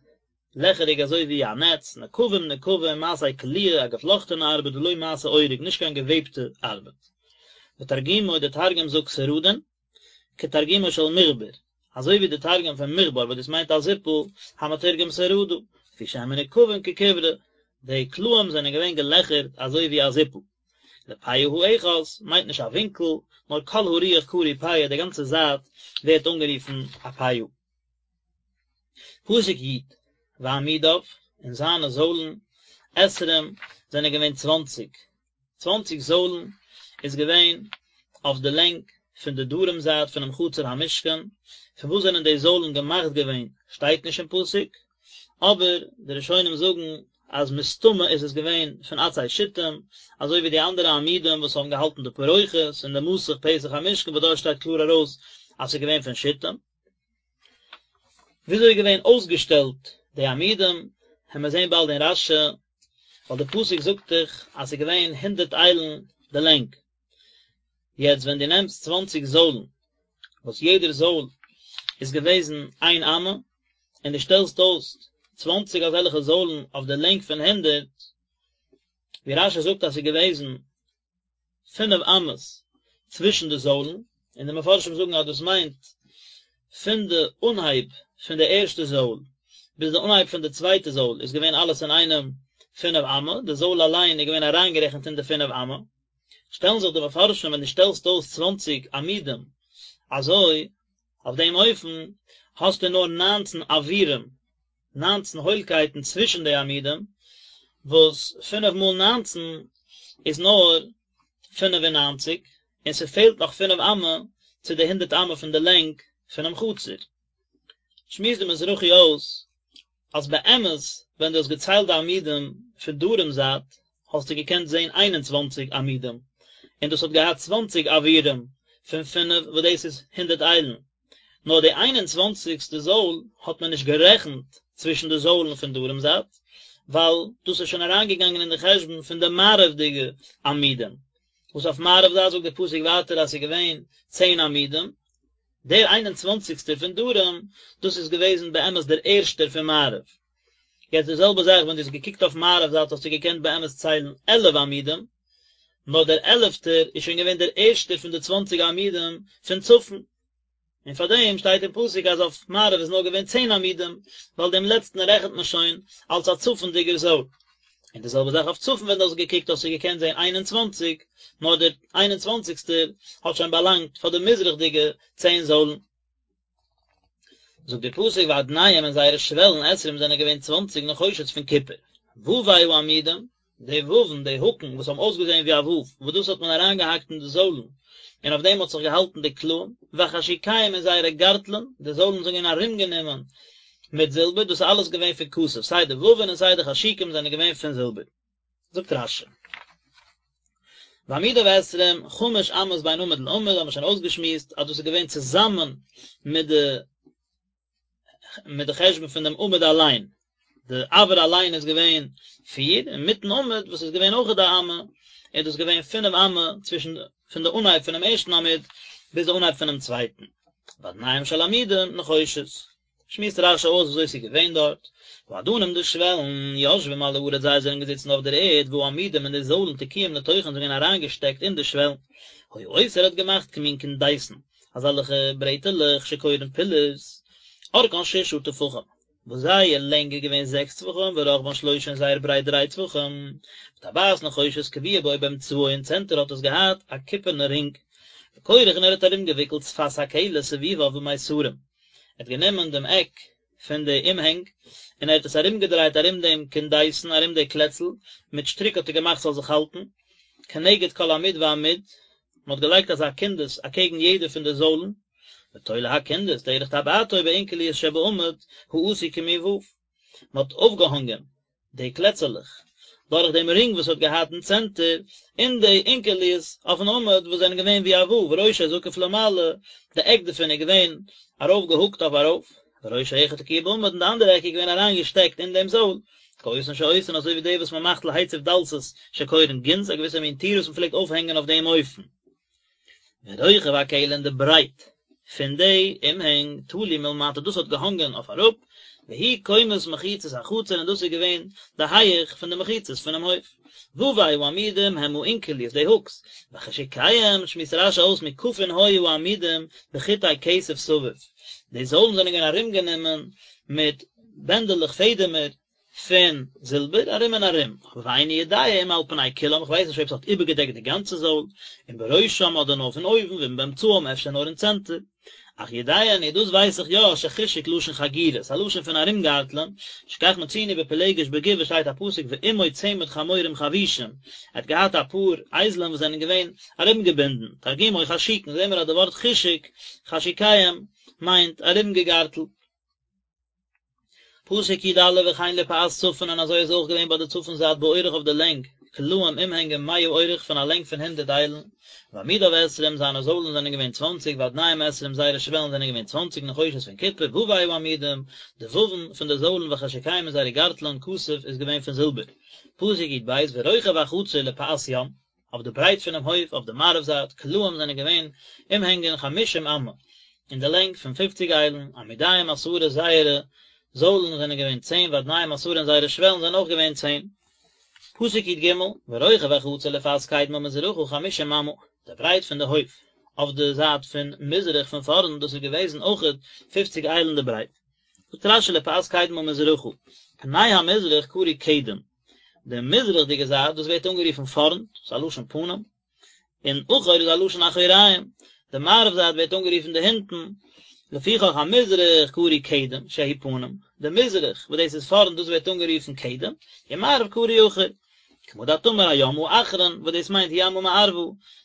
לעכעריג אזוי ווי א נעץ, נקבים נקבים מעשה קליעה, א געפלאכטענע ארבעט ולא מעשה אורג, נישט קיין געוועבטע ארבעט. ותרגומו, דער תרגום זאגט סרדין, כתרגומו של מכבר, אזוי ווי די תרגום פון מכבר וואס דאס מיינט א זיפל, המתורגם סרדא, לפי שהן מנוקבין ככברה, די קלעים זענען געווען געלעכערט אזוי ווי א זיפל. לפאה האחת מיינט נישט א ווינקל, נאר כל הרוח קרוי פאה, די גאנצע זייט ווערט אנגערופן א פאה. פסוק י', ועמודיו, און זיינע זוילן, עשרים, זענען געווען צוואנציג, צוואנציג זוילן איז געווען אויף די לענג פון די דרום זייט פונעם חצר המשכן, פון וואס זענען די זוילן געמאכט געווען שטייט נישט אין פסוק, אבער די ראשונים זאגן אז מסתמא איז עס געווען פון עצי שיטים, אזוי ווי די אנדערע עמודים וואס האבן געהאלטן די פרוכת און די מסך פתח המשכן וואס דארט שטייט קלאר ארויס אז ס'איז געווען פון שיטים. וויאזוי איז געווען אויסגעשטעלט די עמודים, העמיר זעהן באלד אין רשי, ווייל די פסוק זאגט דאך אז ס'איז געווען הונדערט איילן די לענג, יעצט ווען דו נעמסט צוואנציג זוילן, וואס יעדער זויל איז געוועזן איין אמה, און דו שטעלסט אויס צוואנציג אזעלכע זוילן אויף די לענג פון הונדערט, ווי רשי זאגט אז ס'איז געוועזן פינף אמות צווישן די זוילן, און די מפרשים זאגן אז דאס מיינט פון די אנהייב פון די ערשטע זויל ביז די אנהייב פון די צווייטע זויל איז געווען אלעס אינאיינעם פינף אמה, די זויל אליין איז געווען אריינגערעכנט אין די פינף אמה. שטעלן זיך די מפרשים ווען דו שטעלסט אויס צוואנציג עמודים אזוי אויף דעם אופן האסטו נאר ניינצן אוירים ניינצן הוילקייטן צווישן די עמודים, וואס פינף מאל ניינצן איז נאר פינף און ניינציג, און ס'פעלט נאך פינף אמה צו די הונדערט אמה פון די לענג פונעם חצר. שמועסט די מזרחי אויס אז באמת ווען דו האסט געציילט די עמודים פון דרום זייט האסטו געקענט זען איין און צוואנציג עמודים, און דאס האט געהאט צוואנציג אוירים פון פינף וואס דאס איז הונדערט איילן, נאר די איין און צוואנציגסטע זויל האט מען נישט גערעכנט צווישן די זוילן פון דרום זייט, ווייל דאס איז שוין אריינגעגאנגען אין די חשבון פון די מערב'דיגע עמודים, וואס אויף מערב זייט זאגט דער פסוק ווייטער אז ס'איז געווען צען עמודים, דער איין און צוואנציגסטער פון דרום, דאס איז געוועזן באמת דער ערשטער פון מערב. יעצט די זעלבע זאך ווען דו האסט געקוקט אויף מערב זייט האסטו געקענט באמת ציילן עלף עמודים, נאר דער עלפטער איז שוין געווען דער ערשטער פון די צוואנציג עמודים פון צפון, און פאר דעם שטייט אין פסוק אז אויף מערב איז נאר געווען צען עמודים, ווייל דעם לעצטן רעכנט מען שוין אלס א צפונדיגער זויל. און די זעלבע זאך אויף צפון ווען דו האסט געקוקט האסטו געקענט זען 21, נאר דער איין און צוואנציגסטער האט שוין באלאנגט פאר די מזרח'דיגע צען זוילן. זאגט דער פסוק ואדניהם און זייערע שוועלן עשרים זענען געווען צוואנציג נחושת פון קופער, ווי העמודים, די וואוון, די האקן וואס האבן אויסגעזען ווי א וואוו, וואס דאס האט מען אריינגעהאקט אין די זוילן, און אויף דעם האט זיך געהאלטן די קלעים, וחשוקיהם און זייערע גארטלען, די זוילן זענען געווען ארומגענומען מיט זילבער, דאס איז אלעס געווען פון כסף, סיי די וואוון און סיי די חשוקים זענען געווען פון זילבער. זאגט רש"י. ועמודיו עשרים, חמש אמות בין עמוד לעמוד, האבן מיר שוין אויסגעשמועסט אז דאס איז געווען צוזאמען מיט די מיט די חשבון פון דעם עמוד אליין, די אויר אליין איז געווען פיר, און מיטן עמוד וואס איז געווען אויכעט א אמה, איז דאס געווען פינף אמה צווישן פון די אנהייב פונעם ערשטן עמוד ביז די אנהייב פונעם צווייטן. ואדניהם של עמודים נחושת. שמועסט רש"י אויס וויאזוי ס'איז געווען דארט, והאדנים די שוועלן, יושבים על הארץ זיי זענען געזיצן אויף דער ערד, והעמודים און די זוילן תקועים לתוכן זענען געווען אריינגעשטעקט אין די שוועלן. היה עושה ער האט געמאכט כמין קונדסין, אזעלכע ברעטעלעך שקורין פילערס, אורכן ששה טפחים, וואס זייער לענג איז געווען זעקס טפחים ורחבן שלושה און זייער ברייט דריי טפחים, וטבעת נחושת קבועה בו באמצעו אין צענטער האט עס געהאט א קופערנע רינג, וכורך און ער האט ארומגעוויקלט שפת הכלא סביביו במיתרים, ער האט גענומען דעם עק פון די אומהענג און ער האט עס ארומגעדרייט ארום דעם קונדסין ארום די קלעצל, מיט שטריק האט ער געמאכט ס'זאל זיך האלטן, כנגד כל עמוד ועמוד, מען האט געלייגט אזא קונדס אקעגן יעדע פון די זוילן, ותולה הקונדס דרך טבעתו באונקליות שבעמוד העשוי כמין ו', מען האט אויפגעהאנגען די קלעצעלעך דורך דעם רינג וואס האט געהאט אין צענטער, אין די אונקליות אויפן עמוד וואס זענען געווען ווי א ו', וראשו זקוף למעלה, די עק דערפון איז געווען ארויף געהוקט אויף ארויף, וראש האחד תקוע בעמוד און די אנדערע עק איז געווען אריין געשטעקט אין דעם זויל, כאותן שעושין אזוי ווי די וואס מען מאכט להציב דלתות שקורין גינז, א געוויסע מין טיר וואס מען פלעגט אויפהענגען אויף דעם אופן. ורוחב הכלא און די ברייט פון די אומהענג תלוי מלמטה דאס האט געהאנגען אויף אראפ, והוא קומת מחיצות החצר און דאס איז געווען די הייעך פון די מחיצות פונעם הויף. ווי העמודים הם האונקליות די הוקס, וחשוקיהם שמועסט רש"י אויס מוקפין היו העמודים בחוטי כסף סביב, די זוילן זענען געווען ארומגענומען מיט בענדעלעך פעדעמער פון זילבער ארום און ארום, אבער ואיני יודע אם על פני כולם, איך ווייס נישט אויב ס'האט איבערגעדעקט די גאנצע זויל, אם בראשם אדער נאר פון אויבן, ואם באמצעם אפשר נאר אין צענטער. אך יודע אני, דאס ווייס איך יא, שחשוק לשון חגירה, ס'איז א לשון פון ארומגארטלען, שכך מצינו בפילגש בגבעה שטייט א פסוק ועמו צמד חמורים חבושים, ער האט געהאט אפאר אייזלען וואס זענען געווען ארומגעבינדן, תרגומו חשוקין, זעהן מיר אז די ווארט חשוק, חשוקיהם, מיינט ארומגעגארטלט. פסוק י"א וכן לפאת צפון און אזוי איז אויך געווען ביי די צפון זייט באורך אויף די לענג, קלעים אומהענגען מאה אורך פון א לענג פון הונדערט איילן, ועמודיו עשרים זיינע זוילן זענען געווען צוואנציג ואדניהם עשרים זייערע שוועלן זענען געווען צוואנציג נחושת פון קופער ווי העמודים, די וואוון פון די זוילן וחשוקיהם און זייערע גארטלען כסף איז געווען פון זילבער. פסוק י"ב ורוחב החצר לפאת ים. אויף די ברייט פונעם הויף אויף די מערב זייט, קלעים זענען געווען אומהענגען חמשים אמה, אין די לענג פון פופציג איילן, עמודיהם עשרה זייערע זוילן זענען געווען צען ואדניהם עשרה און זייערע שוועלן זענען אויך געווען צען. פסוק י"ג, ורוחב החצר לפאת קדמה מזרחה חמשים אמה, די ברייט פון די הויף אויף די זייט פון מזרח פון פארנט דאס איז געוועזן אויכעט פופציג איילן די ברייט. זאגט רש"י לפאת קדמה מזרחה, פני המזרח קרוי קדם, די מזרח'דיגע זייט דאס ווערט אנגערופן פארנט, ס'איז א לשון פנים, און אחור איז א לשון אחוריים, די מערב זייט ווערט אנגערופן די הינטן, לפיכך המזרח קרוי קדם, שהוא פנים, די מזרח וואס דאס איז פארנט דאס ווערט אנגערופן קדם, און מערב קרוי אחור. כמה דאת אמר הים האחרון, וואס דאס מיינט ימא מערבא,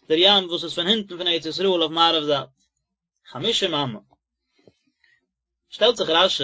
דער ים וואס איז פון הינטן פון ארץ ישראל אויף מערב זייט. חמשים אמה. שטעלט זיך רש"י,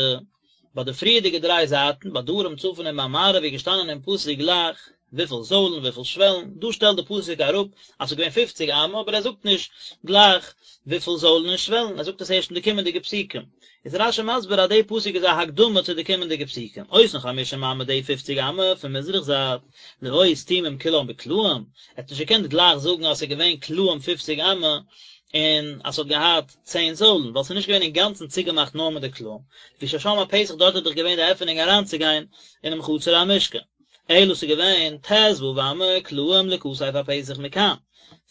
ביי די פריערדיגע דריי זייטן, ביי דרום, צפון און ביי מערב איז געשטאנען אין פסוק גלייך וויפיל זוילן, וויפיל שוועלן, דא שטעלט די פסוק אראפ אז ס'איז געווען פופציג אמה, אבער ער זאגט נישט גלייך וויפיל זוילן און שוועלן, ער זאגט עס ערשט אין די קומענדיגע פסוקים. איז רש"י מסביר אז די פסוק איז א הקדמה צו די קומענדיגע פסוקים, אותן חמשים אמה די פופציג אמה פון מזרח זייט, לא היו סתומים כולם בקלעים, ער האט נישט געקענט גלייך זאגן אז ס'איז געווען קלעים פופציג אמה, און אז ס'האט געהאט צען זוילן, ווייל ס'איז נישט געווען אינגאנצן צוגעמאכט נאר מיט די קלעים, לפי ששם הפתח דארט איז דאך געווען די עפענונג אריינצוגיין אינעם חצר המשכן, אלא ס'איז געווען ט"ו אמה קלעים לכתף הפתח מכאן,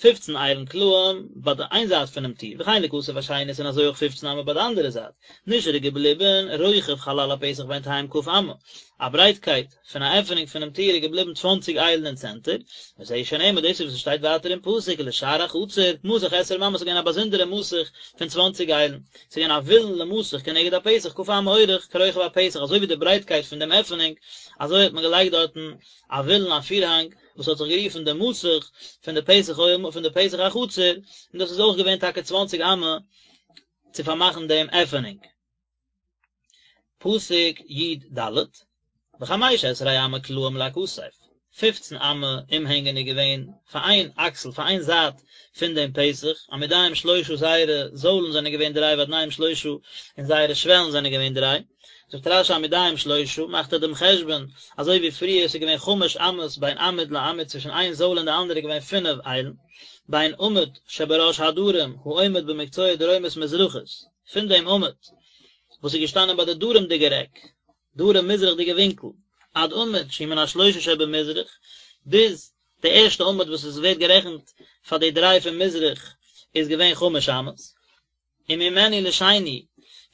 פופצן איילן קלעים ביי די איין זייט פונעם טיר, וכן לכתף השנית און אזוי אויך פופצן אמה ביי די אנדערע זייט, נשאר איז געבליבן רוחב חלל הפתח בינתיים כ' אמה, א ברייטקייט פון א עפענונג פונעם טיר איז געבליבן צוואנציג איילן אין צענטער, וזהו שנאמר דאס איז וואס עס שטייט ווייטער אין פסוק ולשער החצר מסך עשרים אמה עס איז געווען א באזונדערע מסך פון צוואנציג איילן, עס איז געווען א וילון למסך כנגד הפתח כ' אמה אורך כרוחב הפתח אזוי ווי די ברייטקייט פון דעם עפענונג אזוי האט מען געלייגט דארטן א וילון א פירהאנג וואס האט זיך גערופן די מסך פון די פתח אוהל פון די פתח החצר, און דאס איז אויך געווען טאקע צוואנציג אמה צו פארמאכן דעם עפענונג. פסוק י ד, וחמש עשרה אמה קלעים לכתף, פופצן אמה אומהענגען איז געווען פאר איין אקסל, פאר איין זייט פון דעם פתח, עמודיהם שלושה זייערע זוילן זענען געווען דריי ואדניהם שלושה און זייערע שוועלן זענען געווען דריי. זאגט רש י עמודיהם שלושה, מאכט ער דעם חשבון, אזוי ווי פריער עס איז געווען חמש אמות בין עמוד לעמוד צווישן איין זויל און די אנדערע איז געווען פינף איילן, בין עמוד שבראש הדרום העומד במקצוע דרומית מזרחית, פון דעם עמוד וואס איז געשטאנען ביי די דרומ'דיגער עק, דרום מזרח'דיגע ווינקל, עד עמוד שהוא מן השלושה שבמזרח, ביז די ערשטע עמוד וואס עס ווערט גערעכנט פאר די דריי פון מזרח איז געווען חמש אמות. וממנו לשני,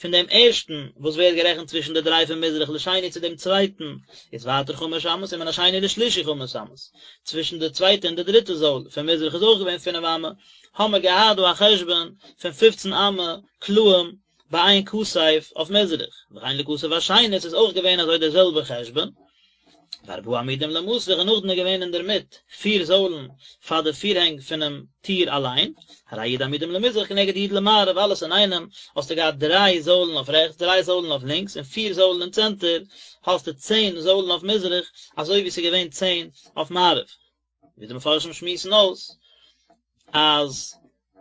פון דעם ערשטן וואס ווערט גערעכנט צווישן די דריי פון מזרח לשני צו דעם צווייטן, איז ווייטער חמש אמות, ומן השני לשלישי חמש אמות, צווישן די צווייטע און די דריטע זויל פון מזרח איז אויך געווען פינף אמה, האמער געהאט דא א חשבון פון פופצן אמה קלעים ביי איין כתף אויף מזרח, וכן לכתף השנית איז אויך געווען אזוי דער זעלבער חשבון. וארבעה עמודים למסך און נאכדעם איז געווען אינדערמיט פיר זוילן פאר די פירהענג פונעם טיר אליין, הרי י' עמודים למזרח כנגד י' למערב, אלעס אינאיינעם האסטו געהאט דריי זוילן אויף רעכטס, דריי זוילן אויף לינקס, און פיר זוילן אין צענטער, האסטו צען זוילן אויף מזרח, אזוי ווי ס'איז געווען צען אויף מערב. ווי די מפרשים שמועסן אויס אז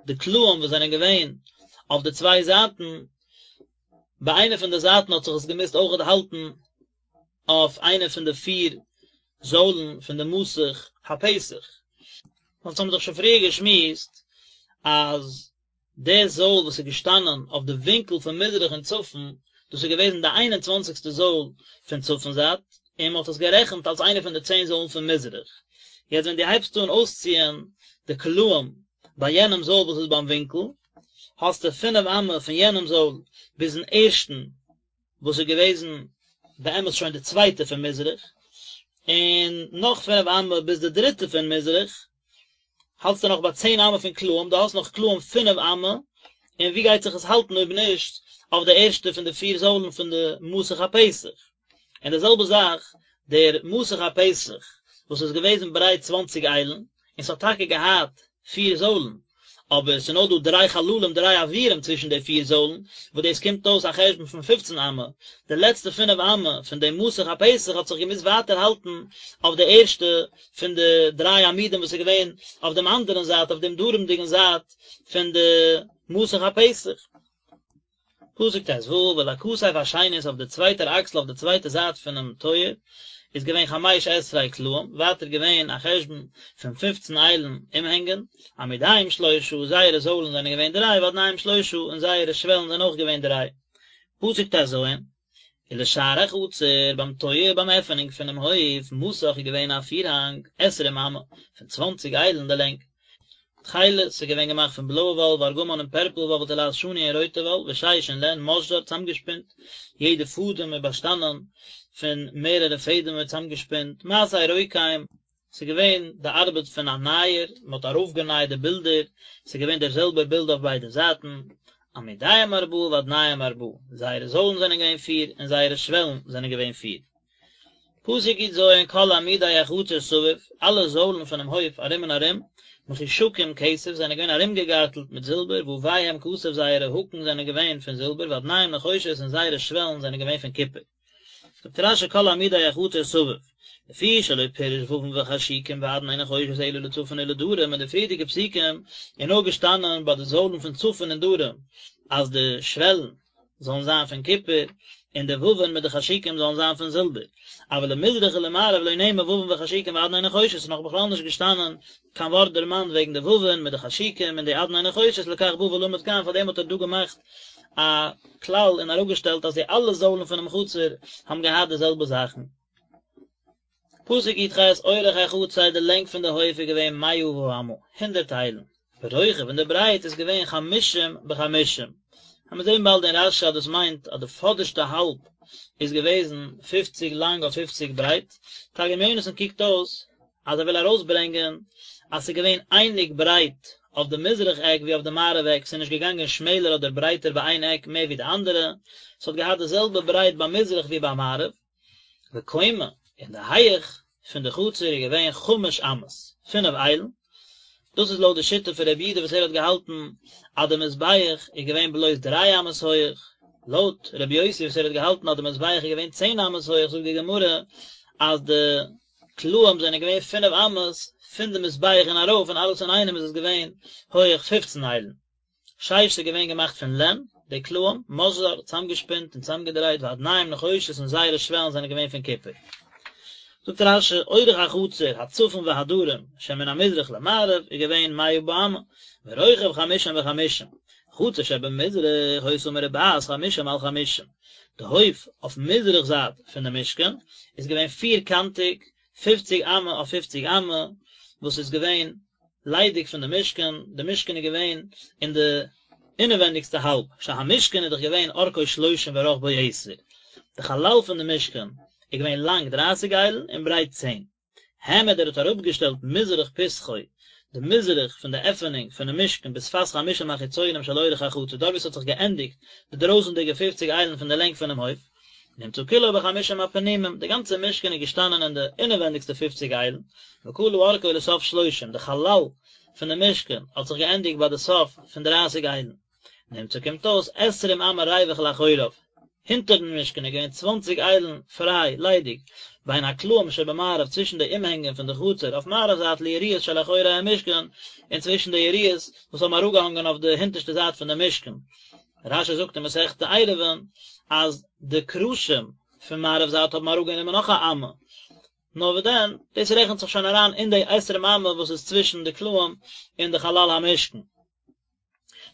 די קלעים וואס זענען געווען אויף די צוויי זייטן, ביי איינע פון די זייטן האט זיך עס געמוזט אויכעט האלטן אויף איינע פון די פיר זוילן פון די מסך הפתח. אונז האבן דאך שוין פריער געשמועסט אז די זויל וואס איז געשטאנען אויף די ווינקל פון מזרח און צפון, דאס איז געוועזן די איין און צוואנציגסטע זויל פון צפון זייט, און מען האט עס גערעכנט אלס איינע פון די צען זוילן פון מזרח. יעצט ווען דו הייבסט אן אויסציען די קלעים ביי יענעם זויל וואס איז ביים ווינקל, האסטו פינף אמה פון יענעם זויל ביזן ערשטן וואס איז געוועזן באמת שוין די צווייטע פון מזרח, און נאך פינף אמה ביז די דריטע פון מזרח, האלטסטו נאך ביי צען אמה פון קלעים, דו האסט נאך קלעים פינף אמה, און ווי גייט זיך עס האלטן אויב נישט אויף די ערשטע פון די פיר זוילן פון די מסך הפתח? און די זעלבע זאך דער מסך הפתח וואס איז געוועזן ברייט צוואנציג איילן, און ס'האט טאקע געהאט פיר זוילן, אבער ס'איז נאר דא דריי חללים דריי אוירים צווישן די פיר זוילן, וואס דאס קומט אויס א חשבון פון פופצן אמה, די לעצטע פינף אמה פון דעם מסך הפתח האט זיך געמוזט ווייטער האלטן אויף די ערשטע פון די דריי עמודים וואס איז געווען אויף דעם אנדערן זייט אויף דעם דרומ'דיגן זייט פון די מסך הפתח. פסוק ט ו, ולכתף השנית אויף די צווייטער אקסל אויף די צווייטע זייט פונעם טויער איז געווען חמש עשרה קלעים, ווייטער געווען א חשבון פון פופצן איילן אומהענגען, עמודיהם שלושה, זייערע זוילן זענען געווען דריי, ואדניהם שלושה, און זייערע שוועלן זענען אויך געווען דריי. פסוק ט ז, ולשער החצר, ביים טויער ביים עפענונג פונעם הויף, מסך איז געווען א פירהאנג, עשרים אמה, פון צוואנציג איילן די לענג. תכלת, ס'איז געווען געמאכט פון בלויע וואל, וארגמן און פערפל וואל, ותולעת שני און רויטע וואל, ושש און לען, משזר, צאמגעשפינט, יעדע פאדעם איז באשטאנען פון מערערע פעדעמער צאמגעשפינט, מעשה רוקם, ס'איז געווען די ארבעט פון א נייער, מען האט ארויפגענייט די בילדער, ס'איז געווען דער זעלבער בילד אויף ביידע זייטן, עמודיהם ארבעה ואדניהם ארבעה, זייערע זוילן זענען געווען פיר און זייערע שוועלן זענען געווען פיר. פסוק י ז כל עמודי החצר סביב, אלע זוילן פונעם הויף ארום און ארום, מחושקים כסף, זענען געווען ארומגעגארטלט מיט זילבער, וויהם כסף זייערע האקן זענען געווען פון זילבער, ואדניהם נחושת און זייערע שוועלן זענען געווען פון קופער. זאגט רש י כל עמודי החצר סביב, לפי שלא פירש ווין וחשוקים ואדני נחושת אלא לצפון ולדרום אין די פריערדיגע פסוקים איז נאר געשטאנען ביי די זוילן פון צפון און דרום אז די שוועלן זאלן זיין פון קופער, און די ווין מיט די חשוקים זאלן זיין פון זילבער. אבל למזרח ולמערב לא נאמר ווין וחשוקים ואדני נחושת, ס'איז נאך בכלל נישט געשטאנען קיין ווארט דערמאנט וועגן די ווין מיט די חשוקים און די אדני נחושת, לכך בא ולמד כאן, פארדעם האט ער דא געמאכט א כלל און אראפגעשטעלט אז די אלע זוילן פונעם חצר האבן געהאט די זעלבע זאכן. פסוק י"ח, אורך החצר, די לענג פון די הויף איז געווען מאה באמה, הונדערט איילן, ורוחב און די ברייט איז געווען חמשים בחמשים. וועמיר זען באלד אין רש"י אז דאס מיינט אז די פאדערשטע האלב איז געוועזן פופציג לאנג אויף פופציג ברייט, תרגום יונתן קוקט אויס אז ער וויל ארויסברענגען אז ס'איז געווען אייניג ברייט אויף די מזרח עק ווי אויף די מערב עק, ס'איז נישט געגאנגען שמעלער אדער ברייטער ביי איין עק מער ווי די אנדערע, ס'האט געהאט די זעלבע ברייט ביי מזרח ווי ביי מערב. וקומה, און די הייעך פון די חצר איז געווען חמש אמות, פינף איילן, דאס איז לויט די שיטה פון רבי יהודה וואס ער האט געהאלטן אז די מזבח איז געווען בלויז דריי אמות הויעך, לויט רבי יוסי וואס ער האט געהאלטן אז די מזבח איז געווען צען אמות הויעך זאגט די גמרא אז די קלעים זענען געווען פינף אמות פון די מזבח און ארויף און אלעס אינאיינעם איז עס געווען הויעך פופצן איילן. שש איז געווען געמאכט פון לען, די קלעים, משזר, צאמגעשפינט און צאמגעדרייט, ואדניהם נחושת און זייערע שוועלן זענען געווען פון קופער. זאגט רש"י, אורך החצר, הצפון והדרום, שמן המזרח למערב, איז געווען מאה באמה, ורוחב חמישים וחמישים, חצר שבמזרח היתה מרובעת חמישים על חמישים, די הויף אויף מזרח זייט פון די משכן איז געווען פיר קאנטיג, פופציג אמה אויף פופציג אמה, וואס איז געווען ליידיג פון די משכן, די משכן איז געווען אין די אינעווענדיגסטע האלב, שהמשכן איז דאך געווען אורכו שלושים ורחבו עשר, די חלל פון די משכן איז געווען לאנג דרייסיג איילן און ברייט צען. העמיד ער האט אראפגעשטעלט מזרח פתחו, די מזרח פון די עפענונג פונעם משכן בשפת חמישים החיצונים של אורך החצר, דארט וואו עס האט זיך געענדיגט די דרויסנדיגע פופציג איילן פון די לענג פונעם הויף, נמצא כולו בחמישים הפנימים, די גאנצע משכן איז געשטאנען אין די אינעווענדיגסטע פופציג איילן, וכלה אורכו לסוף שלושים, די חלל פון די משכן האט זיך געענדיגט ביי די סוף פון דרייסיג איילן. נמצא קומט אויס עשרים אמה ריווח לאחוריו, הינטערן משכן איז געווען צוואנציג איילן פריי, ליידיג, בין הקלעים שבמערב צווישן די אומהענגען פון די חצר אויף מערב זייט ליריעות שלאחורי המשכן, און צווישן די יריעות וואס האבן אראפגעהאנגען אויף די הינטערשטע זייט פון די משכן. רש"י זאגט אין מסכת עירובין אז די קרשים פון מערב זייט האבן אראפגענומען נאך א אמה, נאר וואס דען, דאס רעכנט זיך שוין אריין אין די עשרים אמה וואס איז צווישן די קלעים און די חלל המשכן.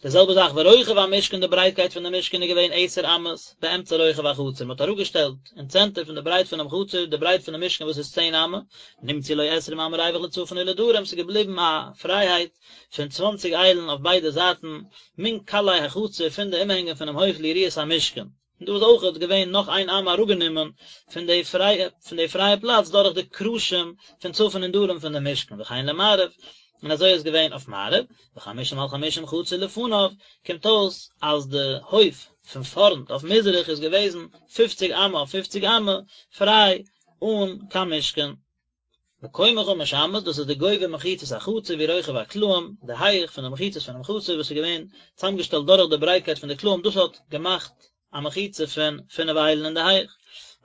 די זעלבע זאך ורוחב המשכן די ברייטקייט פון די משכן איז געווען עשר אמות באמצע רוחב החצר מען האט אראפגעשטעלט אין צענטער פון די ברייט פונעם חצר די ברייט פונעם משכן וואס איז צען אמה, נמצאו לו עשרים אמה ריווח לצפון ולדרום ס'איז געבליבן א פרייהייט פון צוואנציג איילן אויף ביידע זייטן מן קלעי החצר פון די אומהענגען פונעם הויף ליריעות המשכן. און דא איז אויכעט געווען נאך איין אמה אראפגענומען פון די פרייע פון די פרייע פלאץ דורך די קרשים פון צפון און דרום פון די משכן וכן למערב, און אזוי איז געווען אויף מערב, וחמשים על חמשים חצר לפניו, קומט אויס אז די הויף פון פארנט אויף מזרח איז געוועזן פופציג אמה אויף פופציג אמה פריי אן קיין משכן. וקומה חמש אמות, דאס איז די גובה מחיצות החצר והוא רוחב הקלעים, די הייך פון די מחיצות פונעם חצר וואס איז געווען צוזאמגעשטעלט דורך די ברייטקייט פון די קלעים, דאס האט געמאכט א מחיצה פון פינף איילן אין די הייך.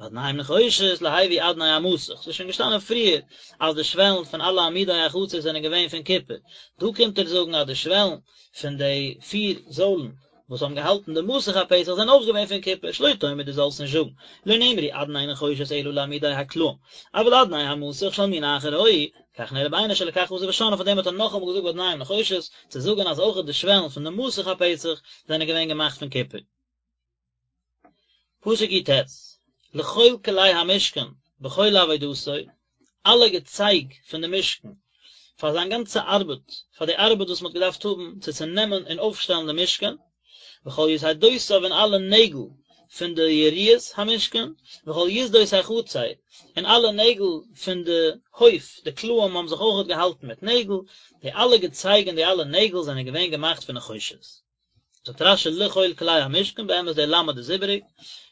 ואדניהם נחושת להביא אדני המסך, ס'איז שוין געשטאנען פריער אז די שוועלן פון אלע עמודי החצר זענען געווען פון קופער, דא קומט ער זאגן אז די שוועלן פון די פיר זוילן וואס האבן געהאלטן די מסך הפתח זענען אויך געווען פון קופער, שלא תאמר דו זאלסט נישט זאגן, לא נאמרו אדני נחושת אלא לעמודי הקלעים, אבל אדני המסך של מין אחר היו, כך נראה בעיני שלכך חזר ושנאן, פאר דעם האט ער נאכאמאל געזאגט ואדניהם נחושת, צו זאגן אז אויך די שוועלן פון די מסך הפתח זענען געווען געמאכט פון קופער. פסוק י"ט, לכל כלי המשכן בכל עבודתו, אלע געצייג פון די משכן, פאר זיין גאנצע ארבעט, פאר די ארבעט וואס מען האט געדארפט האבן צו צונעמען און אויפשטעלן די משכן, וכל יתדותיו און אלע נעגל פון די יריעות המשכן, וכל יתדות החצר, און אלע נעגל פון די הויף, די קלעים האבן זיך אויכעט געהאלטן מיט נעגל, די אלע געצייג און די אלע נעגל זענען געווען געמאכט פון נחושת. זאגט רש"י לכל כלי המשכן, באמת דער למד איז איבעריג,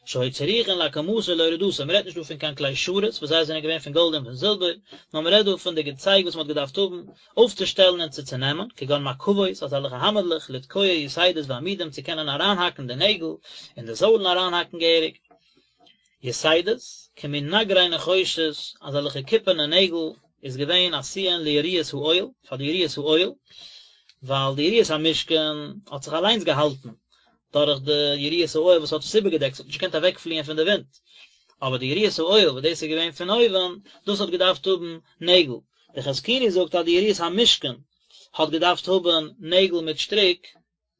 שהיו צריכין להקמתו ולהורדתו, מען רעדט נישט דא פון קיין כלי שרת וואס זיי זענען געווען פון גאלד און פון זילבער, נאר מען רעדט דא פון די געצייג וואס מען האט געדארפט האבן אויפצושטעלן און צו צונעמען, כגון מקבות, אזעלכע האמערלעך, לתקוע יתדות ועמודים צו קענען אריינהאקן די נעגל און די זוילן אריינהאקן געהעריג. יתדות, כמין נגרי נחושת, אזעלכע קופערנע נעגל, איז געווען עשויין ליריעות האוהל, פאר די יריעות האוהל, ווייל די יריעות המשכן האט זיך אליינס געהאלטן דורך די יריעות האוהל וואס האט עס איבערגעדעקט, ס'האט נישט געקענט אוועקפליען פון די ווינט, אבער די יריעות האוהל וואס דאס איז געווען פון אויבן, דאס האט געדארפט האבן נעגל. דער חזקוני זאגט אז די יריעות המשכן האט געדארפט האבן נעגל מיט שטריק,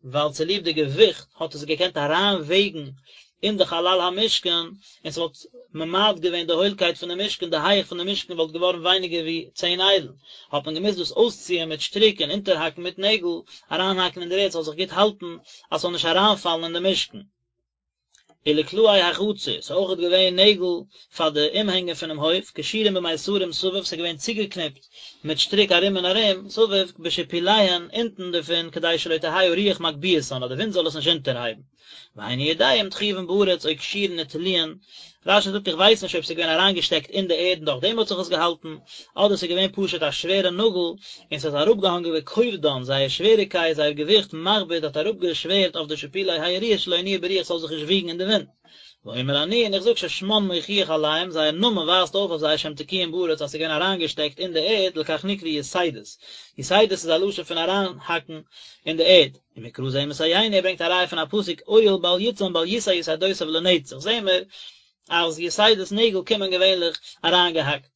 ווייל צוליב די געוויכט האט עס געקענט אריינוועגן אין די חלל המשכן, און ס'וואלט ממעט געווען די הוילקייט פון די משכן, די הייך פון די משכן וואלט געווארן ווייניגער ווי צען איילן, האט מען געמוזט דאס אויסציען מיט שטריק און אונטערהאקן מיט נעגל, אריינהאקן אין דער ערד ס'זאל זיך גוט האלטן, אז ס'זאל נישט אריינפאלן אין די משכן. ולקלעי החצר, ס'איז אויכעט געווען נעגל פאר די אומהענגען פונעם הויף, קשורים במיתרים סביב, ס'איז געווען צוגעקניפט מיט שטריק ארום און ארום, סביב, בשיפוליהן, אונטן דערפון, כדי שלא תהא הרוח מגביהתן, אז די ווינט זאל עס נישט אונטערהייבן. ואיני יודע אם תחובין בארץ או קשורין ותלויין, רש"י זאגט איך ווייס נישט אויב ס'איז געווען אריינגעשטעקט אין די ערד און דורך דעם האט זיך עס געהאלטן, אדער ס'איז געווען פשוט א שווערע נאגל און ס'איז אראפגעהאנגען וכובדן, זייער שוועריקייט, זייער געוויכט, מכביד, האט אראפגעשווערט אויף די שיפולי היריעות שלא ינועו ברוח ס'זאל זיך נישט וויגן אין די ווינט. ואומר אני, און איך זאג ששמן מוכיח עליהם, זייער נאמען ווייזט אויף אויף זיי שהם תקועים בארץ אז ס'איז געווען אריינגעשטעקט אין די ערד, לכך נקראו יתדות, יתדות איז א לשון פון אריינהאקן אין די ערד. ומקרא זה מסייעני, ער ברענגט א ראיה פון א פסוק אוהל בל יצם בל ישא יתדותיו לנצח, זעהן מיר אז יתדות נעגל קומען געווענליך אריינגעהאקט.